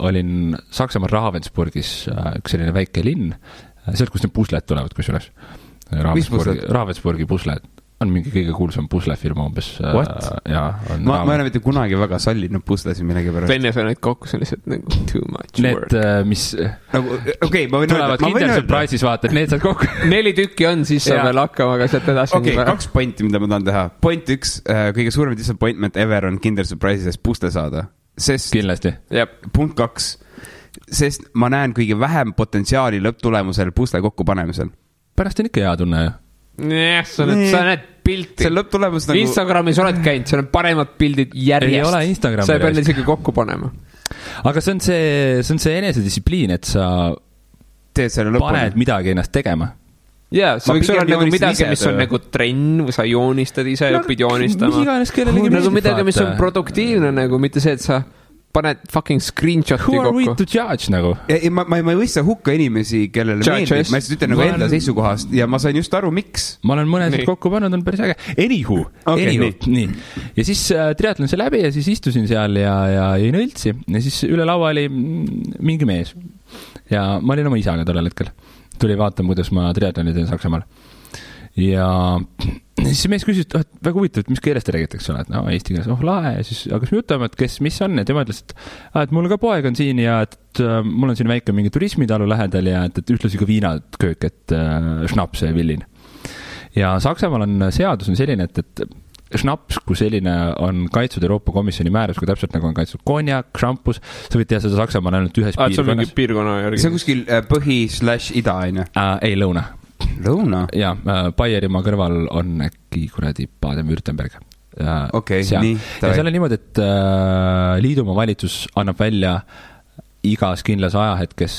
olin Saksamaal Ravensburgis, üks selline väike linn, sealt, kus need pusled tulevad, kus üles. Ravensburgi pusled on mingi kõige kuulsam puslefirma umbes. Ma ei ole mitte kunagi väga sallinud puslesi millegi pärast. Venne sa neid kokku, see on lihtsalt nagu too much work. Need, mis tulevad Kinder Surprise'is vaata, et need saad kokku. 4 tükki on, siis saab veel hakkama, aga sealt edasi. Okei, 2 pointi, mida ma tahan teha. Point 1, kõige suurem disappointment ever on Kinder Surprise'is pusle saada. Kindlasti. Punkt 2, sest ma näen kõige vähem potentsiaali lõpptulemusel pusle kokku panemisel. Pärast on ikka hea tunne, ju. Jah, sa näed pilti. See lõpptulemus nagu... Instagramis oled käinud, seal on paremad pildid järjest. Ei ole Instagrami. Sa ei pea isegi kokku panema. Aga see on see enesedistsipliin, et sa paned midagi ennast tegema. Jaa, see võiks olla nagu midagi, mis on nagu trenn, või sa joonistad ise, õpid joonistama. Nagu midagi, mis on produktiivne, nagu mitte see, et sa paned fucking screenshoti kokku. Who are we to judge nagu? Ma ei võista hukka inimesi, kellele meeldib. Ma ütlen nagu enda seisukohast ja ma sain just aru, miks. Ma olen mõned kokku pannud, on päris äge. Anywho. Nii. Ja siis triatlon see läbi ja siis istusin seal ja jõin õltsi. Ja siis üle laua oli mingi mees. Ja ma olin oma isaga tollel hetkel. Tuli vaatama, kuidas ma triatloni teen Saksamaal. Ja siis see mees küsis, et väga huvitav, et mis keeles te räägitakse, et eesti keeles, lahe, ja siis hakkas me jutama, et mis on, ja tema ütles, et mul ka poeg on siin ja et mul on siin väike mingi turismitalu lähedal ja et ühtlasi ka viinaköök, et Schnaps ja villin. Ja Saksamaal on seadus on selline, et Schnaps, kui selline on kaitsud Euroopa Komisjoni määrus, kui täpselt nagu on kaitsud konjak, šampus, sa võid teha seda Saksamaal ainult ühes piirkonnas. See on mingi piirkonna järgi. See on kuskil põhi/ida, aine? Ei, lõuna. Lõuna? Ja, Baierimaa kõrval on äkki kuradi Baden-Württemberg. Okei, nii. Ja seal on niimoodi, et liidumaa valitsus annab välja igas kindlas ajahetkes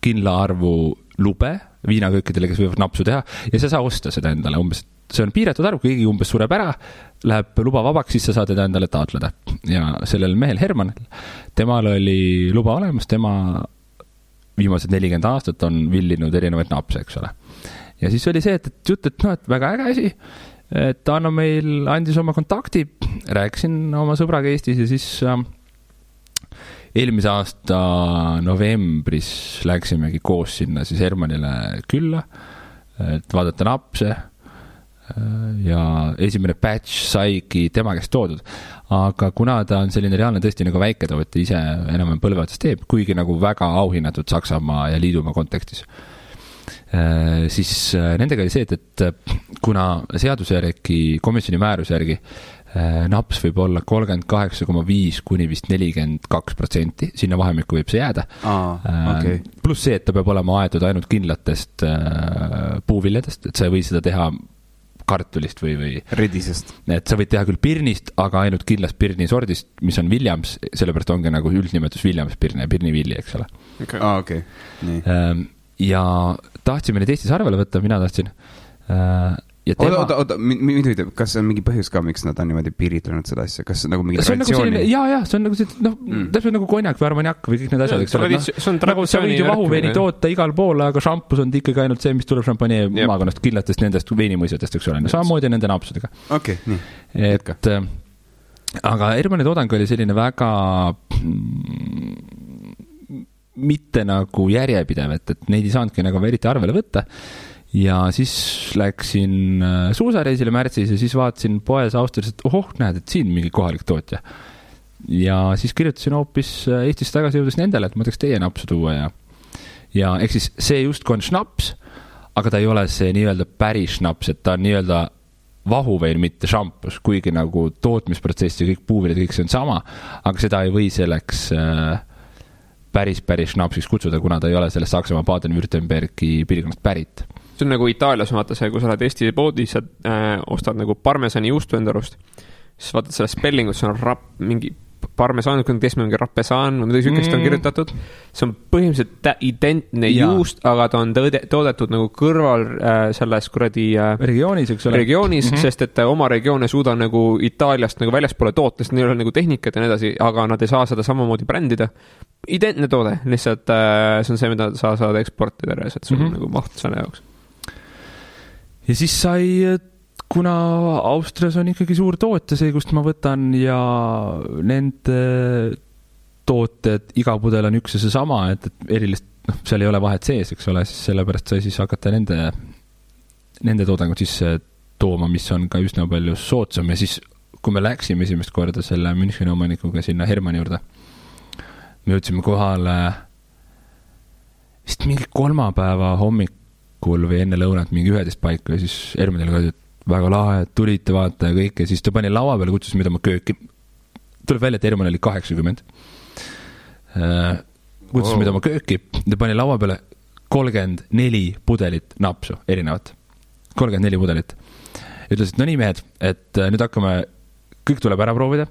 kindla arvu lube viinaköökidele, kes võivad napsu teha ja sa saa osta seda endale umbes, see on piiratud arv, kui keegi umbes sureb ära, läheb luba vabaks, siis sa saad teda endale taotleda. Ja sellel mehel Hermanil, temal oli luba olemas, tema viimased 40 aastat on villinud erinevaid napse, eks ole. Ja siis oli see, et jutt, et väga äge asi, et Anno meil andis oma kontakti, rääkisin oma sõbraga Eestis ja siis eelmise aasta novembris läksimegi koos sinna siis Hermanile külla, et vaadata napse ja esimene batch saigi tema käest toodud. Aga kuna ta on selline reaalne tõesti nagu väiketootja ise enam põlveotsast teeb, kuigi nagu väga auhinnatud Saksamaa ja Liidumaa kontekstis, siis nendega oli see, et kuna seaduse järgi, komisjoni määruse järgi naps võib olla 38,5 kuni vist 42%, sinna vahemikku võib see jääda. Okay. Pluss see, et ta peab olema aetud ainult kindlatest puuviljadest, et sa ei või seda teha kartulist või redisest. Et sa võid teha küll pirnist, aga ainult kindlast pirni sordist, mis on Williams, sellepärast ongi nagu üldnimetus Williams pirni ja pirnivilli, eks ole. Okay. Nii. Ja tahtsime neid Eestis arvele võtta, mina tahtsin. Oota, kas on mingi põhjus ka, miks nad on niimoodi piiritlenud seda asja? Kas nagu mingi traditsiooni? See on nagu see, täpselt nagu konjak või armaniak või kõik need asjad, eks ole. Nagu sa võid ju vahuveini toota igal pool, aga šampus on ikkagi ainult see, mis tuleb šampanie maakonnast killatest nendest veinimõisjatest, eks ole. Samamoodi nende napsudega. Okei, nii. Aga Hermanni toodang oli selline väga mitte nagu järjepidev, et neid ei saanudki nagu eriti arvele võtta. Ja siis läksin suusareisile märtsis ja siis vaatasin poes Austrias, et näed, et siin mingi kohalik tootja. Ja siis kirjutasin hoopis Eestis tagasi jõudes nendele, et ma tahaks teie napsu tuua ja eks siis see justkui on šnaps, aga ta ei ole see nii-öelda päris šnaps, et ta on nii-öelda vahuvein, mitte šampus, kuigi nagu tootmisprotsess ja kõik puuviljad, kõik see on sama, aga seda ei või selleks päris šnapsiks kutsuda, kuna ta ei ole sellest Saksamaa Baden-Württembergi piirkonnast pärit. See on nagu Itaalias, vaata see, kui sa oled Eesti poodis, sa ostad nagu parmesani juustu enda arust, siis vaatad selle spellingut, see on mingi parmesan, kes mingi rappesan, midagi sükest on kirjutatud. See on põhimõtteliselt identne juust, aga ta on toodetud nagu kõrval selles kuradi regioonis, eks ole. Regioonis, sest et oma regioon ei suuda nagu Itaaliast nagu väljaspoole toota, sest neil on nagu tehnikat ja nii edasi, aga nad ei saa seda samamoodi brändida. Identne toode, lihtsalt see on see, mida sa saad eksportida, et sul on nagu maht selle jaoks. Ja siis sai, kuna Austrias on ikkagi suur tootja see, kust ma võtan ja nende tooted, iga pudel on üks ja see sama, et erilist, seal ei ole vahet sees, eks ole, siis sellepärast sai siis hakata nende toodangut sisse tooma, mis on ka üsna palju soodsam ja siis, kui me läksime esimest korda selle Müncheni omanikuga sinna Hermanni juurde, me jõudsime kohale vist mingi kolmapäeva hommikul või enne lõunat mingi 11 paiku ja siis Hermanil ka, et väga lahe, et tulite vaata ja kõik ja siis ta pani laua peale, kutsus mida ma kööki. Tuleb välja, et Herman oli 80. Kutsus mida ma kööki, ta pani laua peale 34 pudelit napsu, erinevat. 34 pudelit. Ütles, et no nii mehed, et nüüd hakkame, kõik tuleb ära proovida.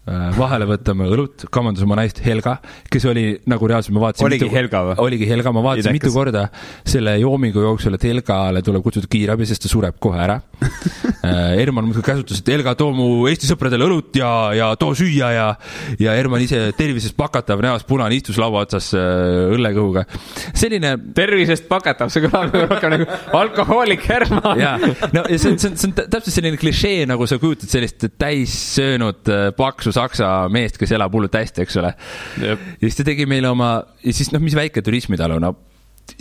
Vahele võtame õlut, kamandus oma naist Helga, kes oli nagu reaalselt, ma vaatasin oligi Helga või? Oligi Helga, ma vaatasin mitu korda selle joomingu jooksul, et Helgale tuleb kutsuda kiirabi, sest ta sureb kohe ära. Herman käsutas, et Helga, too mu Eesti sõpradele õlut ja too süüa ja Herman ise tervisest pakatav näos punane istus laua otsas õllekõhuga. Selline tervisest pakatav, see kõlab rohkem nagu alkohoolik Herman. Ja, no, ja see on täpselt selline klišee, nagu sa kujutad sellist täis söönud paksu Saksa meest, kes elab hullult hästi, eks ole. Ja siis ta tegi meile oma, ja siis mis väike turismitalu,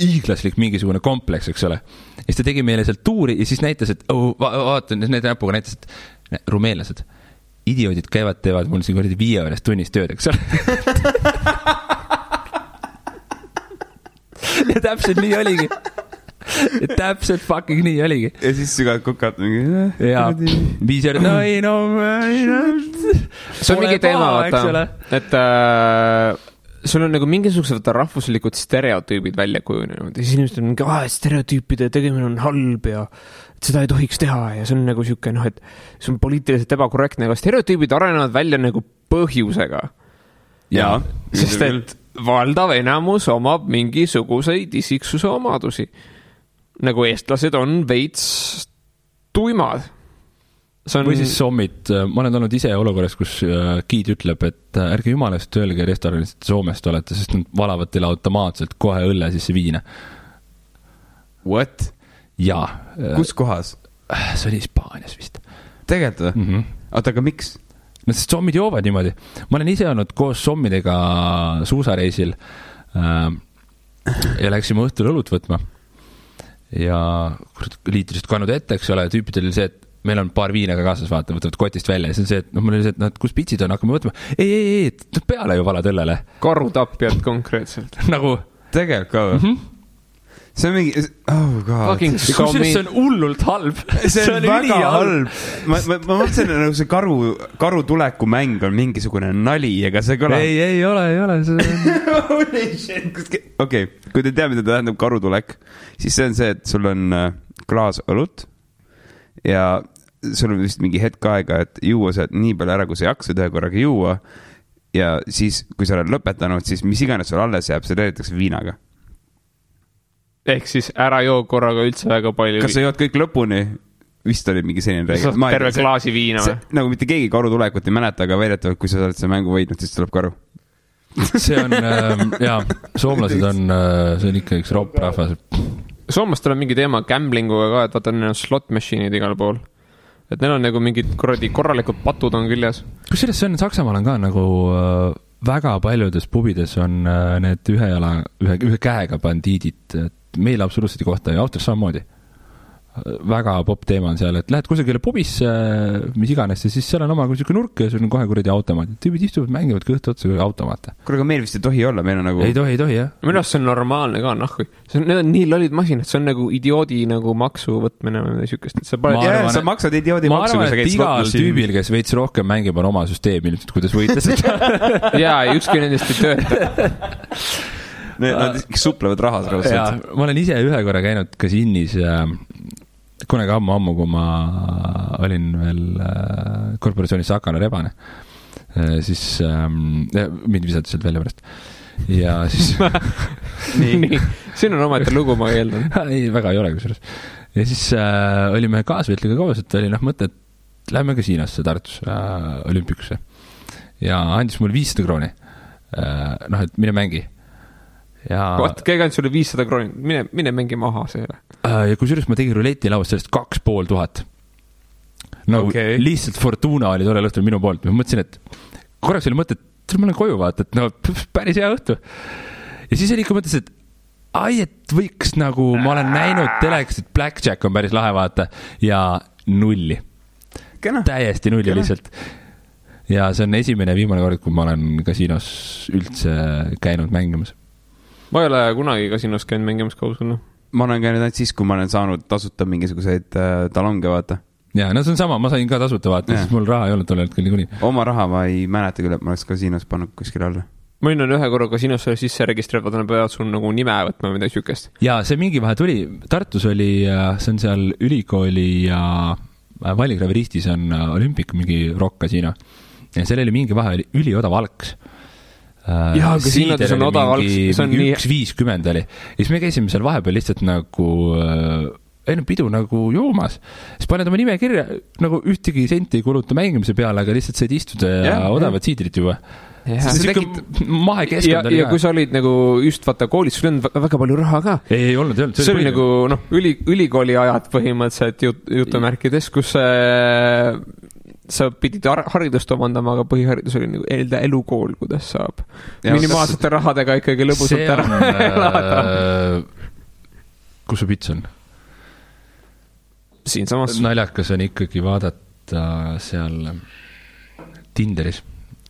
hiiglaslik mingisugune kompleks, eks ole. Ja siis ta tegi meile sealt tuuri ja siis näitas, et vaata, need näpuga näitas, et rumeenlased, idioodid käivad, teevad mul siin 5 tunnis tööd, eks ole. Ja täpselt nii oligi. Ja täpselt fucking nii oligi. Ja siis sügad kukad mingi... Ja 5 eurot, see on mingi teema, vaata, et sul on nagu mingisugused rahvuslikud stereotüübid välja kujunenud ja siis inimesed on mingi, stereotüüpide tegemine on halb ja seda ei tohiks teha ja see on nagu siuke, et see on poliitiliselt ebakorrektne, aga stereotüübid arenevad välja nagu põhjusega. Ja, sest et valdav enamus omab mingisuguseid isiksuse omadusi. Nagu eestlased on veits tuimad. Või siis sommid, ma olen olnud ise olukorras, kus giid ütleb, et ärge jumalast öelge restoranis, et Soomest olete, sest nad valavad teile automaatselt kohe õlle sisse viina. What? Jaa. Kus kohas? See oli Hispaanias vist. Tegelikult või? Oota, aga miks? No sest sommid joovad niimoodi. Ma olen ise olnud koos sommidega suusareisil ja läksime õhtul õlut võtma. Ja liitrised kannud ette, eks ole, tüüpidel oli see, et meil on paar viinaga kaasas, võtavad kotist välja ja see on see, et mul oli see, et kus pitsid on, hakkame võtma. Ei, peale ju valad õllele. Karutapjad konkreetselt. Nagu tegelikult ka või? See on mingi, oh god. Kusjuures see on hullult halb. See on väga halb. Ma mõtlesin, nagu see karu tuleku mäng on mingisugune nali, ega see kõlab. Ei ole. Okei, kui te tea, mida tähendab karutulek, siis see on see, et sul on klaas õlut ja sul on vist mingi hetk aega, et juua see nii palju ära, kui sa jaksad ühe korraga juua ja siis, kui sa oled lõpetanud, siis mis iganes sul alles jääb, see teedetakse viinaga. Ehk siis ära joo korraga üldse väga palju. Kas sa jood kõik lõpuni? Vist oli mingi selline reegel. Terve klaasi viina või? Nagu mitte keegi karutulekut ei mäleta, aga väidetavalt, kui sa oled see mängu võidnud, siis tuleb karu. See on, jaa, soomlased on, see on ikka üks ropp rahvas. Soomlastel on mingi teema gamblinguga ka, et vaata, neil on slot machine'id igal pool. Et neil on nagu mingid korralikud patud on küljes. Kusjuures see on Saksamaal on ka nagu väga paljudes pubides on need ühe käega bandiidid, meil absoluutselt ei kohta ja Austras samamoodi. Väga pop teema on seal, et lähed kusagile pubisse, mis iganes, ja siis seal on oma kusagil nurk ja sul on kohe kuradi automaat. Tüübid istuvad, mängivad kõht otsa kui automaate. Kuule, aga meil vist ei tohi olla, meil on nagu... Ei tohi, jah. Minu arust see on normaalne ka, nahku. Need on nii lollid masinad, see on nagu idioodi nagu maksu võtmine või sükest. Sa maksad idioodi maksu. Ma arvan, et igal tüübil, kes veits rohkem mängib, on oma süsteem ilmselt, kuidas võita seda. Jaa, ükski nendest ei tööta. Nad suplevad rahas raudselt. Ma olen ise ühe korra käinud kasiinis kunagi ammu, kui ma olin veel korporatsioonis Sakana Rebane, siis mind visati sealt välja pärast. Ja siis... nii. Siin on ometi lugu, ma eeldan. Ei, väga ei ole kusjuures. Ja siis olime kaasvetliga koos, et oli mõte, et lähme kasiinosse Tartus olümpikusse. Ja andis mul 500 krooni. Et mine mängi. Vaat, keegi andis sulle 500 krooni, mine mängi maha see. Ja kusjuures ma tegin ruleti lauast sellest 2500. Nagu lihtsalt Fortuna oli tore õhtul minu poolt. Ma mõtlesin, et korraks oli mõte, et ma olen koju vaata, et päris hea õhtu. Ja siis oli ikka mõttes, et võiks nagu, ma olen näinud teleks, et Blackjack on päris lahe vaata ja nulli. Täiesti nulli lihtsalt. Ja see on esimene ja viimane kord, kui ma olen kasiinos üldse käinud mängimas. Ma ei ole kunagi kasiinos käinud mängimas kausuna. Ma olen käinud ainult siis, kui ma olen saanud tasuta mingisuguseid talonge vaata. Jaa, no see on sama, ma sain ka tasuta vaata, siis mul raha ei olnud tolle hetkel kuni. Oma raha ma ei mäleta küll, et ma oleks kasiinos pannud kuskil alla. Ma olen ühe korra kasiinosse sisse registreerivad, nad peavad sul nagu nime võtma või midagi sükest. Jaa, see mingi vahe tuli. Tartus oli, see on seal ülikooli ja Valligraveristis on olümpik mingi rock-kasiino. Ja seal oli mingi vahe, oli üliodav alks. Jaa, kasiinodes on odav alks. See on mingi 1.50 oli. Ja siis me käisime seal vahepeal lihtsalt nagu pidu nagu joomas. Siis paned oma nime kirja, nagu ühtegi senti ei kuluta mängimise peale, aga lihtsalt said istuda ja odavad siidrit juba. See mahe keskkond oli ja kui sa olid nagu just vaata koolis, sul on väga palju raha ka. Ei olnud. See oli nagu ülikooli ajad põhimõtteliselt jutumärkides, kus sa pidid haridust omandama, aga põhiharidus oli nagu elukool, kuidas saab minimaalsete rahadega ikkagi lõbusalt ära elada. Kus su pits on? Siin samas. Naljakas on ikkagi vaadata seal Tinderis.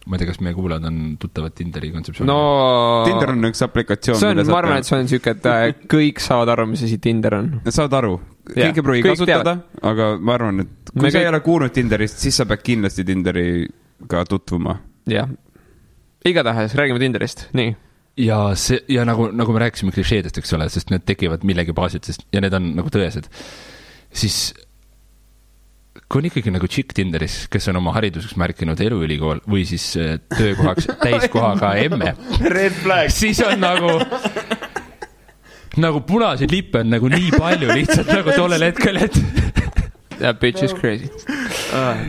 Ma ei tea, kas meie kuulajad on tuttavad Tinderi kontseptsiooni. No, Tinder on üks aplikatsioon. Ma arvan, et see on siuke, et kõik saavad aru, mis asi Tinder on. Saavad aru. Kõik ei pruugi kasutada, aga ma arvan, et kui sa ei ole kuulnud Tinderist, siis sa pead kindlasti Tinderiga tutvuma. Jah. Igatahes, räägime Tinderist. Nii. Ja nagu me rääkisime klišeedest, eks ole, sest need tekivad millegi baasilt, ja need on nagu tõesed. Siis kui on ikkagi nagu chick Tinderis, kes on oma hariduseks märkinud eluülikool või siis töökohaks täiskohaga emme, siis on nagu punaseid lippe on nagu nii palju lihtsalt nagu tollel hetkel, et That bitch is crazy.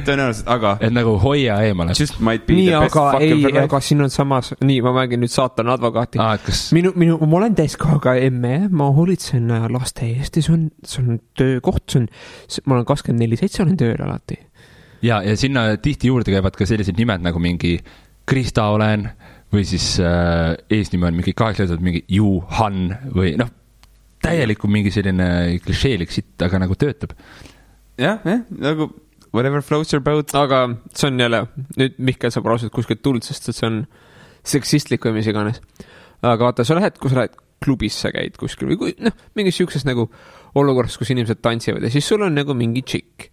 Tõenäoliselt, aga et nagu hoia eemale. Just might be nii, the best aga fucking for life. Aga siin on samas, nii, ma mängin nüüd saatana advokaati. Kas... ma olen täiskohaga emme, ma hoolitsen laste eest ja see on töökoht, ma olen 24/7, olen tööl alati. Ja sinna tihti juurde käivad ka sellised nimed nagu mingi Krista olen või siis eesnime on mingi 8 leetud mingi Juhan või täielikult mingi selline klišeelik sitt, aga nagu töötab. Jah, nagu whatever floats your boat. Aga see on jälle, nüüd Mihkel saab rausalt kuskilt tuld, sest see on seksistlik või mis iganes. Aga vaata, kui sa lähed klubisse käid kuskil või mingis siukses nagu olukorras, kus inimesed tantsivad ja siis sul on nagu mingi tšikk,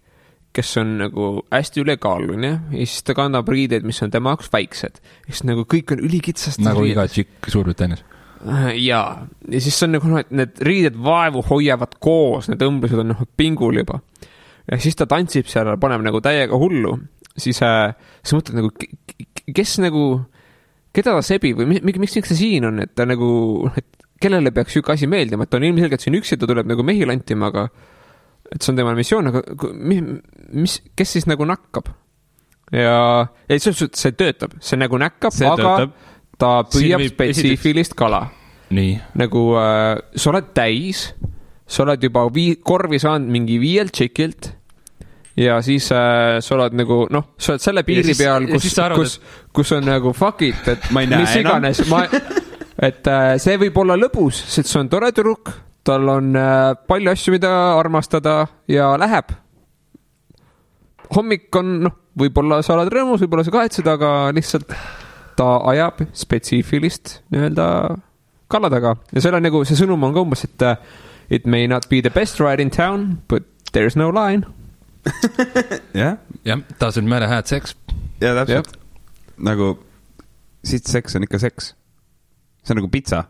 kes on nagu hästi ülekaaluline ja siis ta kannab riideid, mis on tema jaoks väiksed. Siis nagu kõik on ülikitsast. Nagu iga tšikk Suurbritannias. Ja siis on nagu, et need riided vaevu hoiavad koos, need õmblused on pingul juba. Ja siis ta tantsib seal, paneb nagu täiega hullu, siis mõtled nagu, kes nagu, keda ta sebib või miks ta siin on, et ta nagu, et kellele peaks siuke asi meeldima, et ta on ilmselgelt siin üksi, ta tuleb nagu mehi lantima, aga et see on tema missioon, aga kes siis nagu nakkab? Ja see töötab, see nagu näkkab, aga töötab. Ta püüab spetsiifilist kala. Nii. Nagu sa oled täis, sa oled juba korvi saanud mingi 5 tšikilt ja siis sa oled nagu, sa oled selle piiri peal, kus on nagu fuck it, et mis iganes, et see võib olla lõbus, sest see on tore tüdruk, tal on palju asju, mida armastada ja läheb. Hommik on, võib-olla sa oled rõõmus, võib-olla sa kahetsed, aga lihtsalt ta ajab spetsiifilist nii-öelda kalla taga ja selle nagu, see sõnum on ka umbes, et it may not be the best ride in town, but there's no line. Jah, doesn't matter had sex. Ja täpselt. Nagu siit seks on ikka seks. See on nagu pizza.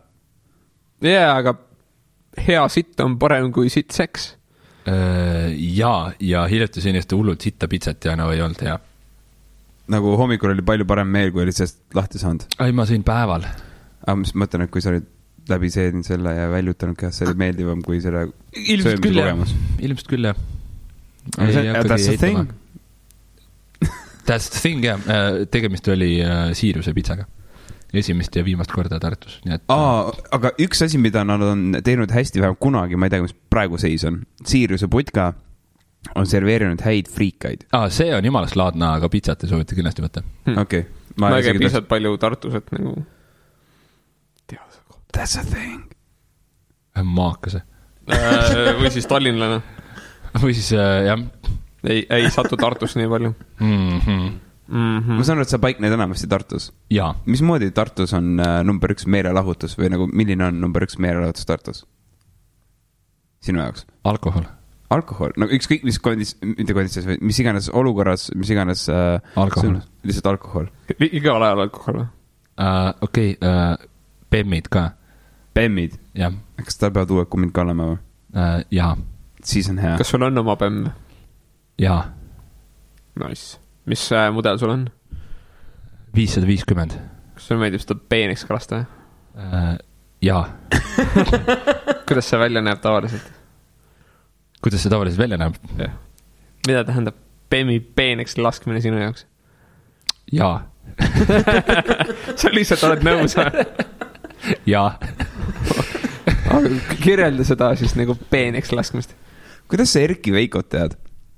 Aga hea sitt on parem kui sitt seks. Ja hiljuti seniste hullult sitta pizzat ja ei olnud hea. Nagu hommikul oli palju parem meel, kui oli sellest lahti saanud. Ei, ma sõin päeval. Aga mis mõtlen, et kui sa olid läbi seedin selle ja väljutanud käest, see oli meeldivam kui selle ilmselt küll, ilmselt küll, jah. That's the thing. That's the thing, jah. Tegemist oli Siiruse pitsaga. Esimest ja viimast korda Tartus. Aga üks asi, mida nad on teinud hästi vähem kunagi, ma ei tea, mis praegu seis on. Siiruse putka on serveerinud häid friikaid. See on jumalast laadna, aga pitsat ei soovita kindlasti võtta. Okei. Ma ei käi piisavalt palju Tartus, et nagu That's a thing. Maakase. Või siis tallinlane. Või siis, jah. Ei satu Tartus nii palju. Ma saan aru, et sa paikned enamasti Tartus. Jaa. Mismoodi Tartus on number 1 meelelahutus või nagu milline on number 1 meelelahutus Tartus? Sinu jaoks? Alkohol. No ükskõik mis konditsionis või mis iganes olukorras, mis iganes alkohol. Lihtsalt alkohol. Igal ajal alkohol või? Okei, Bemmid ka. Bemmid? Jah. Kas ta peavad uued kummid ka olema või? Jaa. Siis on hea. Kas sul on oma Bemm? Jaa. Nice. Mis mudel sul on? 550. Kas sul meeldib seda peeneks kalasta? Jaa. Kuidas see välja näeb tavaliselt? Kuidas see tavaliselt välja näeb? Ja. Mida tähendab Bemmi peeneks laskmine sinu jaoks? Jaa. Sa lihtsalt oled nõus või? Jaa. Kirjelda seda siis nagu peeneks laskmist. Kuidas sa Erki Veikot tead?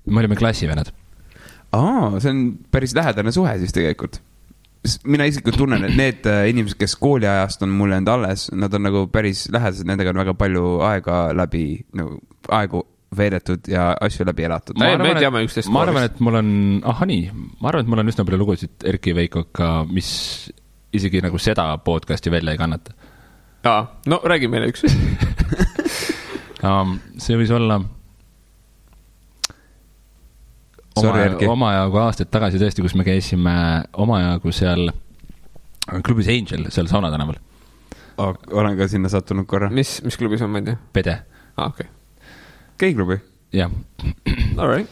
Me olime klassivennad. See on päris lähedane suhe siis tegelikult. Mina isiklikult tunnen, et need inimesed, kes kooliajast on mulle enda alles, nad on nagu päris lähedased, nendega on väga palju aegu veedetud ja asju läbi elatud. Me teame üksteist ma arvan, et mul on üsna palju lugusid Erki Veikoga, mis isegi nagu seda podcasti välja ei kannata. No räägi meile üks. See võis olla omajagu aastaid tagasi tõesti, kus me käisime omajagu seal klubis Angel, seal Sauna tänaval. Olen ka sinna sattunud korra. Mis klubis on, ma ei tea? Pede. Okay. Geiklubi? Jah. All right.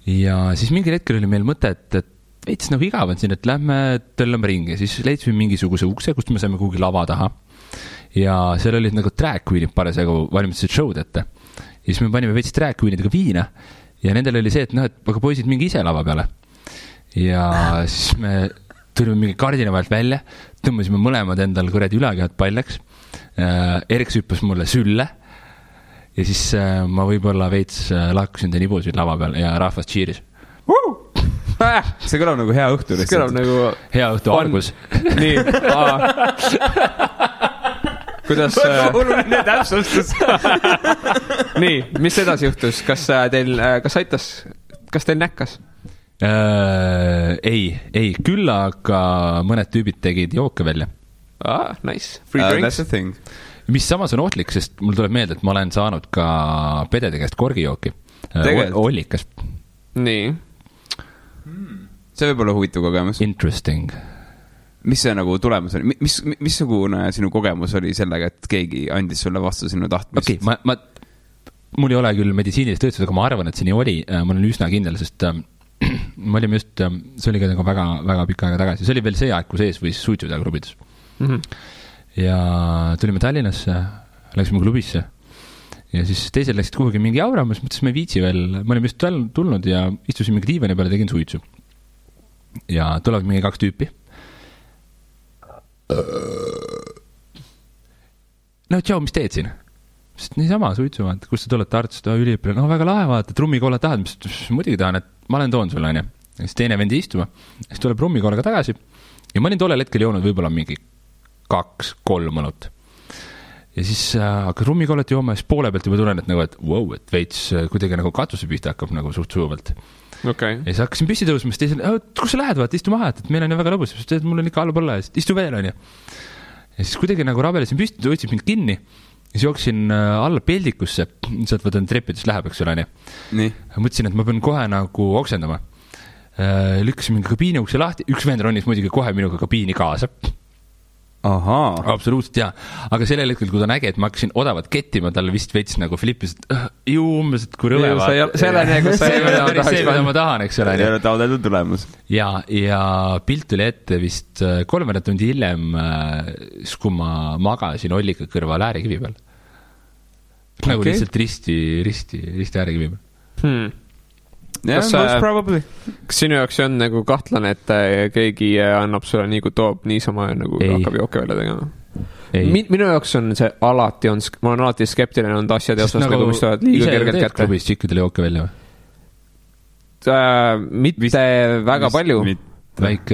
ja siis mingil hetkel oli meil mõte, et veits nagu igav on siin, et lähme tõllame ringi, siis leidsime mingisuguse ukse, kust me saime kuhugi lava taha ja seal olid nagu drag queen'id parasjagu valmistasid show'd ette ja siis me panime veits drag queen'idega viina ja nendel oli see, et noh, et aga poisid mingi ise lava peale ja siis me tulime mingi kardina vahelt välja, tõmbasime mõlemad endal kuradi ülakehad paljaks, Erks hüppas mulle sülle ja siis ma võib-olla veits lakkusin ta nibusid lava peal ja rahvas cheeris. See kõlab nagu hea õhtu. See kõlab nagu hea õhtu algus. Nii, kuidas oluline täpsustus. Nii, mis edasi juhtus? Kas teil näkkas? Ei, küll aga mõned tüübid tegid jooke välja. Nice, free drinks. Mis samas on ohtlik, sest mul tuleb meelde, et ma olen saanud ka pedede käest korgijooki. Ollikas. Nii. See võib olla huvitav kogemus. Interesting. Mis see nagu tulemus oli? Missugune sinu kogemus oli sellega, et keegi andis sulle vastu sinu tahtmist? Okei, mul ei ole küll meditsiinilist töötused, aga ma arvan, et see nii oli. Ma olen üsna kindel, sest me olime just, see oli ka nagu väga, väga pikka aega tagasi. See oli veel see aeg, kus ees võis suitsu teha klubides. Ja tulime Tallinnasse, läksime klubisse ja siis teised läksid kuhugi mingi auramas, mõttes me viitsi veel, me olime just tulnud ja istusin mingi diivani peale, tegin suitsu ja tulevad mingi 2 tüüpi no tšau, mis teed siin? Sest niisama suitsu, kus sa tuled Tartust, üliõpilane, no väga lahe vaata, trummikolla tahad, mis muidugi tahan, et ma olen toon sulle, on ju. Siis teine vendi istuma, siis tuleb trummikollaga tagasi ja ma olin tollel hetkel joonud võib-olla mingi 2-3 mõnut. Ja siis hakkas rummikollet jooma ja siis poole pealt juba tulen, et nagu, et wow, et veits kuidagi nagu katuse pihta hakkab nagu suht sujuvalt. Okay. Ja siis hakkasin püsti tõusma, siis teisel, kus sa lähed, vaata, istu maha, et meil on ju väga lõbus, sest mul on ikka alla põlla, istu veel, on ju. Ja siis kuidagi nagu rabelesin püsti, võtsin mind kinni ja siis jooksin alla peldikusse, sealt võtan trepidest läheb, eks ole, on ju. Mõtlesin, et ma pean kohe nagu oksendama. Lükkasin mingi kabiini ukse lahti, üks vend ronis muidugi kohe minuga kabiini kaasa. Ahaa. Absoluutselt, jaa. Aga sellel hetkel, kui ta nägi, et ma hakkasin odavat kettima, talle vist veits nagu flippis, et umbes, et kui rõve vaata. Selleni, kus sa ei mida ma tahan, eks ole. Ei ole taodeldud tulemus. Ja pilt tuli ette vist 3 tundi hiljem, kui ma magasin Ollika kõrval äärekivi peal. Nagu lihtsalt risti äärekivi peal. Kas sinu jaoks on nagu kahtlane, et keegi annab sulle nii kui toob niisama nagu hakkab jooke välja tegema? Minu jaoks on see alati on, ma olen alati skeptiline on asjade osas nagu mis tulevad liiga kergelt kätte. Klubis tšikkidele jooke välja või? Mitte väga palju.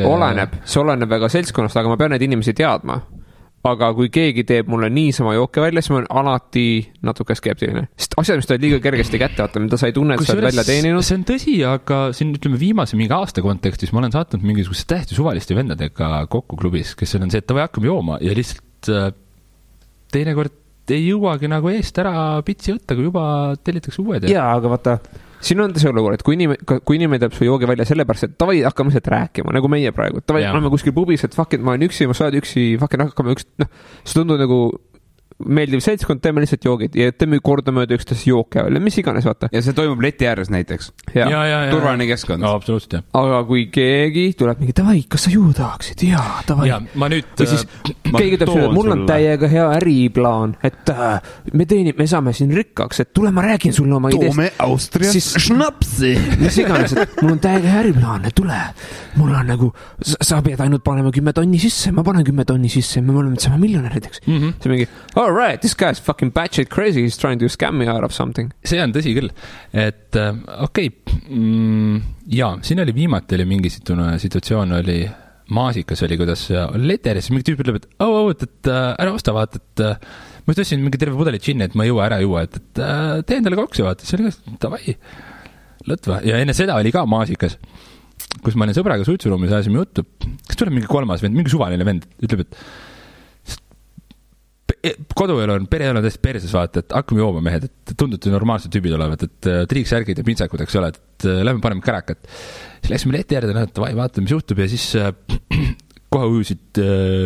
Oleneb, see oleneb väga seltskonnast, aga ma pean neid inimesi teadma. Aga kui keegi teeb mulle niisama jooke välja, siis ma olen alati natuke skeptiline. Sest asjad, mis ta liiga kergesti kätte vaata, mida sa ei tunne, et sa oled välja teeninud. See on tõsi, aga siin ütleme viimase mingi aasta kontekstis ma olen saatnud mingisuguse tähti suvaliste vendadega kokku klubis, kes on see, et ta või hakkab jooma ja lihtsalt teinekord ei jõuagi nagu eest ära pitsi võtta, kui juba tellitakse uued. Jaa, aga vaata, siin on see olukord, et kui inimene teeb su joogi välja sellepärast, et tavai hakkame sealt rääkima, nagu meie praegu. Tavai oleme kuskil pubis, et fuck it, ma olen üksi, ma saad üksi, fuck it, hakkame see tundub nagu meeldiv seltskond, teeme lihtsalt joogid ja teeme kordamööda üksteist jooke välja, mis iganes, vaata. Ja see toimub leti ääres näiteks. Turvaline keskkond. No, absoluutselt, jah. Aga kui keegi tuleb mingi, tavai, kas sa juua tahaksid? Jaa, tavai. Ja ma nüüd... Või siis keegi tuleb sulle, et mul on täiega hea äriplaan, et me saame siin rikkaks, et tule ma räägin sulle oma ideest. Toome Austrias šnapsi. Mis iganes, et mul on täiega hea äriplaan, et tule. Mul on nagu, sa pead ainult panema 10 tonni sisse, ma panen 10 tonni sisse, me oleme sama miljonärideks. See mingi, all right, this guy's fucking batshit crazy, he's trying to scam me out of something. See on tõsi küll, et okei, jaa, siin oli viimati oli mingi situatsioon oli, maasikas oli, kuidas oli leteris, mingi tüüp ütleb, et ära osta, vaata, et ma just tõstsin mingi terve pudeli džinni, et ma ei jõua, ära jõua, et tee endale koksi, vaata, see oli ka, tavai, lõtva, ja enne seda oli ka maasikas, kus ma olin sõbraga suitsuruumis, ajasime juttu, kas tuleb mingi 3. vend, mingi suvaline vend, ütleb, et koduelu on, pereelu on täiesti perses, vaata, et hakkame jooma mehed, et tundute normaalsed tüübid olevat, et triiksärgid ja pintsakud, eks ole, et lähme paneme kärakat. Siis läksime leti äärde, et vaata, mis juhtub ja siis kohe ujusid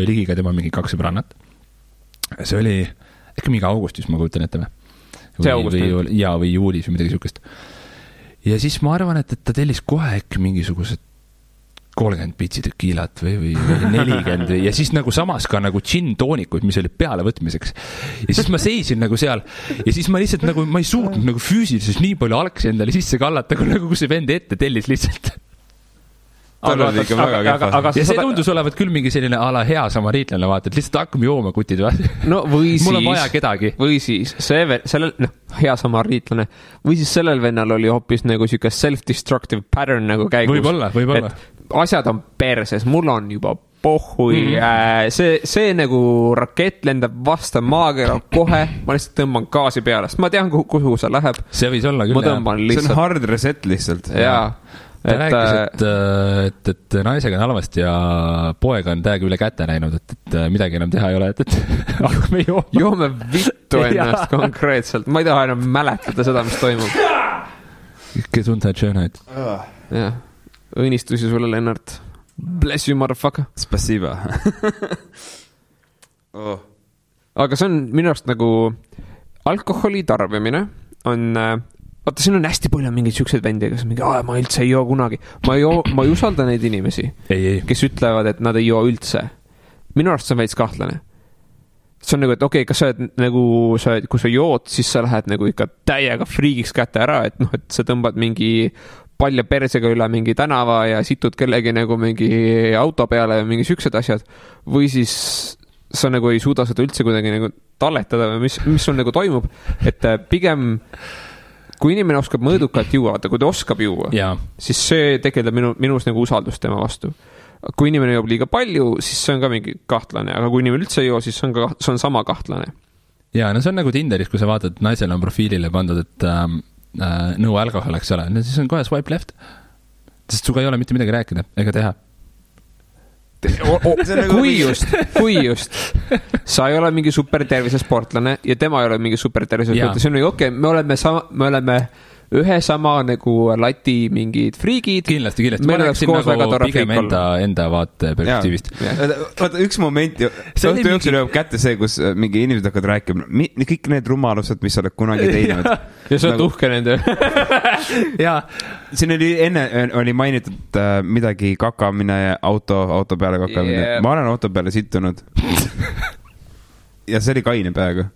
ligiga tema mingi 2 sõbrannat. See oli äkki mingi augustis, ma kujutan ette või? See august? Või juulis või midagi sihukest. ja siis ma arvan, et ta tellis kohe äkki mingisugused 30 pitsi tekiilat või 40 ja siis nagu samas ka nagu džinn-toonikuid, mis oli pealevõtmiseks. Ja siis ma seisin nagu seal ja siis ma lihtsalt nagu, ma ei suutnud nagu füüsiliselt nii palju algsi endale sisse kallata, kui see vend ette tellis lihtsalt. Aga ja see tundus olevat küll mingi selline ala hea samariitlane, vaata, et lihtsalt hakkame jooma kutid või? No või siis. Mul on vaja kedagi. Või siis sellel, hea samariitlane. Või siis sellel vennal oli hoopis nagu siuke self-destructive pattern nagu käigus. Võib-olla. Asjad on perses, mul on juba pohhui, see nagu rakett lendab vasta maakera kohe, ma lihtsalt tõmban gaasi peale, sest ma tean, kuhu see läheb. See võis olla küll. See on hard reset lihtsalt. Jaa. Ta rääkis, et naisega on halvasti ja poega on täiega üle käte näinud, et midagi enam teha ei ole, et hakkame jooma. Joome vittu ennast konkreetselt. Ma ei taha enam mäletada seda, mis toimub. Gesundheit, Schönheit. Jah. Õnnistusi sulle, Lennart. Bless you, motherfucker. Spasiba. Aga see on minu arust nagu alkoholi tarbimine on, vaata, siin on hästi palju mingeid siukseid vendi, kes mingi, ma üldse ei joo kunagi. Ma ei usalda neid inimesi, kes ütlevad, et nad ei joo üldse. Minu arust see on veits kahtlane. See on nagu, et okei, kas sa oled nagu, kui sa jood, siis sa lähed nagu ikka täiega friigiks kätte ära, et noh, et sa tõmbad mingi palja persega üle mingi tänava ja situd kellegi nagu mingi auto peale ja mingi siuksed asjad. Või siis sa nagu ei suuda seda üldse kuidagi nagu talletada või mis sul nagu toimub. Et pigem, kui inimene oskab mõõdukalt juua, kui ta oskab juua, siis see tegeleb minus nagu usaldust tema vastu. Kui inimene joob liiga palju, siis see on ka mingi kahtlane, aga kui inimene üldse ei joo, siis see on sama kahtlane. Ja, no see on nagu Tinderis, kui sa vaatad, et naisel on profiilile pandud, et no alkohol, eks ole, siis on kohe swipe left, sest suga ei ole mitte midagi rääkida ega teha. Kui just sa ei ole mingi supertervise sportlane ja tema ei ole mingi supertervise sportlane, see on ju okei, me oleme ühe sama nagu lati mingid friigid. Kindlasti. Ma rääksin nagu pigem enda vaate perspektiivist. Vaata, üks moment ju, õhtu jooksul jõuab kätte see, kus mingi inimesed hakkavad rääkima, kõik need rumalused, mis oled kunagi teinud. Ja sa oled uhke nende. Jaa. Siin oli mainitud midagi kakamine ja auto peale kakamine. Ma olen auto peale sittunud. Ja see oli kaine peaga.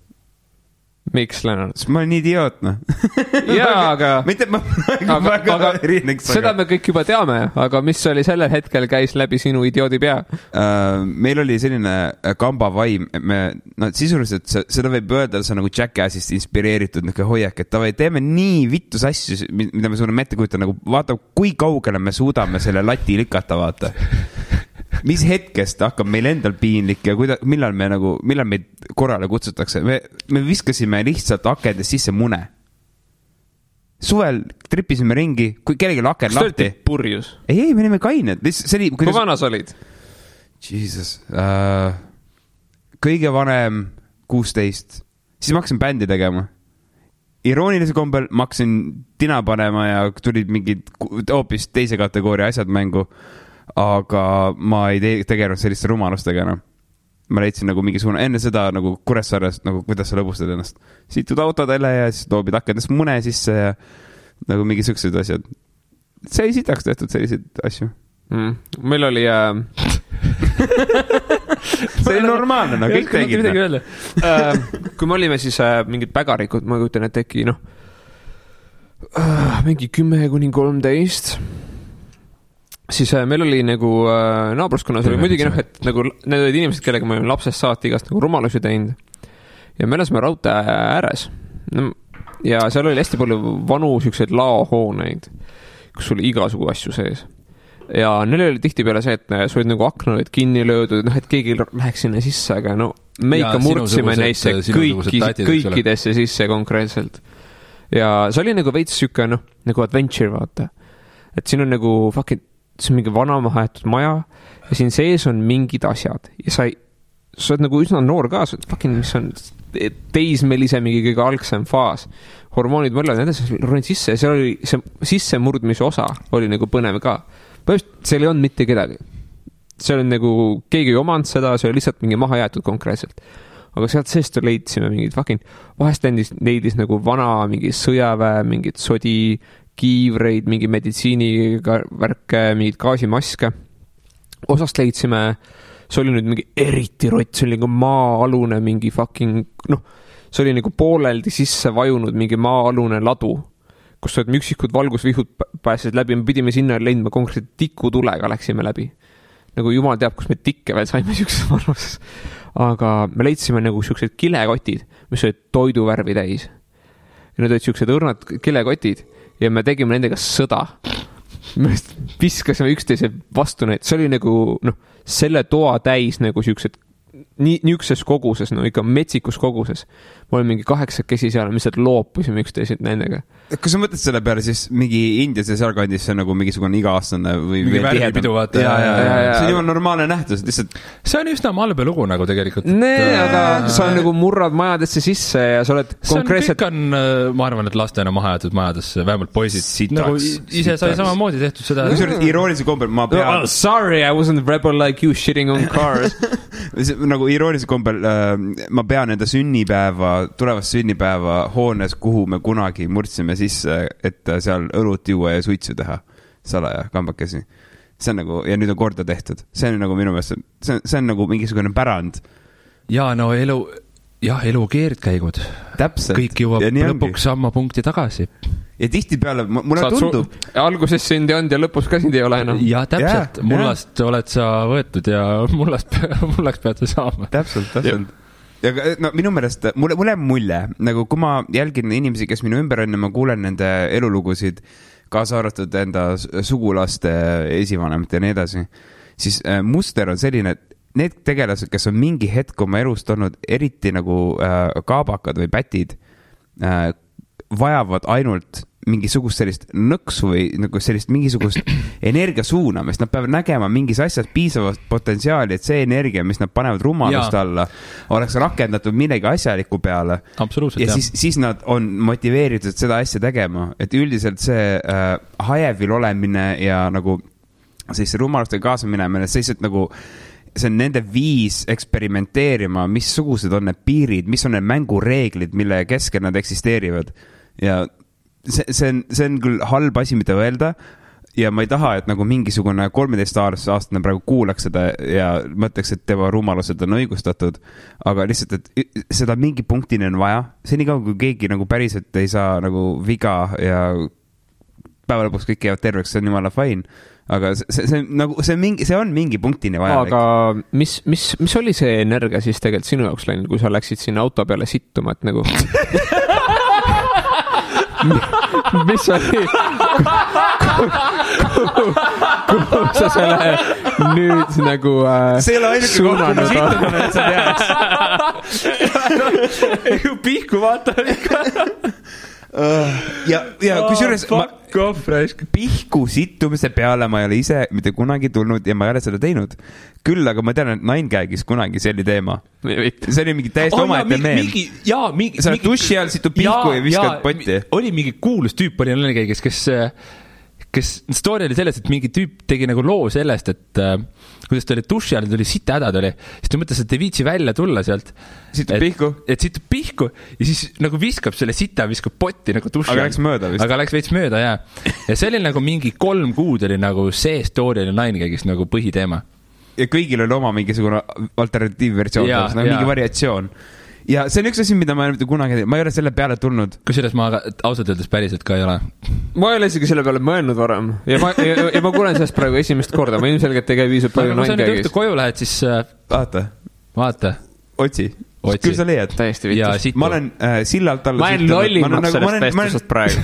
Miks, Lennart? Ma olen idiootne. Jaa, aga erineks. Seda me kõik juba teame, aga mis oli sellel hetkel käis läbi sinu idioodi pea? Meil oli selline kamba vaim, sisuliselt seda võib öelda, see on nagu Jackassist inspireeritud hoiak, et teeme nii vittus asju, mida me suudame ette kujutada, nagu vaata, kui kaugele me suudame selle lati lükata, vaata. Mis hetkest hakkab meil endal piinlik ja millal meid korrale kutsutakse. Me viskasime lihtsalt akendest sisse mune. Suvel tripisime ringi, kui kellegi aken lahti. Kas te olite purjus? Ei, me olime kained. Kui vanas olid? Jesus. Kõige vanem 16. Siis ma hakkasin bändi tegema. Iroonilise kombel ma hakkasin tina panema ja tulid mingid hoopis teise kategooria asjad mängu. Aga ma ei tegelenud selliste rumalustega enam. Ma leidsin nagu mingisugune enne seda nagu Kuressaares, nagu kuidas sa lõbustad ennast. Situd autodele ja siis toobid akendest mune sisse ja nagu mingi sõksud asjad. See ei sitaks tehtud selliseid asju. Meil oli see oli normaalne, no kõik tegid. Kui me olime siis mingid pägarikud, ma kujutan, et teki mingi 10-13 siis meil oli nagu naabruskonnas oli muidugi et nagu need olid inimesed, kellega me olime lapsest saati igast nagu rumalusi teinud ja me elasime raudtee ääres ja seal oli hästi palju vanu siukseid laohooneid, kus oli igasugu asju sees ja neil oli tihti peale see, et sa olid nagu akna olid kinni löödud, et keegi läheks sinna sisse, aga no me ikka murdsime neisse kõikidesse sisse konkreetselt ja see oli nagu veits siuke nagu adventure, vaata, et siin on nagu fucking see on mingi vana mahaetud maja ja siin sees on mingid asjad ja sa oled nagu üsna noor ka, sa oled fucking, mis on teismelise mingi kõige algsem faas, hormoonid mõelvad edasi, ronid sisse ja seal oli see sissemurdmise osa oli nagu põnev ka, põhimõtteliselt seal ei olnud mitte kedagi, seal on nagu keegi ei omanud seda, see oli lihtsalt mingi maha jäetud konkreetselt, aga sealt seest leidsime mingid fucking, vahest leidis nagu vana mingi sõjaväe, mingid sodi kiivreid, mingi meditsiinivärke, mingid gaasimaske. Osast leidsime, see oli nüüd mingi eriti rott, see oli nagu maa-alune mingi fucking, see oli nagu pooleldi sisse vajunud mingi maa-alune ladu, kus olid üksikud valgusvihud pääsesid läbi, me pidime sinna leidma konkreetselt tikutulega läksime läbi. Nagu jumal teab, kus me tikke veel saime siukses vanuses. Aga me leidsime nagu siuksed kilekotid, mis olid toiduvärvi täis. Ja need olid siuksed õrnad kilekotid ja me tegime nendega sõda. Me viskasime üksteise vastu neid. See oli nagu, selle toa täis nagu siuksed niukses koguses, ikka metsikus koguses. Ma olin mingi 8 seal, mis sealt loopusime üksteised nendega. Kas sa mõtled selle peale siis mingi Indias ja sealkandis see nagu mingisugune iga-aastane või mingi värvipidu vaata. See on juba normaalne nähtus, lihtsalt. See on üsna malbe lugu nagu tegelikult. Aga sa nagu murrad majadesse sisse ja sa oled konkreetselt... Kõik on, ma arvan, et lastena maha jäetud majadesse, vähemalt poisid. Nagu ise sai samamoodi tehtud seda. Iroonilise kombel ma pean... Sorry, I wasn't rebel like you shitting on cars. Nagu iroonilise kombel ma pean enda tulevast sünnipäeva hoones, kuhu me kunagi murdsime sisse, et seal õlut juua ja suitsu teha salaja kambakesi. See on nagu, ja nüüd on korda tehtud. See on nagu minu meelest, see on nagu mingisugune pärand. Ja elu keerdkäigud. Täpselt. Kõik jõuab lõpuks samma punkti tagasi. Ja tihtipeale, mulle tundub... Alguses sind ei olnud ja lõpus ka sind ei ole enam. Ja täpselt, mullast oled sa võetud ja mullaks pead sa saama. Täpselt. Ja minu meelest, mulle mulje, nagu kui ma jälgin inimesi, kes minu ümber on ja ma kuulen nende elulugusid, kaasa arvatud enda sugulaste esivanemad ja nii edasi, siis muster on selline, et need tegelased, kes on mingi hetk oma elust olnud eriti nagu kaabakad või pätid, vajavad ainult mingisugust sellist nõksu või nagu sellist mingisugust energia suunamist. Nad peavad nägema mingis asjas piisavast potentsiaali, et see energia, mis nad panevad rumalust alla, oleks rakendatud millegi asjaliku peale. Absoluutselt, ja siis nad on motiveeritud seda asja tegema. Et üldiselt see hajevil olemine ja nagu siis rumalustega kaasa minemine, see nagu see on nende viis eksperimenteerima, missugused on need piirid, mis on need mängureeglid, mille keskel nad eksisteerivad. Ja see on küll halb asi, mida öelda ja ma ei taha, et nagu mingisugune 13-aastane praegu kuulaks seda ja mõtleks, et tema rumalused on õigustatud, aga lihtsalt, et seda mingi punktini on vaja. See nii kaua, kui keegi nagu päriselt ei saa nagu viga ja päeva lõpuks kõik jäävad terveks, see on jumala fine. Aga see on mingi punktini vaja. Aga mis oli see energia siis tegelikult sinu jaoks läinud, kui sa läksid sinna auto peale sittuma, et nagu... mis oli kuhu sa selle nüüd nagu see ei ole ainuke kohta situmine, et sa teaks pihku vaata ja kusjuures pihku sittumise peale ma ei ole ise mitte kunagi tulnud ja ma ei ole seda teinud. Küll, aga ma tean, et Ninegagis kunagi see oli teema. See oli mingi täiesti omaette meel. Sa oled duši all situ pihku ja viskad potti. Oli mingi kuulus tüüp oli Ninegagis, kes story oli selles, et mingi tüüp tegi nagu loo sellest, et kuidas ta oli duši all, tuli sita hädad oli, siis ta mõtles, et ei viitsi välja tulla sealt. Situb pihku? Et situb pihku ja siis nagu viskab selle sita, viskab potti nagu duši all. Aga läks mööda vist? Aga läks veits mööda, jah. Ja see oli nagu mingi 3 kuud oli nagu see story oli Ninegagis nagu põhiteema. Ja kõigil oli oma mingisugune alternatiivversioon, nagu mingi variatsioon. Ja see on üks asi, mida ma ei ole kunagi, ma ei ole selle peale tulnud. Kusjuures ma ausalt öeldes päriselt ka ei ole. Ma ei ole isegi selle peale mõelnud varem. Ja ma kuulen sellest praegu esimest korda. Ma ilmselgelt ei käi viisub palju Ninegagis. Kui sa nüüd õhtu koju lähed, siis... Vaata. Otsi. Küll sa leiad. Täiesti vitus. Ma olen sillalt alla... Ma olen lollimaks sellest vestusest praegu.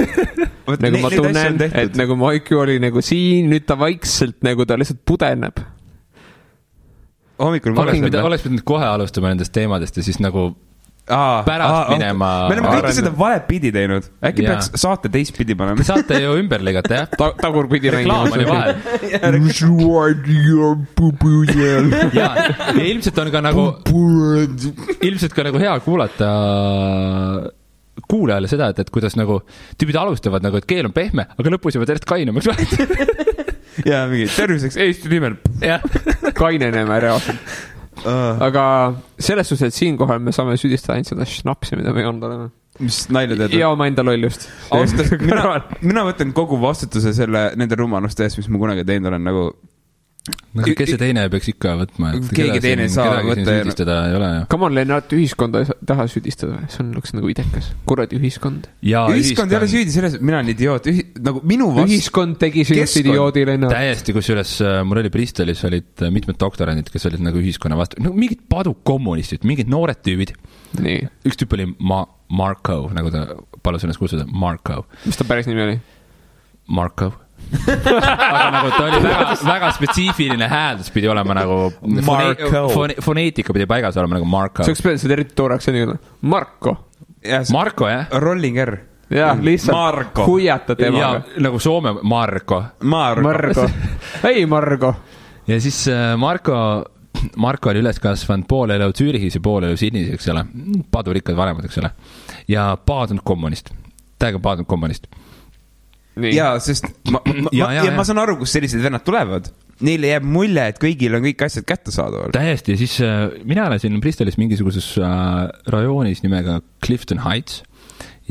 Nagu ma tunnen, et nagu Maiku oli nagu siin, nüüd ta vaikselt nagu ta lihtsalt pudeneb. Oleks pidanud kohe alustama nendest teemadest ja siis nagu pärast minema... Me oleme kõike seda valepidi teinud. Äkki peaks saate teistpidi panema. Saate ju ümber ligata, jah? Tagurpidi reklaam oli vahel. Ja ilmselt on ka nagu... Ilmselt ka nagu hea kuulata kuulajale seda, et kuidas nagu tüübid alustavad nagu, et keel on pehme, aga lõpus juba tervest kainamaks vahet. Ja mingi terviseks Eesti nimel kaineneme reaalselt. Aga selles suhtes, et siinkohal me saame süüdistada ainult seda šnapsi, mida me ei olnud oleme. mis nalja teed? ja oma enda lollust. mina võtan kogu vastutuse nende rumaluste eest, mis ma kunagi teinud olen nagu. Kes see teine peaks ikka võtma? Keegi teine saa võtta. Ei ole. Come on, Lennart, ühiskonda ei taha süüdistada. See on nagu idekas. Kuradi ühiskond. Ühiskond ei ole süüdi selles, mina olen idioot. Nagu minu ühiskond tegi sinust idioodi, Lennart. Täiesti, kusjuures mul oli Bristolis olid mitmed doktorandid, kes olid nagu ühiskonna vastu. No, mingid padukommunistid, mingid noored tüübid. Nii. Üks tüüp oli Marko, nagu ta palus ennast kutsuda. Marko. Mis ta päris nimi oli? Marko. Aga nagu ta oli väga spetsiifiline hääldus pidi olema nagu foneetika pidi paigas olema nagu Marko. See oleks seda eriti tooraks Marko. Marko, jah? Rolling R. Jah, lihtsalt huiata temaga. Ja nagu Soome Marko. Ei, Marko. Ja siis Marko oli üles kasvanud pool elu Zürichis ja pool elu Sydneys, eks ole. Padurikkad vanemad, eks ole. Ja paadunud kommunist. Täiega paadunud kommunist. Nii. Ja, sest ma saan aru, kus sellised vennad tulevad. Neile jääb mulje, et kõigil on kõik asjad kätte saadaval. Täiesti, ja siis mina elasin Bristolis mingisuguses rajoonis nimega Clifton Heights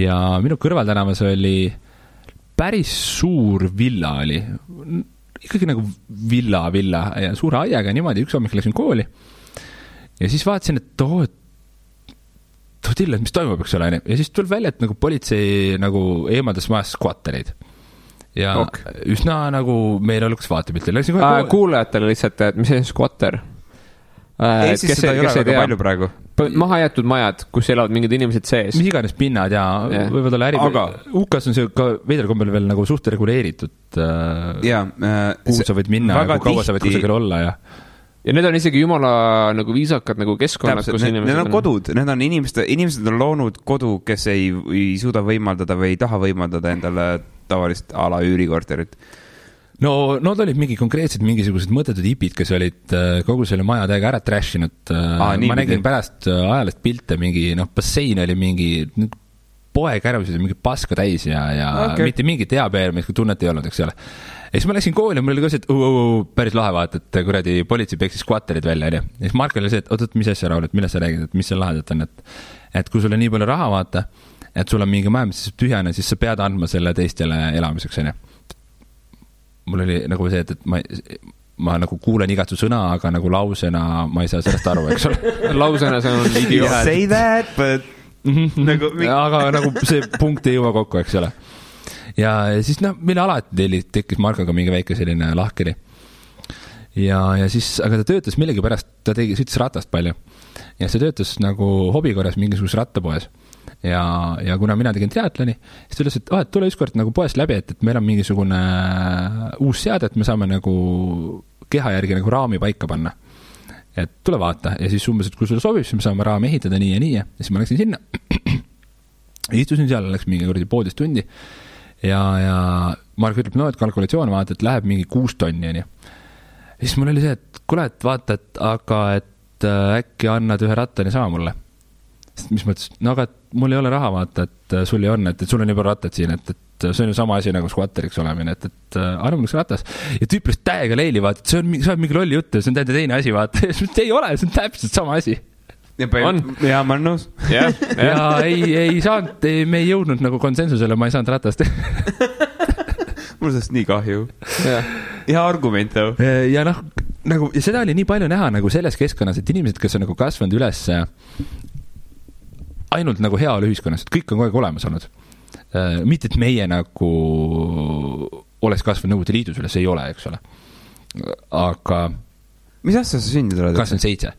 ja minu kõrvaltänavas oli päris suur villa oli. Ikkagi nagu villa ja suure aiaga niimoodi, üks hommik läksin kooli ja siis vaatasin, et tilla, mis toimub, eks ole, ja siis tuleb välja, et nagu politsei nagu eemaldas majas skvattereid. Ja üsna nagu meil oleks vaatepiltil. Kuulajatele lihtsalt, et mis see skvatter? Eestis seda ei ole väga palju praegu. Maha jäetud majad, kus elavad mingid inimesed sees. Mis iganes pinnad ja võivad olla UK-s on see ka veidral kombel veel nagu suht reguleeritud. Kuhu sa võid minna ja kui kaua sa võid kusagil olla ja need on isegi jumala nagu viisakad nagu keskkonnad, kus inimesed need on kodud, need on inimesed on loonud kodu, kes ei suuda võimaldada või ei taha võimaldada endale tavalist ala üürikorterit. No, nad olid mingisugused mõttetud hipid, kes olid kogu selle maja täiega ära trashinud. Ma nägin pärast ajalist pilte mingi, bassein oli mingi poeg ärvusid ja mingi paska täis ja mitte mingi teabeermist, kui tunnet ei olnud, eks ole. Ja siis ma läksin kooli ja mul oli ka see, et päris lahe vaata, et kuradi politsei peksis skvatterid välja. Ja siis Mark oli see, et oot, mis asja, Raul, et millest sa räägid, et mis see lahedat on, et kui sul on nii palju raha vaata, et sul on mingi maja, mis tühjane, siis sa pead andma selle teistele elamiseks, on. Mul oli nagu see, et ma nagu kuulen igat su sõna, aga nagu lausena ma ei saa sellest aru, eks ole. Lausena see on idioot. Say that, but aga nagu see punkt ei jõua kokku, eks ole. Ja siis meil alati tekkis Markoga mingi väike selline lahkeri. Ja siis, aga ta töötas millegi pärast, ta sõitis ratast palju. Ja see töötas nagu hobikorras mingisugus rattapoes. Ja kuna mina tegin triatloni, siis ta ütles, et tule ükskord nagu poest läbi, et meil on mingisugune uus seade, et me saame nagu keha järgi nagu raami paika panna. Et tule vaata. Ja siis umbes, et kui sulle sobib, siis me saame raami ehitada nii ja nii. Ja siis ma läksin sinna. Istusin seal, läks mingi 12 tundi. Ja Mark ütleb, et kalkulatsioon vaata, et läheb mingi 6 tonni. Ja siis mul oli see, et kuule, et vaata, et äkki annad ühe rattani sama mulle. Sest mis mõttes, aga mul ei ole raha vaata, et sul ei on, et sul on juba rattad siin, et see on ju sama asi nagu skvatteriks olemine, et arva mul üks ratas. Ja tüüpilist täiega leili vaata, et see on mingi lolli jutt, see on teine asi vaata. Ei ole, see on täpselt sama asi. Ja ma olen nõus. Ja ei saanud, me ei jõudnud nagu konsensusele, ma ei saanud ratast. Mul sellest nii kahju. Ja argument. Ja nagu, ja seda oli nii palju näha nagu selles keskkonnas, et inimesed, kes on nagu kasvanud üles ainult nagu heaolu ühiskonnas, et kõik on kogu aeg olemas olnud. Mitte, et meie nagu oleks kasvanud Nõukogude Liidus üles, ei ole, eks ole. Aga mis asja sa sündid oled? 27.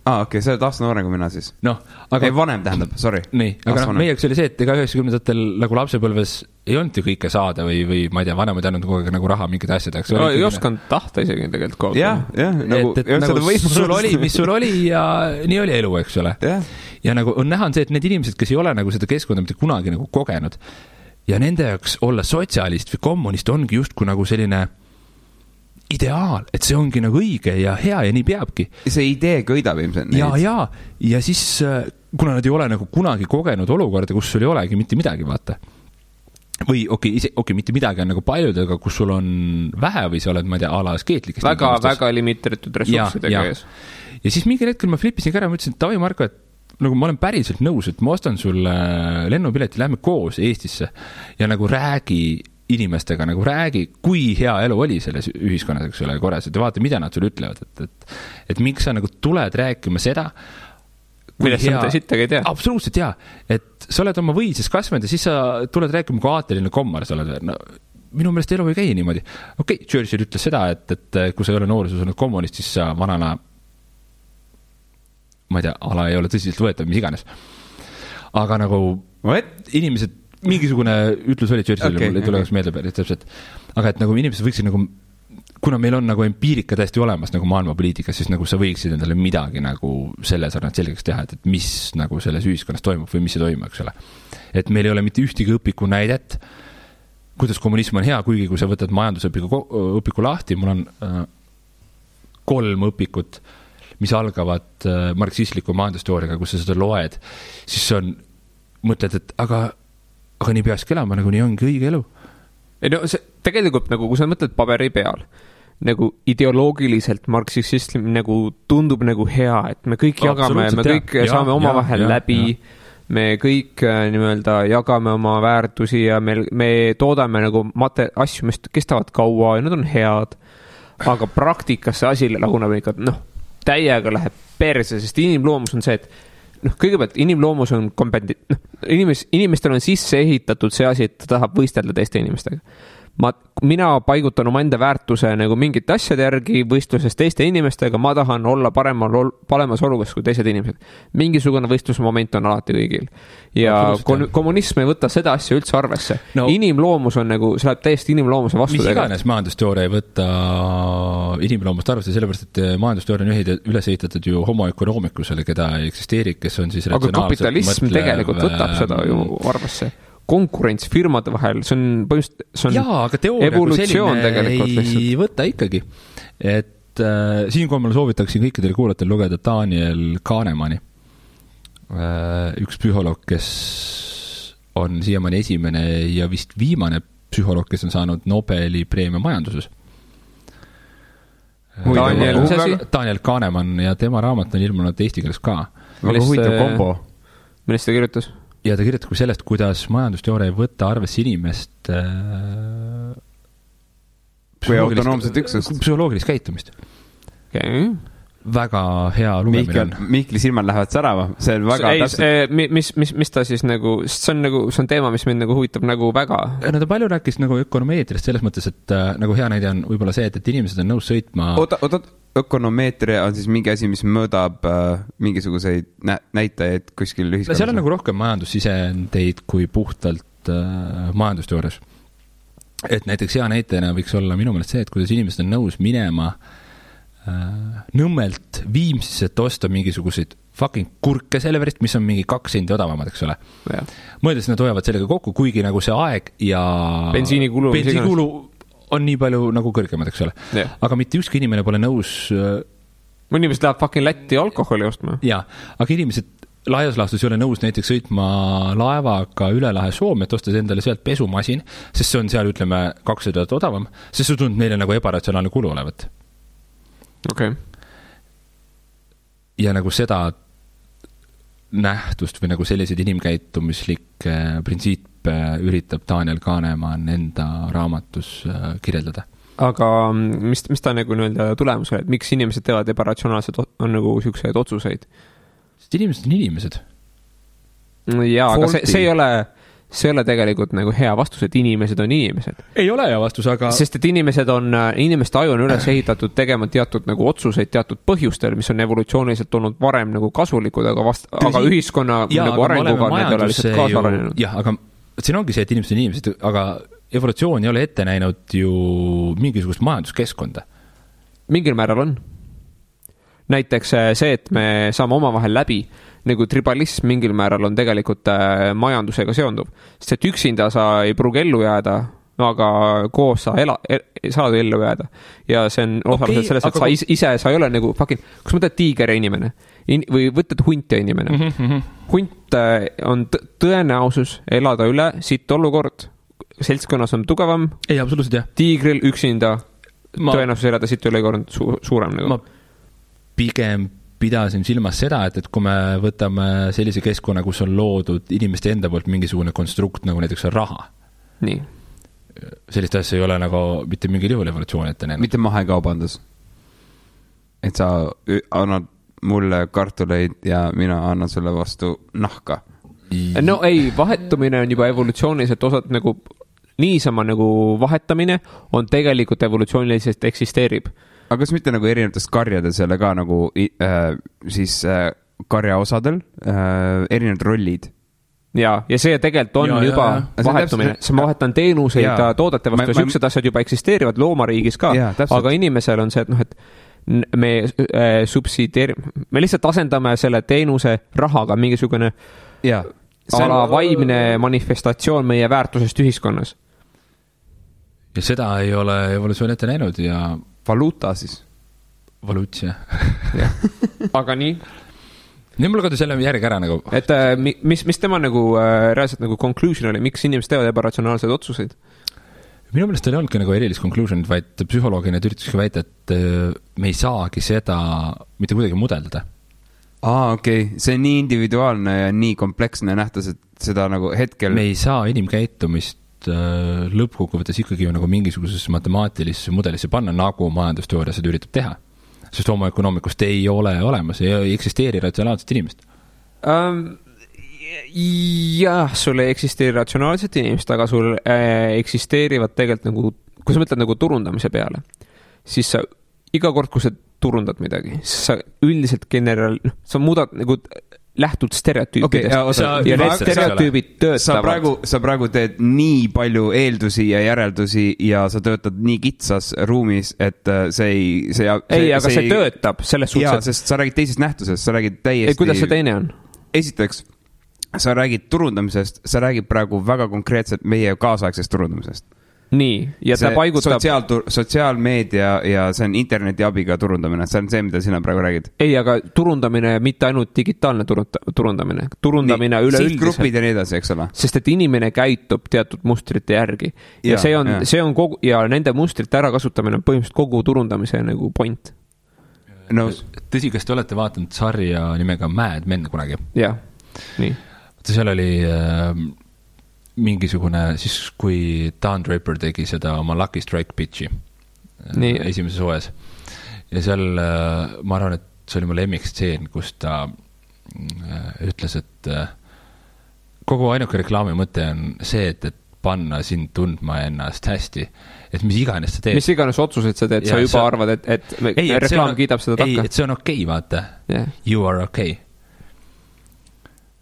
Okei, sa oled aasta noorem kui mina siis. Aga vanem tähendab, sorry. Nii, aga meieks oli see, et ega 90-ndatel nagu lapsepõlves ei olnud ju kõike saada või ma ei tea, vanemad ainult kogu aeg nagu raha mingid asjadeks. Ei osanud tahta isegi tegelikult. Sul oli, mis sul oli ja nii oli elu, eks ole. Ja nagu on näha on see, et need inimesed, kes ei ole nagu seda keskkonda mitte kunagi nagu kogenud ja nende jaoks olla sotsialist või kommunist ongi justkui nagu selline ideaal, et see ongi nagu õige ja hea ja nii peabki. See idee kõidab ilmselt neid. Ja siis, kuna nad ei ole nagu kunagi kogenud olukorda, kus sul ei olegi mitte midagi, vaata. Või mitte midagi on nagu paljud, aga kus sul on vähe või sa oled, ma ei tea, ala askeetlikest. Väga limiteeritud ressurssidega ees. Ja siis mingi hetkel ma flippisin ka ära, ma ütlesin, et tavai Marko, et nagu ma olen päriselt nõus, et ma ostan sulle lennupileti, lähme koos Eestisse ja nagu räägi inimestega, nagu räägi, kui hea elu oli selles ühiskonnas, eks ole, korras, et vaata, mida nad sulle ütlevad, et miks sa nagu tuled rääkima seda, millest sa mitte sittagi ei tea. Absoluutselt jaa, et sa oled oma võises kasvanud ja siis sa tuled rääkima, kui aateline kommar sa oled. No, minu meelest elu ei käi niimoodi. Okei, Churchill ütles seda, et kui sa ei ole nooruses olnud kommunist, siis sa vanana, ma ei tea, ala ei ole tõsiselt võetav, mis iganes. Aga nagu inimesed, mingisugune ütlus oli Churchill, mul ei tule meelde päris täpselt. Aga et nagu inimesed võiksid nagu, kuna meil on nagu empiirika täiesti olemas nagu maailmapoliitikas, siis nagu sa võiksid endale midagi nagu selle sarnalt selgeks teha, et mis nagu selles ühiskonnas toimub või mis ei toimu, eks ole. Et meil ei ole mitte ühtegi õpiku näidet, kuidas kommunism on hea, kuigi kui sa võtad majandusõpiku lahti, mul on 3 õpikut, mis algavad marksistliku majandusteooriaga, kus sa seda loed, siis on, mõtled, et aga nii peakski elama, nagu nii ongi õige elu. Ei no see tegelikult nagu, kui sa mõtled paberi peal, nagu ideoloogiliselt marksism nagu tundub nagu hea, et me kõik jagame, me kõik saame omavahel läbi, me kõik nimelt jagame oma väärtusi ja me toodame nagu asju, mis kestavad kaua ja nad on head, aga praktikas see asi laguneb ikka, täiega läheb perse, sest inimloomus on see, et kõigepealt inimloomus on inimestel on sisse ehitatud see asi, et ta tahab võistelda teiste inimestega. Mina paigutan oma enda väärtuse nagu mingite asjade järgi võistluses teiste inimestega, ma tahan olla paremas olukorras kui teised inimesed. Mingisugune võistlusmoment on alati kõigil. Ja kommunism ei võta seda asja üldse arvesse. No, inimloomus on nagu, see läheb täiesti inimloomuse vastu. Mis iganes majandusteooria ei võta inimloomust arvesse, sellepärast, et majandusteooria on üles ehitatud ju homo economicusele, keda ei eksisteeri, kes on siis aga kapitalism tegelikult võtab seda ju arvesse. Konkurents firmade vahel, see on aga evolutsioon tegelikult lihtsalt. Ei võta ikkagi. Et siinkohal ma soovitaksin kõikidele kuulatel lugeda Daniel Kahnemani. Üks psühholoog, kes on siiamaani esimene ja vist viimane psühholoog, kes on saanud Nobeli preemia majanduses. Daniel Kahneman ja tema raamat on ilmunud eesti keeles ka. Väga huvitav kombo. Millest ta kirjutas? Ja ta kirjutab sellest, kuidas majandusteooria ei võtta arvesse inimest psühholoogilist käitumist. Okay. Väga hea lugemine on. Mihkli silmad lähevad särama. See on väga mis ta siis nagu, see on teema, mis mind nagu huvitab nagu väga. No ta palju rääkis nagu ökonomeetriast selles mõttes, et nagu hea näide on võib-olla see, et inimesed on nõus sõitma. Ökonomeetria on siis mingi asi, mis mõõdab mingisuguseid näitajaid kuskil ühiskonnas. Seal on nagu rohkem majandussisendeid kui puhtalt majandusteoorias. Et näiteks hea näitena võiks olla minu meelest see, et kuidas inimesed on nõus minema Nõmmelt Viimsisse, et osta mingisuguseid fucking kurke Selverist, mis on mingi 2 sendi odavamad, eks ole. Mõeldes nad hoiavad sellega kokku, kuigi nagu see aeg ja bensiinikulu on nii palju nagu kõrgemad, eks ole. Aga mitte ükski inimene pole nõus inimesed läheb fucking Lätti alkoholi ostma. Jaa, aga inimesed laias laastus ei ole nõus näiteks sõitma laevaga üle lahe Soome, et ostas endale sealt pesumasin, sest see on seal, ütleme, 200 odavam, sest see tundub neile nagu ebaratsionaalne kulu olevat. Okay. Ja nagu seda nähtust või nagu selliseid inimkäitumislikke printsiipe üritab Daniel Kahneman enda raamatus kirjeldada. Aga mis ta nagu tulemus oli, et miks inimesed teevad ebaratsionaalselt on nagu siukseid otsuseid? Sest inimesed on inimesed. Jaa, aga see ei ole tegelikult nagu hea vastus, et inimesed on inimesed. Ei ole hea vastus, aga sest et inimeste aju on üles ehitatud tegema teatud nagu otsuseid teatud põhjustel, mis on evolutsiooniliselt olnud varem nagu kasulikud, aga ühiskonna nagu arenguga need ole lihtsalt kaasa arenenud. Jah, aga siin ongi see, et inimesed on inimesed, aga evolutsioon ei ole ette näinud ju mingisugust majanduskeskkonda. Mingil määral on. Näiteks see, et me saame omavahel läbi, nagu tribalism mingil määral on tegelikult majandusega seonduv. Sest et üksinda sa ei pruugi ellu jääda, aga koos saad ellu jääda. Ja see on osaliselt selles, et sa ei ole nagu fucking, kus mõtled tiiger ja inimene või võtad hunt ja inimene. Hunt on tõenäosus elada üle siit olukord. Seltskonnas on tugevam. Ei, absoluutselt jah. Tiigril üksinda tõenäosus elada siit olukord suurem nagu. Ma pigem pidasin silmas seda, et kui me võtame sellise keskkonna, kus on loodud inimeste enda poolt mingisugune konstrukt, nagu näiteks on raha. Nii. Sellist asja ei ole nagu mitte mingil juhul evolutsioon ette näinud. Mitte mahekaubandus. Et sa annad mulle kartuleid ja mina annan sulle vastu nahka. No ei, vahetumine on juba evolutsiooniliselt osad nagu niisama nagu vahetamine on tegelikult evolutsiooniliselt eksisteerib. Aga kas mitte nagu erinevates karjades jälle ka nagu siis karja osadel erinevad rollid? Ja see tegelikult on juba vahetumine. See ma vahetan teenuseid ja toodete vastu ja süksed asjad juba eksisteerivad loomariigis ka, aga inimesel on see, et me me lihtsalt asendame selle teenuse rahaga mingisugune ala vaimne manifestatsioon meie väärtusest ühiskonnas. Ja seda ei ole evolutsioon ette näinud ja valuuta siis. Valuutsia. Aga nii? Nii mul kadus jälle järgi ära nagu. Et mis tema nagu reaalselt nagu conclusion oli, miks inimesed teevad ebaratsionaalseid otsuseid? Minu meelest ei olnudki nagu erilist conclusionit, vaid psühholoogina üritaski väita, et me ei saagi seda mitte kuidagi mudeldada. Okei. See on nii individuaalne ja nii kompleksne nähtus, et seda nagu hetkel... Me ei saa inimkäitumist lõppkokkuvõttes ikkagi nagu mingisugusesse matemaatilisse mudelisse panna, nagu majandusteooria seda üritab teha. Sest homoökonoomikust ei ole olemas, ei eksisteeri ratsionaalset inimest. Jah, sul ei eksisteeri ratsionaalset inimest, aga sul eksisteerivad tegelikult nagu, kui sa mõtled nagu turundamise peale, siis sa iga kord, kui sa turundad midagi, siis sa üldiselt sa muudad nagu lähtud stereotüüpidest ja need stereotüübid töötavad. Sa praegu teed nii palju eeldusi ja järeldusi ja sa töötad nii kitsas ruumis, et see töötab selles suhtes. Jaa, sest sa räägid teisest nähtusest, sa räägid täiesti... Kuidas see teine on? Esiteks, sa räägid turundamisest, sa räägid praegu väga konkreetselt meie kaasaegsest turundamisest. Nii, ja ta paigutab... Sotsiaalmeedia ja see on interneti abiga turundamine, see on see, mida sina praegu räägid. Ei, aga turundamine, mitte ainult digitaalne turundamine. Turundamine üleüldiselt. Sihtgrupid ja nii edasi, eks ole. Sest et inimene käitub teatud mustrite järgi. Ja see on kogu, ja nende mustrite ärakasutamine on põhimõtteliselt kogu turundamise nagu point. No, tõsi, kas te olete vaatanud sarja nimega Mad Men kunagi? Jah, nii. Seal oli... mingisugune, siis kui Dan Draper tegi seda oma Lucky Strike pitchi esimeses OS ja seal ma arvan, et see oli mu lemmikstseen, kus ta ütles, et kogu ainuke reklaami mõte on see, et panna sind tundma ennast hästi, et mis iganes sa teed. Mis iganes otsuseid sa teed, sa juba arvad, et reklaam kiidab seda takka. Ei, et see on okei, vaata. You are okay.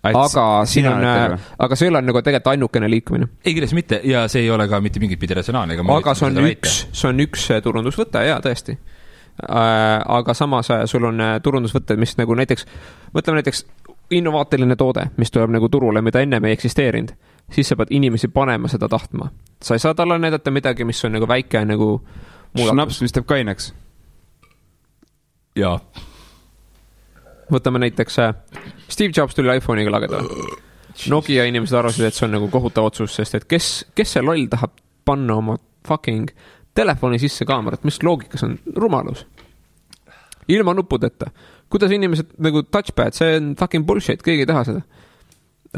Aga see ei ole nagu tegelikult ainukene liikumine. Ei, kindlasti mitte, ja see ei ole ka mitte mingit pidi ratsionaalne. Aga see on üks turundusvõte, jaa, tõesti. Aga samas sul on turundusvõtted, mis nagu näiteks, mõtleme näiteks innovaatiline toode, mis tuleb nagu turule, mida enne ei eksisteerinud, siis sa pead inimesi panema seda tahtma. Sa ei saa talle näidata midagi, mis on nagu väike nagu muudatus. Schnaps, mis teeb kaineks. Jaa. Võtame näiteks Steve Jobs tuli iPhone'iga lageda. Nokia inimesed arvasid, et see on nagu kohutav otsus, sest et kes see loll tahab panna oma fucking telefoni sisse kaamerat, mis loogikas on rumalus? Ilma nuppudeta. Kuidas inimesed nagu touchpad, see on fucking bullshit, keegi ei taha seda.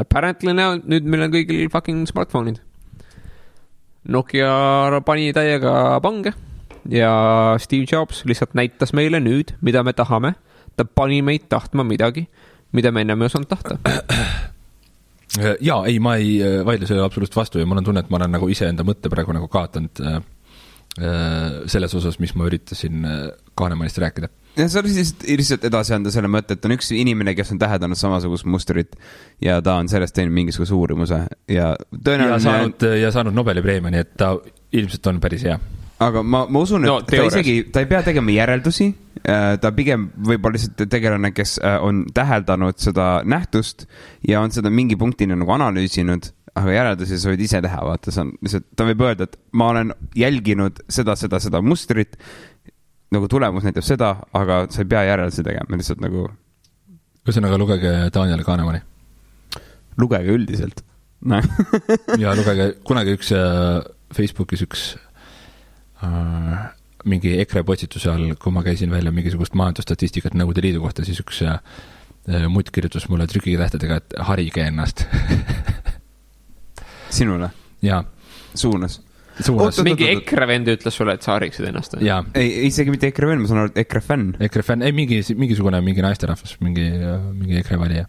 Apparently nüüd meil on kõigil fucking smartphone'id. Nokia pani täiega pange ja Steve Jobs lihtsalt näitas meile nüüd, mida me tahame. Ta pani meid tahtma midagi, mida me ennem ei osanud tahta. Jaa, ei, ma ei vaidle selle absoluutselt vastu ja mul on tunne, et ma olen nagu ise enda mõtte praegu nagu kaotanud selles osas, mis ma üritasin Kahnemanist rääkida. Ja sa lihtsalt edasi anda selle mõtte, et on üks inimene, kes on täheldanud samasugust mustrit ja ta on sellest teinud mingisuguse uurimuse ja tõenäoliselt... Ja saanud Nobeli preemia, nii et ta ilmselt on päris hea. Aga ma usun, et ta ei pea tegema järeldusi, ta pigem võib-olla lihtsalt tegelane, kes on täheldanud seda nähtust ja on seda mingi punktini nagu analüüsinud, aga järeldusi sa võid ise teha, vaata, ta võib öelda, et ma olen jälginud seda mustrit, nagu tulemus näitab seda, aga sa ei pea järeldusi tegema, lihtsalt nagu... Ühesõnaga, lugege Daniel Kahnemani. Lugege üldiselt. Ja lugege kunagi üks Facebookis üks mingi EKRE postituse all, kui ma käisin välja mingisugust majandusstatistikat Nõukogude Liidu kohta, siis üks mutt kirjutas mulle trükitähtedega, et harige ennast. Sinule? Jaa. Suunas? Mingi EKRE vend ütles sulle, et sa hariksid ennast? Jaa. Ei, isegi mitte EKRE vend, ma saan aru, et EKRE fänn. EKRE fänn, ei mingisugune mingi naisterahvas, mingi EKRE valija.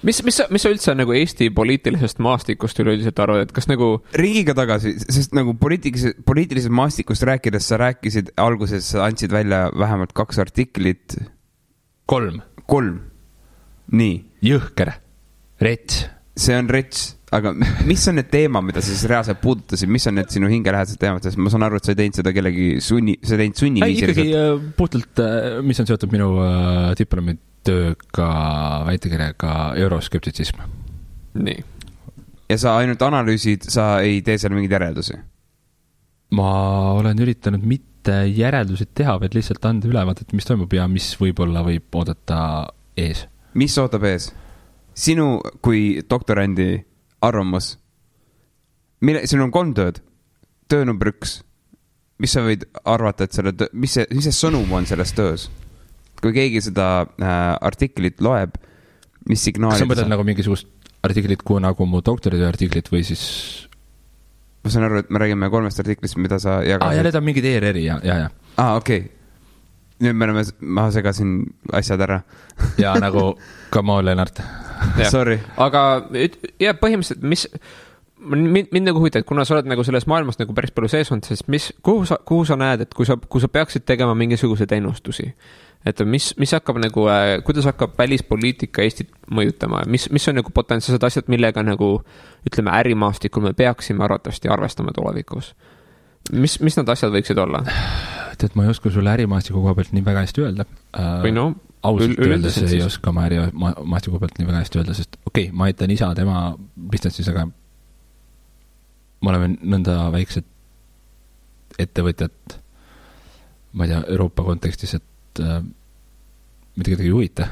Mis sa üldse nagu Eesti poliitilisest maastikust üleüldiselt arvad, et kas nagu... Riigiga tagasi, sest nagu poliitilisest maastikust rääkides sa rääkisid alguses, sa andsid välja vähemalt 2 artiklit. 3. Nii. Jõhker. Rets. See on rets, aga mis on need teema, mida sa siis reaalselt puudutasid? Mis on need sinu hingelähedased teemad? Sest ma saan aru, et sa ei teinud seda kellegi sunniviisiliselt. Ikkagi puhtalt, mis on seotud minu diplomitööga, väitekirjaga euroskeptitsism. Nii. Ja sa ainult analüüsid, sa ei tee seal mingeid järeldusi? Ma olen üritanud mitte järeldusid teha, vaid lihtsalt anda ülevaadet, mis toimub ja mis võib-olla võib oodata ees. Mis ootab ees? Sinu kui doktorandi arvamus, sinul on 3 tööd. Töö number 1. Mis sa võid arvata, et mis see sõnum on selles töös? Kui keegi seda artiklit loeb, mis signaalid... Kas sa mõtled nagu mingisugust artiklit, nagu mu doktoritöö artiklit või siis... Ma saan aru, et me räägime 3 artiklist, mida sa jagad. Ja need on mingid ERR-i, ja. Okei. Nüüd ma segasin asjad ära. Ja nagu come on, Lennart. Sorry. Aga põhimõtteliselt, mind nagu huvitab, kuna sa oled nagu selles maailmas nagu päris palju sees olnud, siis kuhu sa näed, et kui sa peaksid tegema mingisuguseid ennustusi, et mis hakkab nagu, kuidas hakkab välispoliitika Eestit mõjutama, mis on nagu potentsiaalsed asjad, millega nagu, ütleme, ärimaastikul me peaksime arvatavasti arvestama tulevikus. Mis need asjad võiksid olla? Et ma ei oska sulle ärimaastiku koha pealt nii väga hästi öelda. Või no, ausalt öeldes ei oska ma ärimaastiku pealt nii väga hästi öelda, sest ma aitan isa tema distantsis, aga ma oleme nõnda väiksed ettevõtjad, ma ei tea, Euroopa kontekstis, et mida kedagi ei huvita.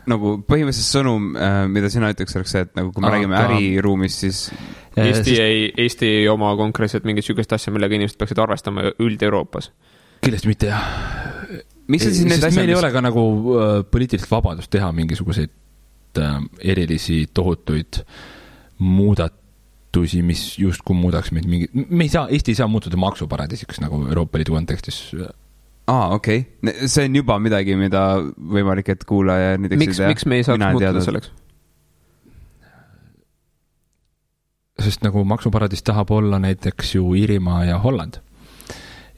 Nagu põhimõtteliselt sõnum, mida sina ütleks, oleks see, et nagu kui me räägime äriruumis, siis Eesti ei oma konkreetselt mingit sükest asja, millega inimesed peaksid arvestama üld-Euroopas. Kindlasti mitte, jah. Sest meil ei ole ka nagu poliitilist vabadust teha mingisuguseid erilisi tohutuid muudatusi, mis justkui muudaks meid Eesti ei saa muutuda maksuparadiisiks nagu Euroopa Liidu kontekstis. Okei. See on juba midagi, mida võimalik, et kuulaja miks me ei saaks muutuda selleks? Sest nagu maksuparadiis tahab olla näiteks ju Iirimaa ja Holland.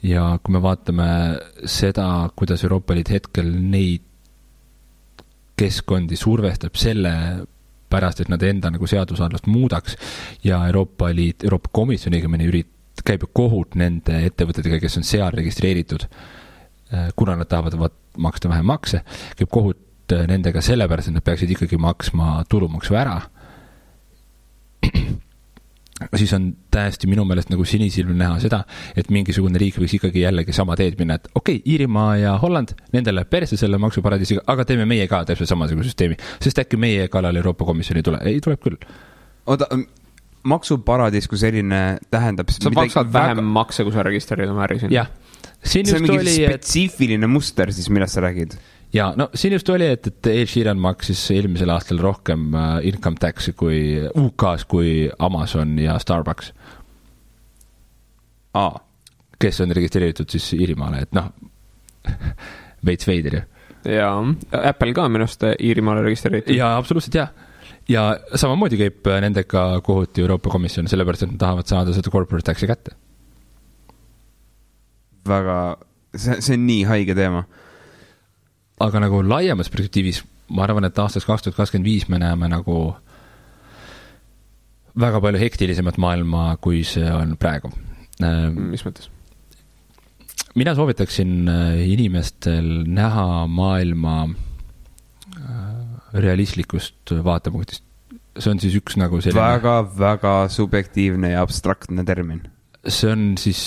Ja kui me vaatame seda, kuidas Euroopa Liit hetkel neid keskkondi survestab selle pärast, et nad enda nagu seadusandlust muudaks ja Euroopa Komisjoni käib kohut nende ettevõtetega, kes on seal registreeritud, kuna nad tahavad maksta vähem makse, käib kohut nendega sellepärast, et nad peaksid ikkagi maksma tulumaksu ära. Siis on täiesti minu meelest nagu sinisilmil näha seda, et mingisugune riik võiks ikkagi jällegi sama teed minna, et Iirimaa ja Holland, nendele perse selle maksuparadiisiga, aga teeme meie ka täpselt samasuguse süsteemi, sest äkki meie kallal Euroopa Komisjoni ei tule. Ei, tuleb küll. Oota, maksuparadiis kui selline tähendab... Sa maksad vähem makse, kui sa registreerid oma äri siin. Jah. See on mingi spetsiifiline muster siis, millest sa räägid? Ja, no siin just oli, et Ed Sheeran maksis eelmisel aastal rohkem income taxi kui UK-s kui Amazon ja Starbucks. Kes on registreeritud siis Iirimaale, et veits veider ju. Ja Apple ka minust Iirimaale registreeritud. Ja absoluutselt, jah. Ja samamoodi käib nendega kohuti Euroopa Komisjon, sellepärast, et nad tahavad saada seda corporate taxi kätte. Väga, see on nii haige teema. Aga nagu laiemas perspektiivis, ma arvan, et aastas 2025 me näeme nagu väga palju hektilisemat maailma, kui see on praegu. Mis mõttes? Mina soovitaksin inimestel näha maailma realistlikust vaatepunktist. See on siis üks nagu selline... Väga, väga subjektiivne ja abstraktne termin. See on siis...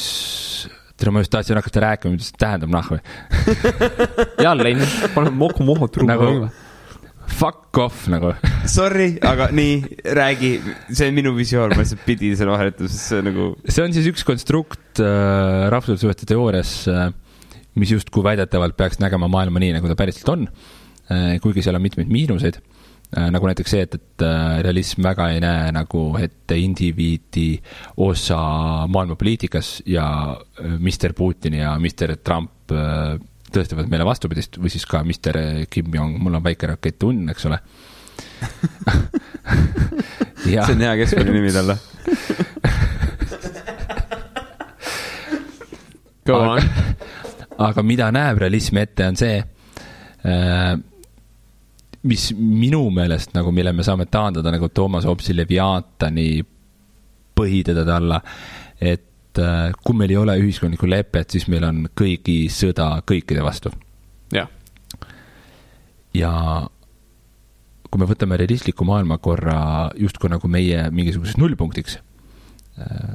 ma just tahtsin hakata rääkima, mida see tähendab nahve. Jälle, panen moku truu. Nagu fuck off nagu. Sorry, aga nii, räägi, see on minu visioon, ma lihtsalt pidi selle vahetus, see nagu... See on siis üks konstrukt rahvussuhete teoorias, mis justkui väidetavalt peaks nägema maailma nii, nagu ta päriselt on, kuigi seal on mitmeid miinuseid, nagu näiteks see, et realism väga ei näe nagu ette indiviidi osa maailmapoliitikas ja Mr. Putin ja Mr. Trump tõestavad meile vastupidist või siis ka Mr. Kim Jong, mul on väike rakett unn, eks ole. See on hea keskmine nimi talle. Aga mida näeb realism ette on see, mis minu meelest nagu, mille me saame taandada nagu Toomas Hobbesi Leviaatani põhitedade alla, et kui meil ei ole ühiskondlikku lepet, siis meil on kõigi sõda kõikide vastu. Ja. Ja kui me võtame realistliku maailmakorra justkui nagu meie mingisuguseks nullpunktiks,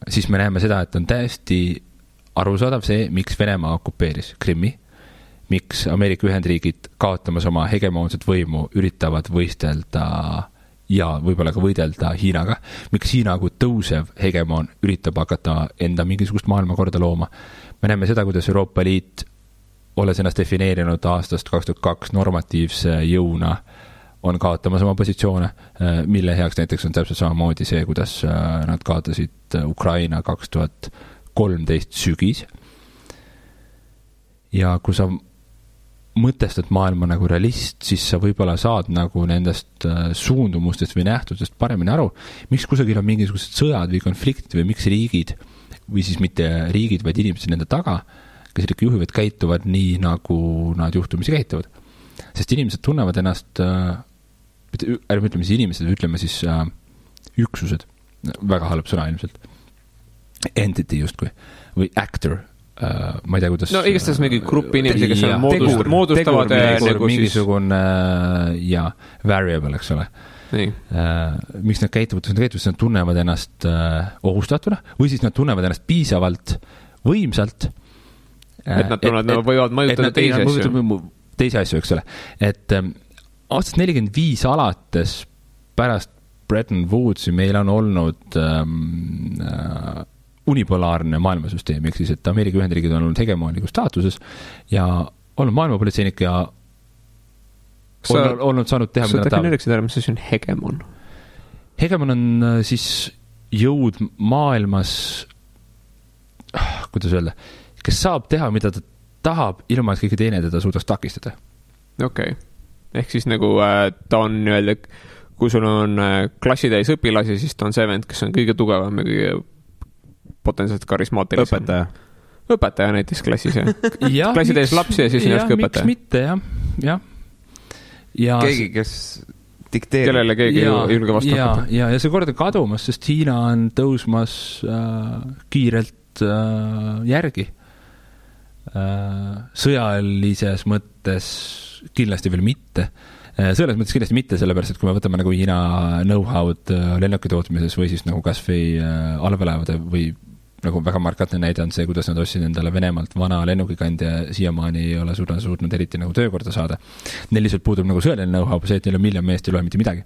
siis me näeme seda, et on täiesti arusaadav see, miks Venemaa okupeeris Krimmi, miks Ameerika Ühendriigid kaotamas oma hegemoonset võimu üritavad võistelda ja võib-olla ka võidelda Hiinaga, miks Hiina kui tõusev hegemoon üritab hakata enda mingisugust maailmakorda looma. Me näeme seda, kuidas Euroopa Liit, olles ennast defineerinud aastast 2002 normatiivse jõuna, on kaotamas oma positsioone, mille heaks näiteks on täpselt samamoodi see, kuidas nad kaotasid Ukraina 2013 sügis. Ja kui sa mõtestad maailma nagu realist, siis sa võib-olla saad nagu nendest suundumustest või nähtustest paremini aru, miks kusagil on mingisugused sõjad või konfliktid või miks riigid, või siis mitte riigid, vaid inimesed nende taga, kes ikka juhivad, käituvad nii, nagu nad juhtumisi käituvad. Sest inimesed tunnevad ennast, ärme ütleme siis inimesed, ütleme siis üksused, väga halb sõna ilmselt, entity justkui, või actor, ma ei tea, kuidas... No igastahes mingi gruppi inimesi, kes on moodustavad nagu mingisugune ja variable, eks ole. Miks nad käituvad, nad tunnevad ennast ohustatuna või siis nad tunnevad ennast piisavalt võimsalt, et nad tunnevad, nad võivad mõjutada teisi asju, eks ole. Et aastast 45 alates pärast Bretton Woodsi meil on olnud unipolaarne maailmasüsteem, ehk siis, et Ameerika Ühendriigid on olnud hegemooniku staatuses ja olnud maailmapolitseinik ja olnud saanud teha, mida nad tahavad. Mis on hegemon? Hegemon on siis jõud maailmas, kuidas öelda, kes saab teha, mida ta tahab, ilma et kõige teine teda suudaks takistada. Okei. Ehk siis nagu ta on öelda, kui sul on klassitäis õpilasi, siis ta on see vend, kes on kõige tugevam ja kõige potentsiaalselt karismaatilisem. Õpetaja näiteks klassis, jah. Klassitäis lapsi ja siis ennast õpetaja. Miks mitte, jah. Ja keegi, kes dikteerib. Kellele keegi julge vastu hakata. Ja see kord on kadumas, sest Hiina on tõusmas kiirelt järgi. Sõjalises mõttes kindlasti veel mitte. Selles mõttes kindlasti mitte, sellepärast, et kui me võtame nagu Hiina know-how'd lennuki tootmises või siis nagu kas või allveelaevade või nagu väga markatne näide on see, kuidas nad ostsid endale Venemaalt vana lennukikand ja siiamaani ei ole suutnud eriti nagu töökorda saada. Neil lihtsalt puudub nagu sõjaline know-how, see, et neil on miljon meest ei loe mitte midagi.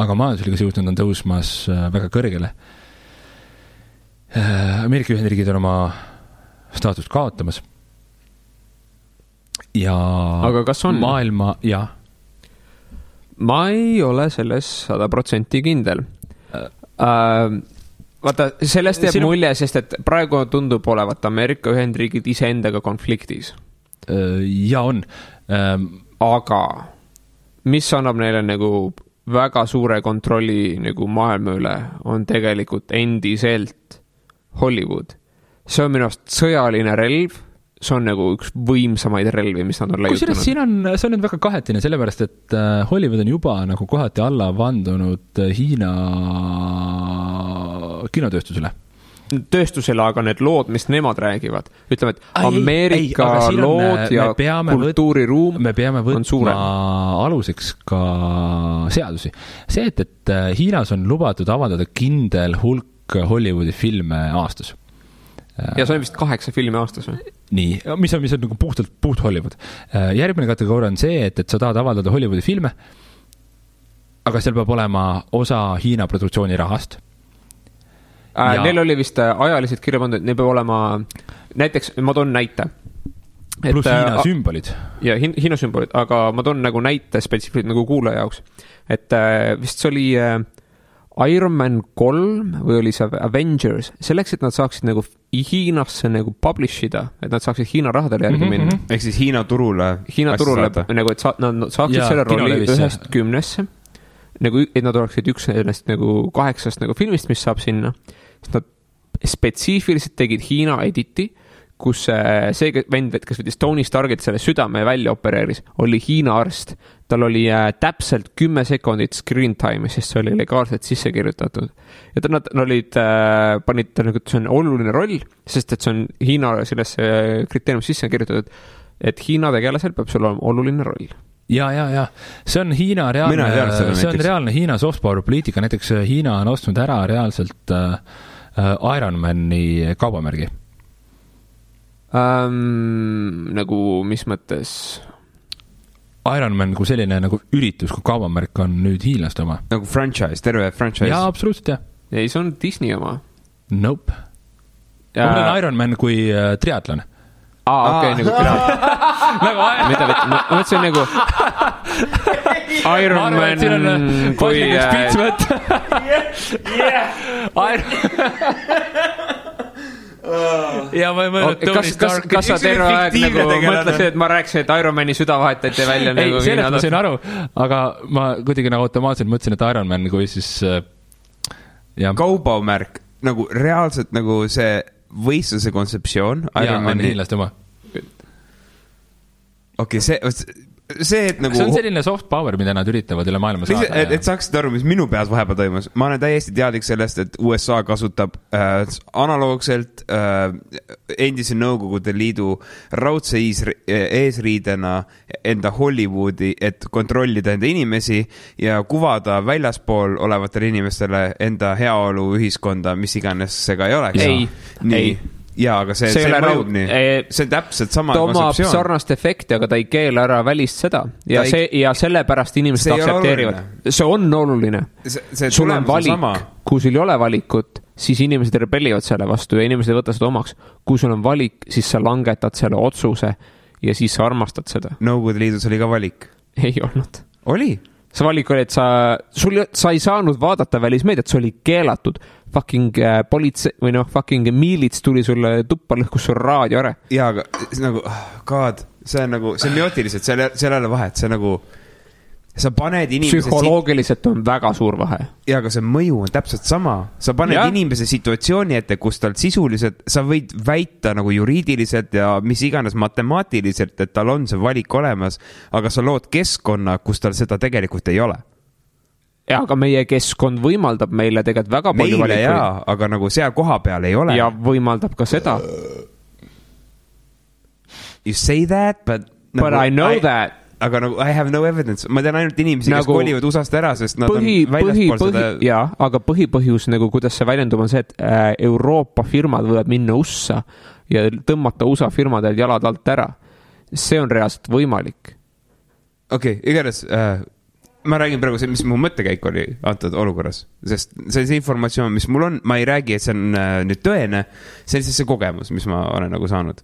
Aga majandusliga jõudnud on tõusmas väga kõrgele. Ameerika Ühendriigid on oma staatust kaotamas. Ja aga kas on? Maailma, jah. Ma ei ole selles 100% kindel. Vaata, sellest jääb mulje, sest et praegu tundub olevat Ameerika Ühendriigid iseendaga konfliktis. Ja on. Aga mis annab neile nagu väga suure kontrolli nagu maailma üle, on tegelikult endiselt Hollywood. See on minu arust sõjaline relv, see on nagu üks võimsamaid relvi, mis nad on leiutanud. See on nüüd väga kahetine, sellepärast, et Hollywood on juba nagu kohati alla vandunud Hiina kinotööstusele. Tööstusele, aga need lood, mis nemad räägivad, ütleme, et Ameerika lood ja kultuuriruum me peame võtma aluseks ka seadusi. See, et Hiinas on lubatud avaldada kindel hulk Hollywoodi filme aastas. ja see on vist 8 filmi aastas või? Nii, mis on nagu puht Hollywood. Järgmine kategooria on see, et sa tahad avaldada Hollywoodi filme, aga seal peab olema osa Hiina produktsiooni rahast. Neil oli vist ajaliselt kirja pandud, et neil peab olema, näiteks, ma toon näite. Plus Hiina sümbolid. Ja Hiina sümbolid, aga ma toon nagu näite spetsiifiliselt nagu kuulaja jaoks. Et vist see oli Iron Man 3 või oli see Avengers, selleks, et nad saaksid nagu Hiinasse nagu publish ida, et nad saaksid Hiina rahadele järgi minna. Ehk siis Hiina turule nagu, et nad saaksid selle rolli 1-10, nagu, et nad oleksid üks sellest nagu 8 nagu filmist, mis saab sinna. Nad spetsiifiliselt tegid Hiina editi, kus see vend, kes võttis Tony Starkit selle südame välja opereeris, oli Hiina arst. Tal oli täpselt 10 sekundit screen time, sest see oli legaalselt sisse kirjutatud. Ja nad olid, panid nagu, et see on oluline roll, sest et see on Hiina selles kriteeriumis sisse kirjutatud, et Hiina tegelasel peab sul olema oluline roll. Ja. See on Hiina reaalne Hiina soft power poliitika. Näiteks Hiina on ostnud ära reaalselt Ironmani kaubamärgi. Nagu mis mõttes? Ironman kui selline nagu üritus, kui kaubamärk on nüüd hiinlaste oma. Nagu franchise, terve franchise. Jaa, absoluutselt, jah. Ei, see on Disney oma. Nope. Ma mõtlen Ironman kui triatlon. Okei, nagu triatlon. Mida võtta? Ma mõtlesin nagu Ironman kui... Ja ma ei mõelnud Tony Stark. Kas sa terve aeg nagu mõtlesid, et ma rääkisin, et Ironmani süda vahetati välja? Ei, sellest ma sain aru, aga ma kuidagi nagu automaatselt mõtlesin, et Ironman kui siis... Kaubamärk, nagu reaalselt nagu see võistluse kontseptsioon. Ja, on hiinlaste oma. Okei, see, et nagu... See on selline soft power, mida nad üritavad üle maailma saada. Et saaksid aru, mis minu peas vahepeal toimus. Ma olen täiesti teadlik sellest, et USA kasutab analoogselt endise Nõukogude Liidu raudse eesriidena enda Hollywoodi, et kontrollida enda inimesi ja kuvada väljaspool olevatele inimestele enda heaolu ühiskonda, mis iganes see ka ei oleks. Ei. Jaa, aga see mõjub nii. See on täpselt sama kontseptsioon. Ta omab sarnast efekti, aga ta ei keela ära välist seda. Ja sellepärast inimesed aktsepteerivad. See on oluline. Sul on valik. Kui sul ei ole valikut, siis inimesed rebellivad selle vastu ja inimesed võtta seda omaks. Kui sul on valik, siis sa langetad selle otsuse ja siis sa armastad seda. Nõukogude Liidus oli ka valik. Ei olnud. Oli? See valik oli, et sa ei saanud vaadata välismeediat, see oli keelatud. Fucking politsei või fucking miilits tuli sulle tuppa lõhkus sul raadio ära. Jaa, aga nagu, God, see on nagu, semiootiliselt, seal ei ole vahet, see nagu, sa paned inimese... Psühholoogiliselt on väga suur vahe. Jaa, aga see mõju on täpselt sama. Sa paned inimese situatsiooni ette, kus tal sisuliselt, sa võid väita nagu juriidiliselt ja mis iganes matemaatiliselt, et tal on see valik olemas, aga sa lood keskkonna, kus tal seda tegelikult ei ole. Ja, aga meie keskkond võimaldab meile tegelikult väga palju valikuid. Meile jaa, aga nagu seal koha peal ei ole. Ja võimaldab ka seda. You say that, but I know that. Aga nagu, I have no evidence. Ma tean ainult inimesi, kes kolivad USA-st ära, sest nad on väljaspool seda... Jaa, aga põhipõhjus, nagu kuidas see väljendub, on see, et Euroopa firmad võivad minna USA ja tõmmata USA firmadel jalad alt ära. See on reaalselt võimalik. Okei, igatahes... Ma räägin praegu see, mis mu mõttekäik oli antud olukorras, sest see informatsioon, mis mul on, ma ei räägi, et see on nüüd tõene, see on see kogemus, mis ma olen nagu saanud.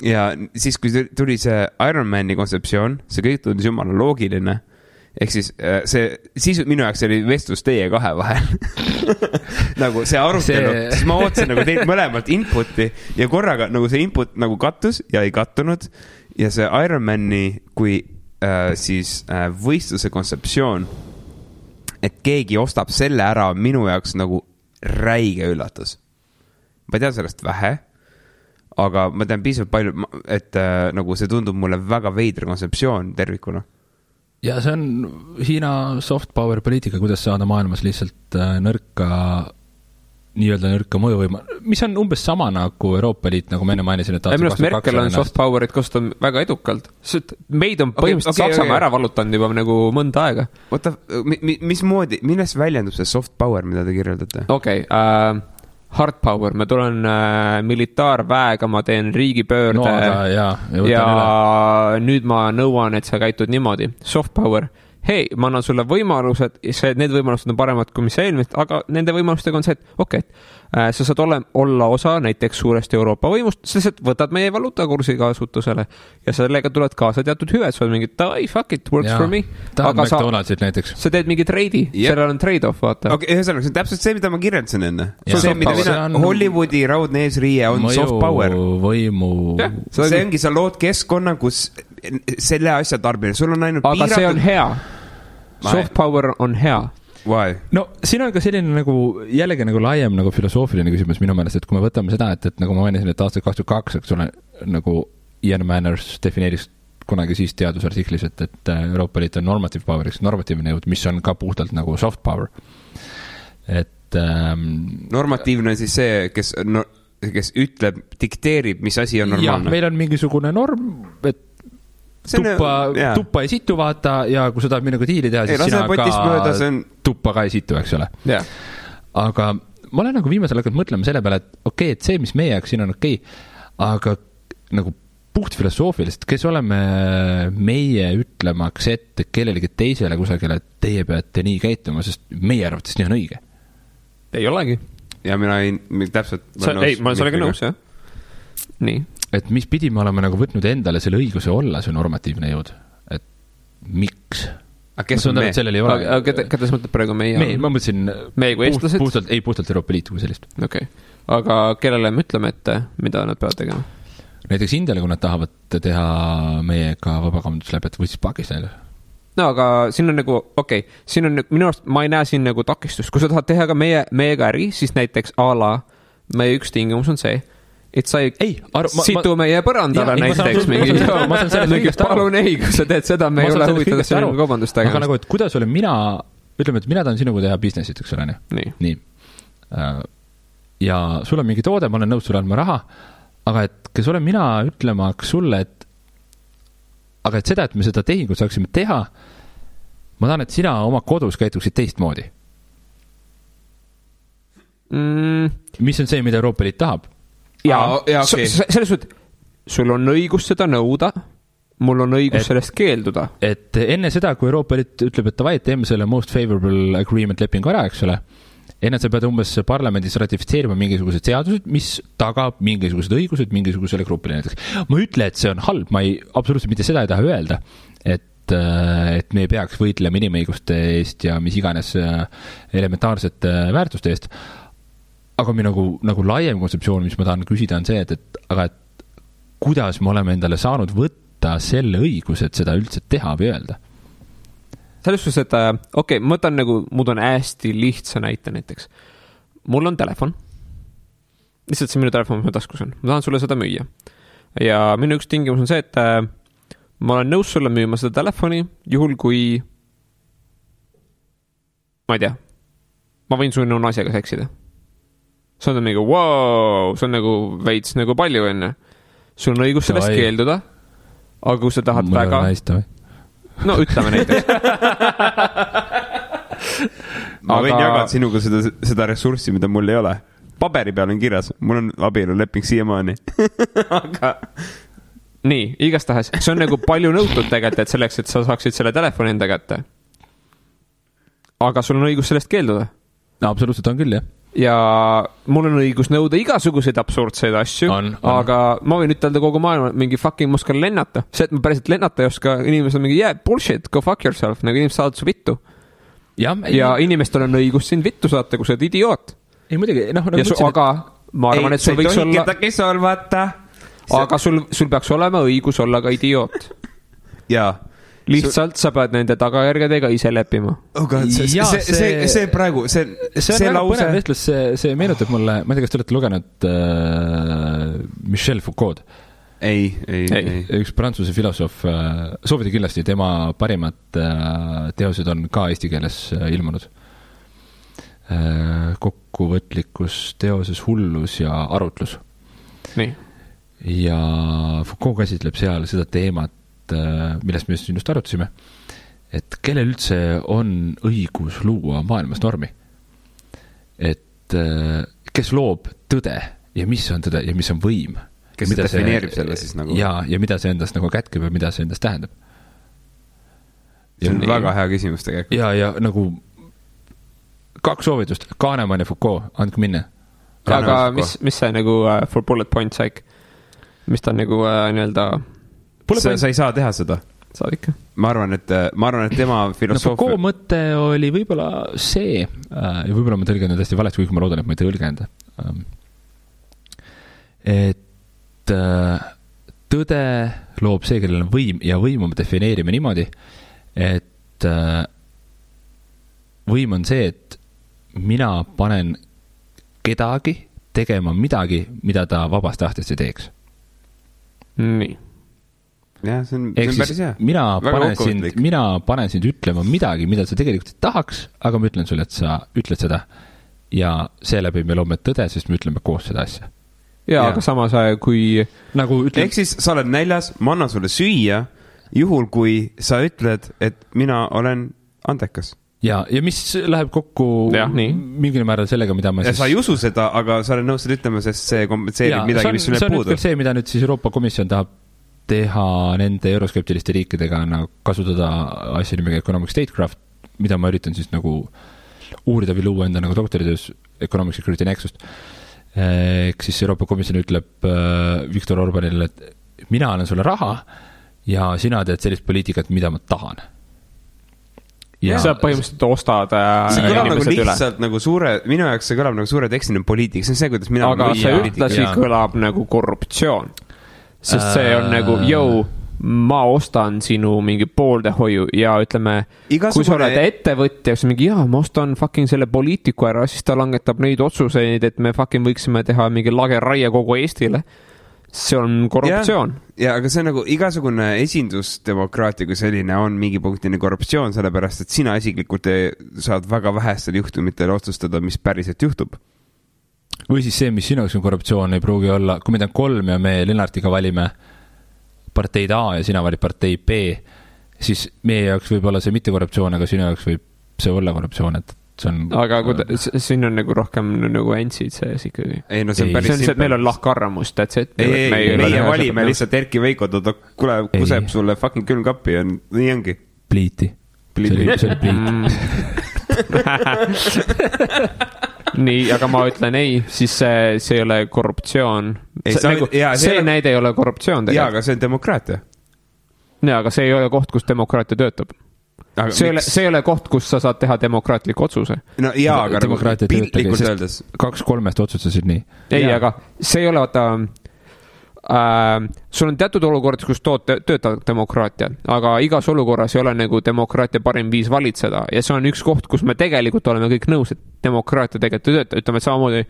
Ja siis, kui tuli see Ironmani kontseptsioon, see kõik tundis jumala loogiline, ehk siis minu jaoks oli vestlus teie kahe vahel. Nagu see arutelu, siis ma ootasin nagu teilt mõlemalt inputi ja korraga nagu see input nagu kattus ja ei kattunud ja see Ironmani kui siis võistluse kontseptsioon, et keegi ostab selle ära minu jaoks nagu räige üllatus. Ma tean sellest vähe, aga ma tean piisavalt palju, et nagu see tundub mulle väga veidre kontseptsioon tervikuna. Ja see on Hiina soft power poliitika, kuidas saada maailmas lihtsalt nii-öelda nõrka mõjuvõima, mis on umbes sama nagu Euroopa Liit, nagu me enne mainisin, et Minu Merkel on soft powerit kasutab väga edukalt. Meid on põhimõtteliselt Saksamaa ära valutanud juba nagu mõnda aega. Oota, mismoodi, millest väljendub see soft power, mida te kirjeldate? Okei, hard power, ma tulen militaarväega, ma teen riigipöörde ja nüüd ma nõuan, et sa käitud niimoodi. Soft power, hei, ma annan sulle võimalused, need võimalused on paremad kui mis eelmist, aga nende võimalustega on see, et sa saad olla osa näiteks suurest Euroopa võimust, sa lihtsalt võtad meie valuutakursi kasutusele ja sellega tuled kaasa teatud hüved, sa oled mingi, fuck it, works for me. Aga sa teed mingi treidi, sellel on trade-off, vaata. Okay, ühesõnaga, see on täpselt see, mida ma kirjeldasin enne. Hollywoodi raudne eesriie on soft power. See ongi, sa lood keskkonna, kus selle asja tarbimine, sul on ainult piiratud. Aga see on hea. Soft power on hea. Why? No siin on ka selline nagu jällegi nagu laiem nagu filosoofiline küsimus minu meelest, et kui me võtame seda, et nagu ma mainisin, et aastal 2022, eks ole, nagu Ian Manners defineeris kunagi siis teadusartiklis, et Euroopa Liit on normative power, normatiivne jõud, mis on ka puhtalt nagu soft power. Et normatiivne siis see, kes ütleb, dikteerib, mis asi on normaalne. Ja, meil on mingisugune norm, et tuppa ei situ vaata ja kui sa tahad minuga diili teha, siis sina ka tuppa ka ei situ, eks ole. Aga ma olen nagu viimasel hakanud mõtlema selle peale, et et see, mis meie jaoks siin on aga nagu puht filosoofiliselt, kes oleme meie ütlemaks ette kellelegi teisele kusagile, et teie peate nii käituma, sest meie arvates nii on õige. Ei olegi. Ja mina täpselt... ma olen sellega nõus, jah. Nii. Et mis pidi me oleme nagu võtnud endale selle õiguse olla see normatiivne jõud. Et miks? Kes on me? Keda sa mõtled praegu meie? Ma mõtlesin meie kui eestlased? Puhtalt Euroopa Liitu kui sellist. Okay. Aga kellele me ütleme ette, mida nad peavad tegema? Näiteks Indiale, kui nad tahavad teha meiega vabakaubanduslepet või siis Pakistanile. No aga siin on nagu, siin on minu arust, ma ei näe siin nagu takistust. Kui sa tahad teha ka meiega äri, siis näiteks meie üks tingimus on see, et sa ei situ meie põrandale näiteks mingi palun ei, kui sa teed seda, me ei ole huvitatud selline kaubandust tegema. Aga nagu, et kuidas olen mina, ütleme, et mina tahan sinuga teha businessit, eks ole, nii. Ja sul on mingi toode, ma olen nõus sulle andma raha, aga et kes olen mina ütlemaks sulle, aga et seda, et me seda tehingut saaksime teha, ma tahan, et sina oma kodus käituksid teistmoodi. Mis on see, mida Euroopa Liit tahab? Selles suhtes, sul on õigus seda nõuda, mul on õigus sellest keelduda. Et enne seda, kui Euroopa Liit ütleb, et davai, teeme selle most favorable agreement lepingu ära, eks ole, enne sa pead umbes parlamendis ratifitseerima mingisugused seadused, mis tagab mingisugused õigused mingisugusele grupile näiteks. Ma ütle, et see on halb, ma absoluutselt mitte seda ei taha öelda, et me ei peaks võitlema inimõiguste eest ja mis iganes elementaarsete väärtuste eest. Aga mi nagu laiem kontseptsioon, mis ma tahan küsida, on see, et kuidas me oleme endale saanud võtta selle õiguse, et seda üldse teha või öelda? Selles suhtes, et ma võtan nagu, mul on hästi lihtsa näite näiteks. Mul on telefon. Lihtsalt see minu telefon, mis ma taskus on. Ma tahan sulle seda müüa. Ja minu üks tingimus on see, et ma olen nõus sulle müüma seda telefoni, juhul kui ma ei tea, ma võin sulle naisega seksida. See on nagu, wow, see on nagu veits nagu palju enne. Sul on õigus sellest keelduda, aga kui sa tahad väga... No, ütleme näiteks. Ma võin jagada sinuga seda ressurssi, mida mul ei ole. Paberi peal on kirjas, mul on abieluleping siiamaani. Aga... Nii, igastahes. See on nagu palju nõutud tegelikult, et selleks, et sa saaksid selle telefoni enda kätte. Aga sul on õigus sellest keelduda. No, absoluutselt on küll, jah. Ja mul on õigus nõuda igasuguseid absurdseid asju, aga ma võin ütelda kogu maailma mingi fucking muskal lennata. See, et ma päriselt lennata ei oska, inimesed on mingi, bullshit, go fuck yourself, nagu inimesed saavad su vittu. Ja inimestel on õigus sind vittu saata, kui sa oled idioot. Ei, muidugi, aga ma arvan, et sul võiks olla... Aga sul peaks olema õigus olla ka idioot. Jaa. Lihtsalt sa pead nende tagajärgedega ise leppima. See praegu, see lause... Vestlus, see meenutab mulle, ma ei tea, kas te olete lugenud Michel Foucault? Ei. Üks prantsuse filosoof, soovida kindlasti, tema parimad teosed on ka eesti keeles ilmunud. Kokkuvõtlikkus, teoses hullus ja arutlus. Nii. Ja Foucault käsitleb seal seda teemat, millest me just arutasime, et kellel üldse on õigus luua maailmas normi. Et et kes loob tõde ja mis on tõde ja mis on võim. Kes mida defineerib selle siis nagu? Ja mida see endast nagu kätkeb ja mida see endast tähendab. See on väga hea küsimus tegelikult. Ja nagu 2 soovitust, Kahnemann ja Foucault, andke minna. Aga mis see nagu for bullet point saik? Mis ta nagu nii-öelda... Sa ei saa teha seda. Saad ikka. Ma arvan, et tema filosoofia... Foucault mõte oli võib-olla see, ja võib-olla ma tõlgen hästi valesti, kuigi ma loodan, et ma ei tõlgenda. Et tõde loob see, kellel on võim, ja võim me defineerime niimoodi, et võim on see, et mina panen kedagi tegema midagi, mida ta vabast tahtest ei teeks. Nii. Jah, see on päris hea. Mina panen sind ütlema midagi, mida sa tegelikult ei tahaks, aga ma ütlen sulle, et sa ütled seda. Ja seeläbi me loome tõde, sest me ütleme koos seda asja. Ja. Aga samas kui... Nagu ehk siis sa oled näljas, ma annan sulle süüa, juhul kui sa ütled, et mina olen andekas. Ja mis läheb kokku mingil määral sellega, mida ma siis... Sa ei usu seda, aga sa oled nõus seda ütlema, sest see kompenseerib midagi, mis sul jääb puudu. See on see, mida nüüd siis Euroopa Komisjon tahab teha nende euroskeptiliste riikidega nagu kasutada asja nimega Economic Statecraft, mida ma üritan siis nagu uurida või luua enda nagu doktoritöös Economic Security Nexust. Ehk siis Euroopa Komisjon ütleb Viktor Orbanile, et mina annan sulle raha ja sina teed sellist poliitikat, mida ma tahan. Ja sa põhimõtteliselt ostad see kõlab nagu lihtsalt üle. Nagu suure, minu jaoks see kõlab nagu suure tekstiline poliitik, see on see, kuidas mina aga see ühtlasi kõlab nagu korruptsioon, sest see on nagu ma ostan sinu mingi pooldehoiu ja ütleme, kui sa oled ettevõtja, siis mingi ma ostan fucking selle poliitiku ära, siis ta langetab neid otsuseid, et me fucking võiksime teha mingi lageraie kogu Eestile. See on korruptsioon. Ja, aga see on nagu igasugune esindusdemokraatia kui selline on mingi punktini korruptsioon, sellepärast, et sina isiklikult saad väga vähestel juhtumitel otsustada, mis päriselt juhtub. Või siis see, mis sinu jaoks on korruptsioon, ei pruugi olla, kui meid on 3 ja me Lennartiga valime parteid A ja sina valid partei B, siis meie jaoks võib olla see mitte korruptsioon, aga sinu jaoks võib see olla korruptsioon, et aga siin on nagu rohkem nagu entsid sees ikkagi. Ei, no see on päris see, et meil on lahkarvamus, meie valime lihtsalt Erki Veiko, kuule, kuseb sulle fucking külmkappi ja nii ongi. Pliiti. See oli pliit. Nii, aga ma ütlen ei, siis see ei ole korruptsioon. See näide ei ole korruptsioon. Jaa, aga see on demokraatia. Jaa, aga see ei ole koht, kus demokraatia töötab. See ei ole koht, kus sa saad teha demokraatliku otsuse. No jaa, aga piltlikult öeldes 2-3 otsustasid nii. Ei, aga see ei ole sul on teatud olukord, kus töötab demokraatia, aga igas olukorras ei ole nagu demokraatia parim viis valitseda ja see on üks koht, kus me tegelikult oleme kõik nõus, et demokraatia tegelikult töötab. Ütleme, et samamoodi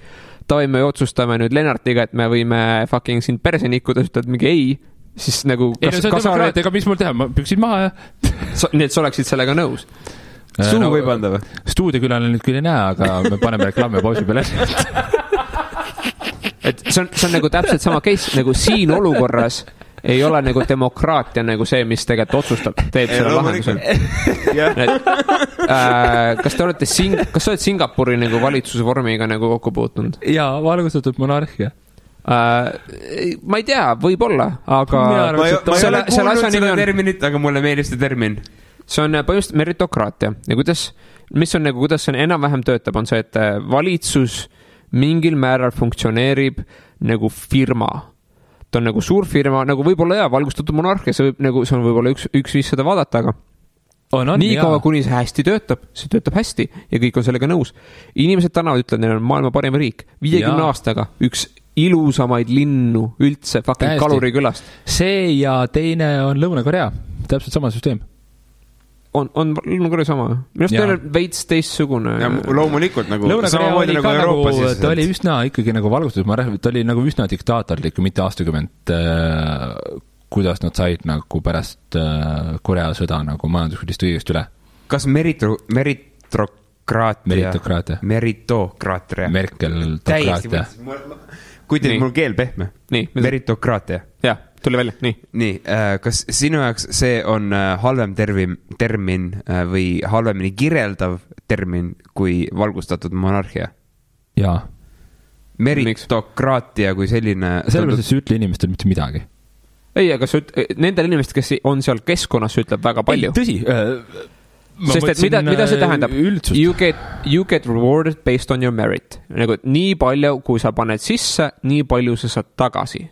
me otsustame nüüd Lennartiga, et me võime fucking sind perse nikkuda, ütled mingi ei, siis nagu ei, no see on demokraatia, aga mis mul teha, ma püksid maha ja nii, et sa oleksid sellega nõus. Suu võib anda või? Stuudiokülal nüüd küll ei näe, aga me paneme reklaami pausi peale. Et see on nagu täpselt sama case, nagu siin olukorras ei ole nagu demokraatia nagu see, mis tegelikult otsustab, teeb selle lahendusel. Kas te olete kas sa oled Singapuri nagu valitsuse vormiga nagu kokku puutunud? Jaa, valgustatud monarhia. Ma ei tea, võib-olla, aga ma ei ole kuulnud seda terminit, aga mulle meeldib see termin. See on põhimõtteliselt meritokraatia ja kuidas see enam-vähem töötab, on see, et valitsus mingil määral funktsioneerib nagu firma. Ta on nagu suur firma, nagu võib-olla valgustatud monarhia, see on võib-olla üks viis seda vaadata, aga nii kaua, kuni see hästi töötab, see töötab hästi ja kõik on sellega nõus. Inimesed tänavad ütlevad, neil on maailma parim riik, 50 aastaga üks ilusamaid linnu üldse fucking Kalurikülast. See ja teine on Lõuna-Korea, täpselt sama süsteem. On Lõuna-Korea sama? Minust teil on veits teistsugune. Ja loomulikult nagu samamoodi nagu Euroopas. Ta oli üsna ikkagi nagu valgustatud, ta oli nagu üsna diktaatorlik, mitte aastakümmend, kuidas nad said nagu pärast Korea sõda nagu majanduskulist õigest üle. Kas meritokraatia? Merkel-tokraatia. Kui teil mul keel pehme? Meritokraatia. Jah, tuli välja, nii. Nii, kas sinu jaoks see on halvem termin või halvemini kirjeldav termin kui valgustatud monarhia? jaa. Meritokraatia kui selline. Sellepärast, et see ütle inimestel mitte midagi. Ei, aga nendel inimestel, kes on seal keskkonnas, ütleb väga palju. Ei, tõsi. Sest et mida see tähendab? You get rewarded based on your merit. Nagu nii palju, kui sa paned sisse, nii palju sa saad tagasi.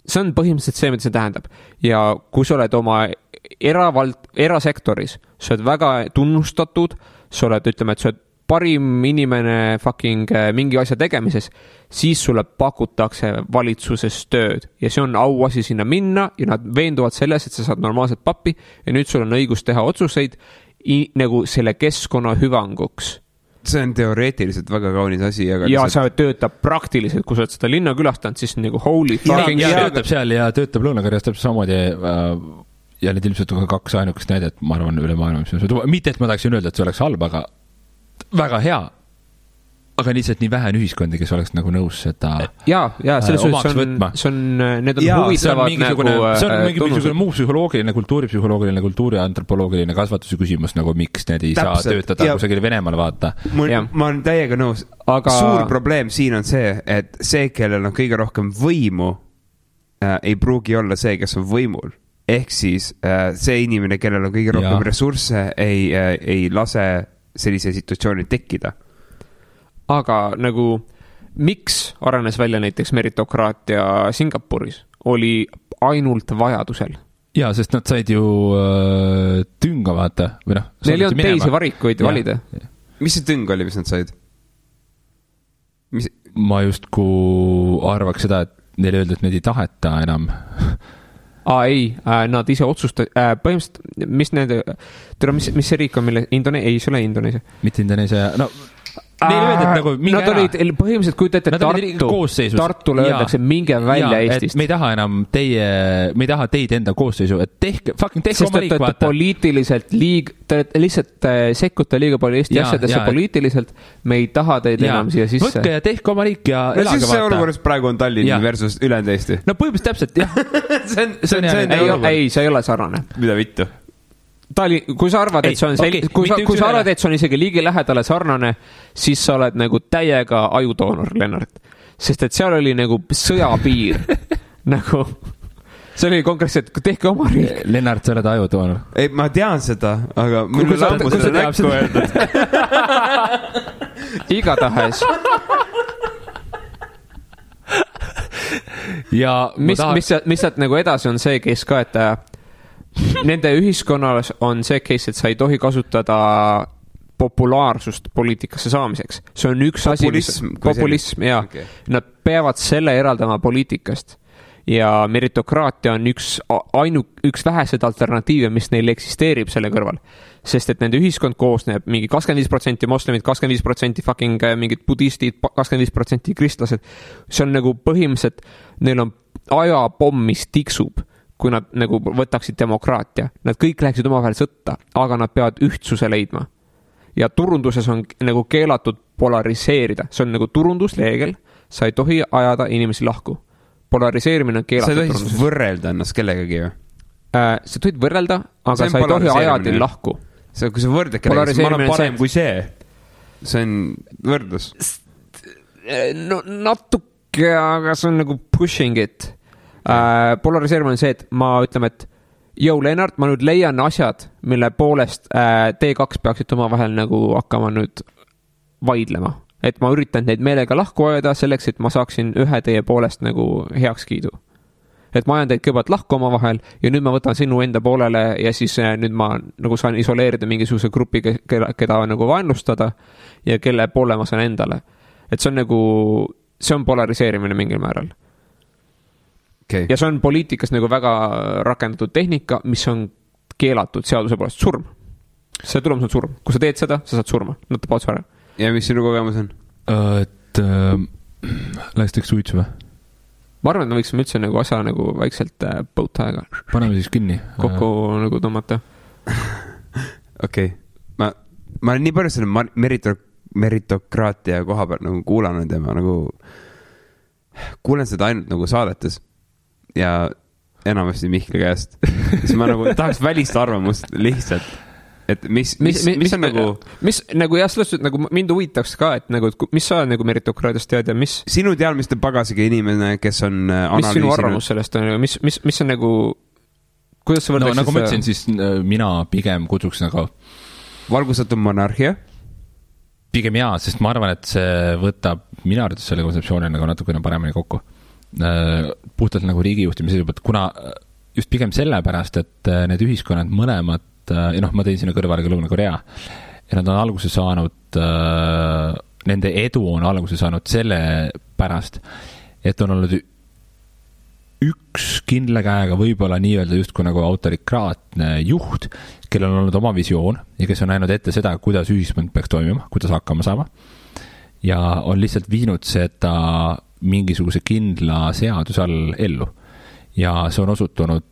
See on põhimõtteliselt see, mida see tähendab. Ja kui sa oled oma erasektoris, sa oled väga tunnustatud, sa oled, ütleme, et sa oled parim inimene fucking mingi asja tegemises, siis sulle pakutakse valitsuses tööd ja see on auasi sinna minna ja nad veenduvad selles, et sa saad normaalselt pappi ja nüüd sul on õigus teha otsuseid nagu selle keskkonna hüvanguks. See on teoreetiliselt väga kaunis asi. Aga ja sa töötab praktiliselt, kui sa oled seda linna külastanud, siis nagu holy fucking ja töötab seal ja töötab Lõuna-Koreas täpselt samamoodi ja need ilmselt on 2 ainukest näidet, ma arvan, üle maailma. Mitte, et ma tahaksin öelda, et see oleks halb, aga väga hea, aga lihtsalt nii vähe on ühiskondi, kes oleks nagu nõus seda omaks võtma. Need on huvitavad nagu see on mingisugune muu psühholoogiline, kultuuripsühholoogiline, kultuuriantropoloogiline kasvatuse küsimus, nagu miks need ei saa töötada kusagil Venemaal vaata. Ma olen täiega nõus. Aga suur probleem siin on see, et see, kellel on kõige rohkem võimu, ei pruugi olla see, kes on võimul. Ehk siis see inimene, kellel on kõige rohkem ressursse, ei lase sellise situatsiooni tekkida. Aga nagu miks arenes välja näiteks meritokraatia Singapuris oli ainult vajadusel? Jaa, sest nad said ju tünga vaata. Neil ei olnud teisi varikuid valida. Mis see tüng oli, mis nad said? Ma justku arvaks seda, et neil öeldi, et need ei taheta enam. Ei, nad ise otsustasid, põhimõtteliselt, mis see riik on, mille ei, see ole Indoneesia. Mitte Indoneesia, no neile öeldi, et nagu minge nad olid põhimõtteliselt, kui teete Tartule öeldakse, minge välja Eestist. Me ei taha enam me ei taha teid enda koosseisu, et tehke oma riik vaata. Poliitiliselt te lihtsalt sekkute liiga palju Eesti asjadesse poliitiliselt, me ei taha teid enam siia sisse. Võtke ja tehke oma riik ja elage vaata. Siis see olukorras praegu on Tallinn versus ülejäänud Eesti. No põhimõtteliselt täpselt, jah. Ei, see ei ole sarnane. Mida vittu? Kui sa arvad, et see on kui sa arvad, et see on isegi liigi lähedale sarnane, siis sa oled nagu täiega ajudoonor, Lennart. Sest et seal oli nagu sõjapiir. Nagu, see oli konkreetselt, tehke oma riik. Lennart, sa oled ajudoonor. Ei, ma tean seda, aga mul on ammu seda näkku öeldud. Igatahes. Ja mis sealt nagu edasi on see, kes ka, et nende ühiskonnas on see case, et sa ei tohi kasutada populaarsust poliitikasse saamiseks. See on üks populism, jaa. Okay. Nad peavad selle eraldama poliitikast. Ja meritokraatia on üks vähesed alternatiive, mis neil eksisteerib selle kõrval. Sest et nende ühiskond koosneb mingi 25% moslemid, 25% fucking mingid budistid, 25% kristlased. See on nagu põhimõtteliselt, neil on ajapomm, mis tiksub, kui nad nagu võtaksid demokraatia. Nad kõik läheksid omavahel sõtta, aga nad peavad ühtsuse leidma. Ja turunduses on nagu keelatud polariseerida. See on nagu turundusreegel, sa ei tohi ajada inimesi lahku. Polariseerimine on keelatud turunduses. Sa ei tohi võrrelda ennast kellegagi ju? Sa tohid võrrelda, aga sa ei tohi ajada lahku. Kui sa võrdad kellegagi, siis ma olen parem kui see. See on võrdlus. No natuke, aga see on nagu pushing it. Polariseerimine on see, et ma ütleme, et Lennart, ma nüüd leian asjad, mille poolest T2 peaksid oma vahel nagu hakkama nüüd vaidlema. Et ma üritan neid meelega lahku ajada selleks, et ma saaksin ühe teie poolest nagu heaks kiidu. Et ma ajan teid kõigepealt lahku oma vahel ja nüüd ma võtan sinu enda poolele ja siis nüüd ma nagu saan isoleerida mingisuguse grupi, keda nagu vaenlustada ja kelle poole ma saan endale. Et see on nagu, see on polariseerimine mingil määral. Okay. Ja see on poliitikas nagu väga rakendatud tehnika, mis on keelatud seaduse poolest surm. See tulemus on surm. Kui sa teed seda, sa saad surma. Nad tapavad su ära. Ja mis sinu kogemus on? Et läheks teeks suitsu või? Ma arvan, et me võiksime üldse nagu asja nagu vaikselt põutaega. Paneme siis kinni. Kokku nagu tõmmata. Okei. Ma olen nii palju selle meritokraatia koha peal nagu kuulanud ja ma nagu kuulen seda ainult nagu saadetes ja enamasti Mihkli käest. Siis ma nagu tahaks välist arvamust lihtsalt. et mis on nagu mis nagu jah, selles suhtes nagu mind huvitaks ka, et nagu mis sa nagu meritokraadiast tead ja mis sinu teadmiste pagasiga inimene, kes on mis sinu arvamus sellest on, mis on nagu kuidas sa võrdleksid nagu ma ütlesin, siis mina pigem kutsuks nagu valgustatud monarhia pigem jaa, sest ma arvan, et see võtab minu arvates selle kontseptsiooni nagu natukene paremini kokku. Puhtalt nagu riigijuhtimise seisukohalt, kuna just pigem sellepärast, et need ühiskonnad mõlemad, ma tõin sinna kõrvale ka Lõuna-Korea ja nad on alguse saanud, nende edu on alguse saanud selle pärast, et on olnud üks kindla käega võib-olla nii-öelda justkui nagu autorikraatne juht, kellel on olnud oma visioon ja kes on näinud ette seda, kuidas ühiskond peaks toimima, kuidas hakkama saama ja on lihtsalt viinud seda mingisuguse kindla seaduse all ellu. Ja see on osutunud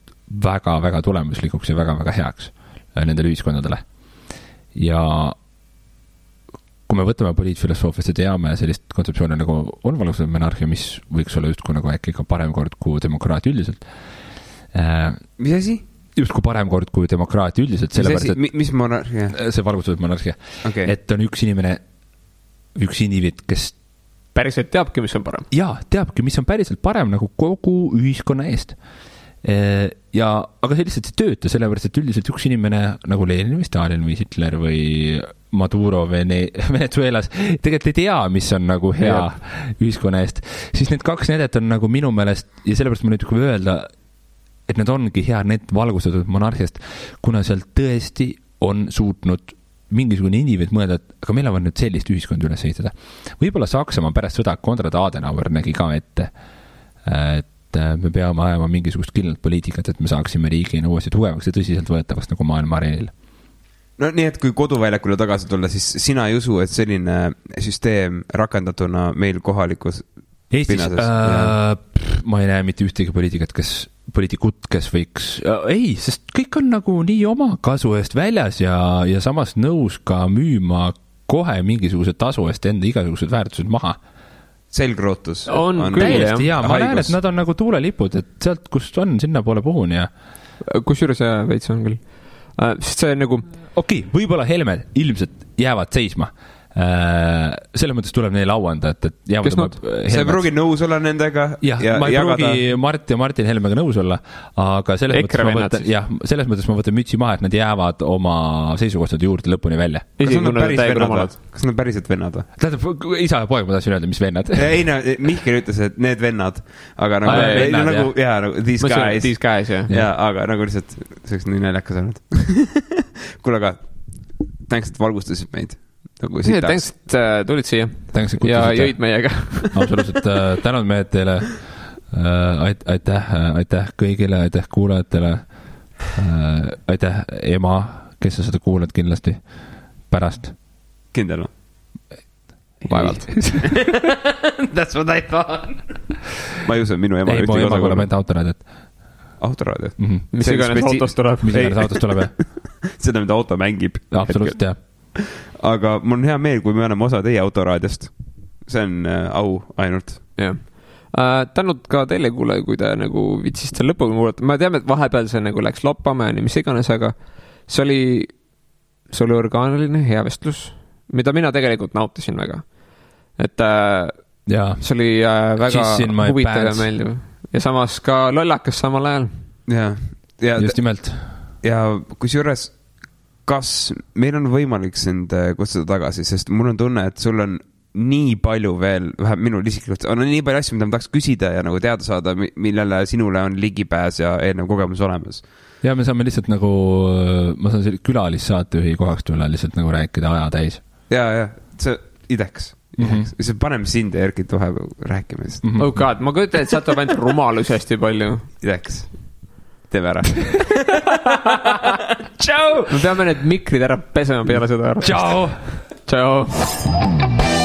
väga-väga tulemuslikuks ja väga-väga heaks nendele ühiskondadele. Ja kui me võtame poliitfilosoofiast ja teame sellist kontseptsiooni nagu on valgustatud monarhia, mis võiks olla justkui nagu äkki ka parem kord kui demokraatia üldiselt. Mis asi? Justkui parem kord kui demokraatia üldiselt. Mis monarhia? See valgustatud monarhia. Okay. Et on üks inimene, üks indiviid, kes päriselt teabki, mis on parem. Jaa, teabki, mis on päriselt parem nagu kogu ühiskonna eest. Aga see lihtsalt ei tööta, sellepärast, et üldiselt üks inimene nagu Lenin või Stalin või Hitler või Maduro Venezuelas tegelikult ei tea, mis on nagu hea ühiskonna eest. Siis need kaks näidet on nagu minu meelest, ja sellepärast ma nüüd kui öelda, et need ongi hea need valgustatud monarhiast, kuna seal tõesti on suutnud mingisugune indiviid mõelda, et aga meil on nüüd sellist ühiskonda üles ehitada. Võib-olla Saksamaa pärast sõda Konrad Adenauer nägi ka ette, et me peame ajama mingisugust kindlat poliitikat, et me saaksime riigina uuesti tugevaks ja tõsiselt võetavaks nagu maailma areenil. No nii, et kui koduväljakule tagasi tulla, siis sina ei usu, et selline süsteem rakendatuna meil kohalikus Eestis ma ei näe mitte ühtegi poliitikut, kes võiks ei, sest kõik on nagu nii oma kasu eest väljas ja samas nõus ka müüma kohe mingisuguse tasu eest enda igasugused väärtused maha. Selgrootus on küll, jah. Ma näen, et nad on nagu tuulelipud, et sealt, kust on, sinna poole puhun ja kusjuures veits on küll. Sest see nagu võib-olla Helmed ilmselt jäävad seisma. Selles mõttes tuleb neile auanda, et sa ei pruugi nõus olla nendega ma ei pruugi Mart ja Martin Helmega nõus olla, aga selles mõttes ma võtan mütsi maha, et nad jäävad oma seisukohtade juurde lõpuni välja. Kas nad päriselt vennad? Tähendab, isa ja poeg ma tahtsin öelda, mis vennad. Ei, Mihkel ütles, et need vennad, aga nagu these guys aga nagu lihtsalt see oleks nii näljakas olnud. Kuule, aga thanks, et valgustasid meid. Thanks, et tulid siia ja jõid meiega. Absoluutselt, tänud mehed teile. Aitäh kõigile, aitäh kuulajatele. Aitäh ema, kes sa seda kuulad kindlasti pärast. Kindel? Vaevalt. That's what I thought. Ma ei usu, minu ema ei, mu ema kuuleb enda autoraadiot. Autoraadiot? Mis iganes autost tuleb. Mis iganes autost tuleb, jah. Seda, mida auto mängib. Absoluutselt, jah. Aga mul on hea meel, kui me anname osa teie autoraadiost. See on au ainult. Jah. Tänud ka teile kuule, kui te nagu vitsiste lõpuga kuulata. Ma teame, et vahepeal see nagu läks loppama ja nii mis iganes, aga see oli orgaaniline hea vestlus, mida mina tegelikult nautisin väga. Et see oli väga huvitav ja meeldiv. Ja samas ka lollakas samal ajal. Ja just nimelt. Ja kusjuures kas meil on võimalik sind kutsuda tagasi, sest mul on tunne, et sul on nii palju veel, vähem minul isiklikult, on nii palju asju, mida ma tahaks küsida ja nagu teada saada, millele sinule on ligipääs ja eelnev kogemus olemas. Ja me saame lihtsalt nagu, ma saan külalissaatejuhi kohaks tulla lihtsalt nagu rääkida aja täis. Ja, see ideks. See paneme sind ja Erkit vahepeal rääkima. Oh god, ma kujutan, et sa tuleb ainult rumalus hästi palju. Ideks. Teeme ära. Tšau! Me peame need mikrid ära pesema peale seda. Tšau! Tšau!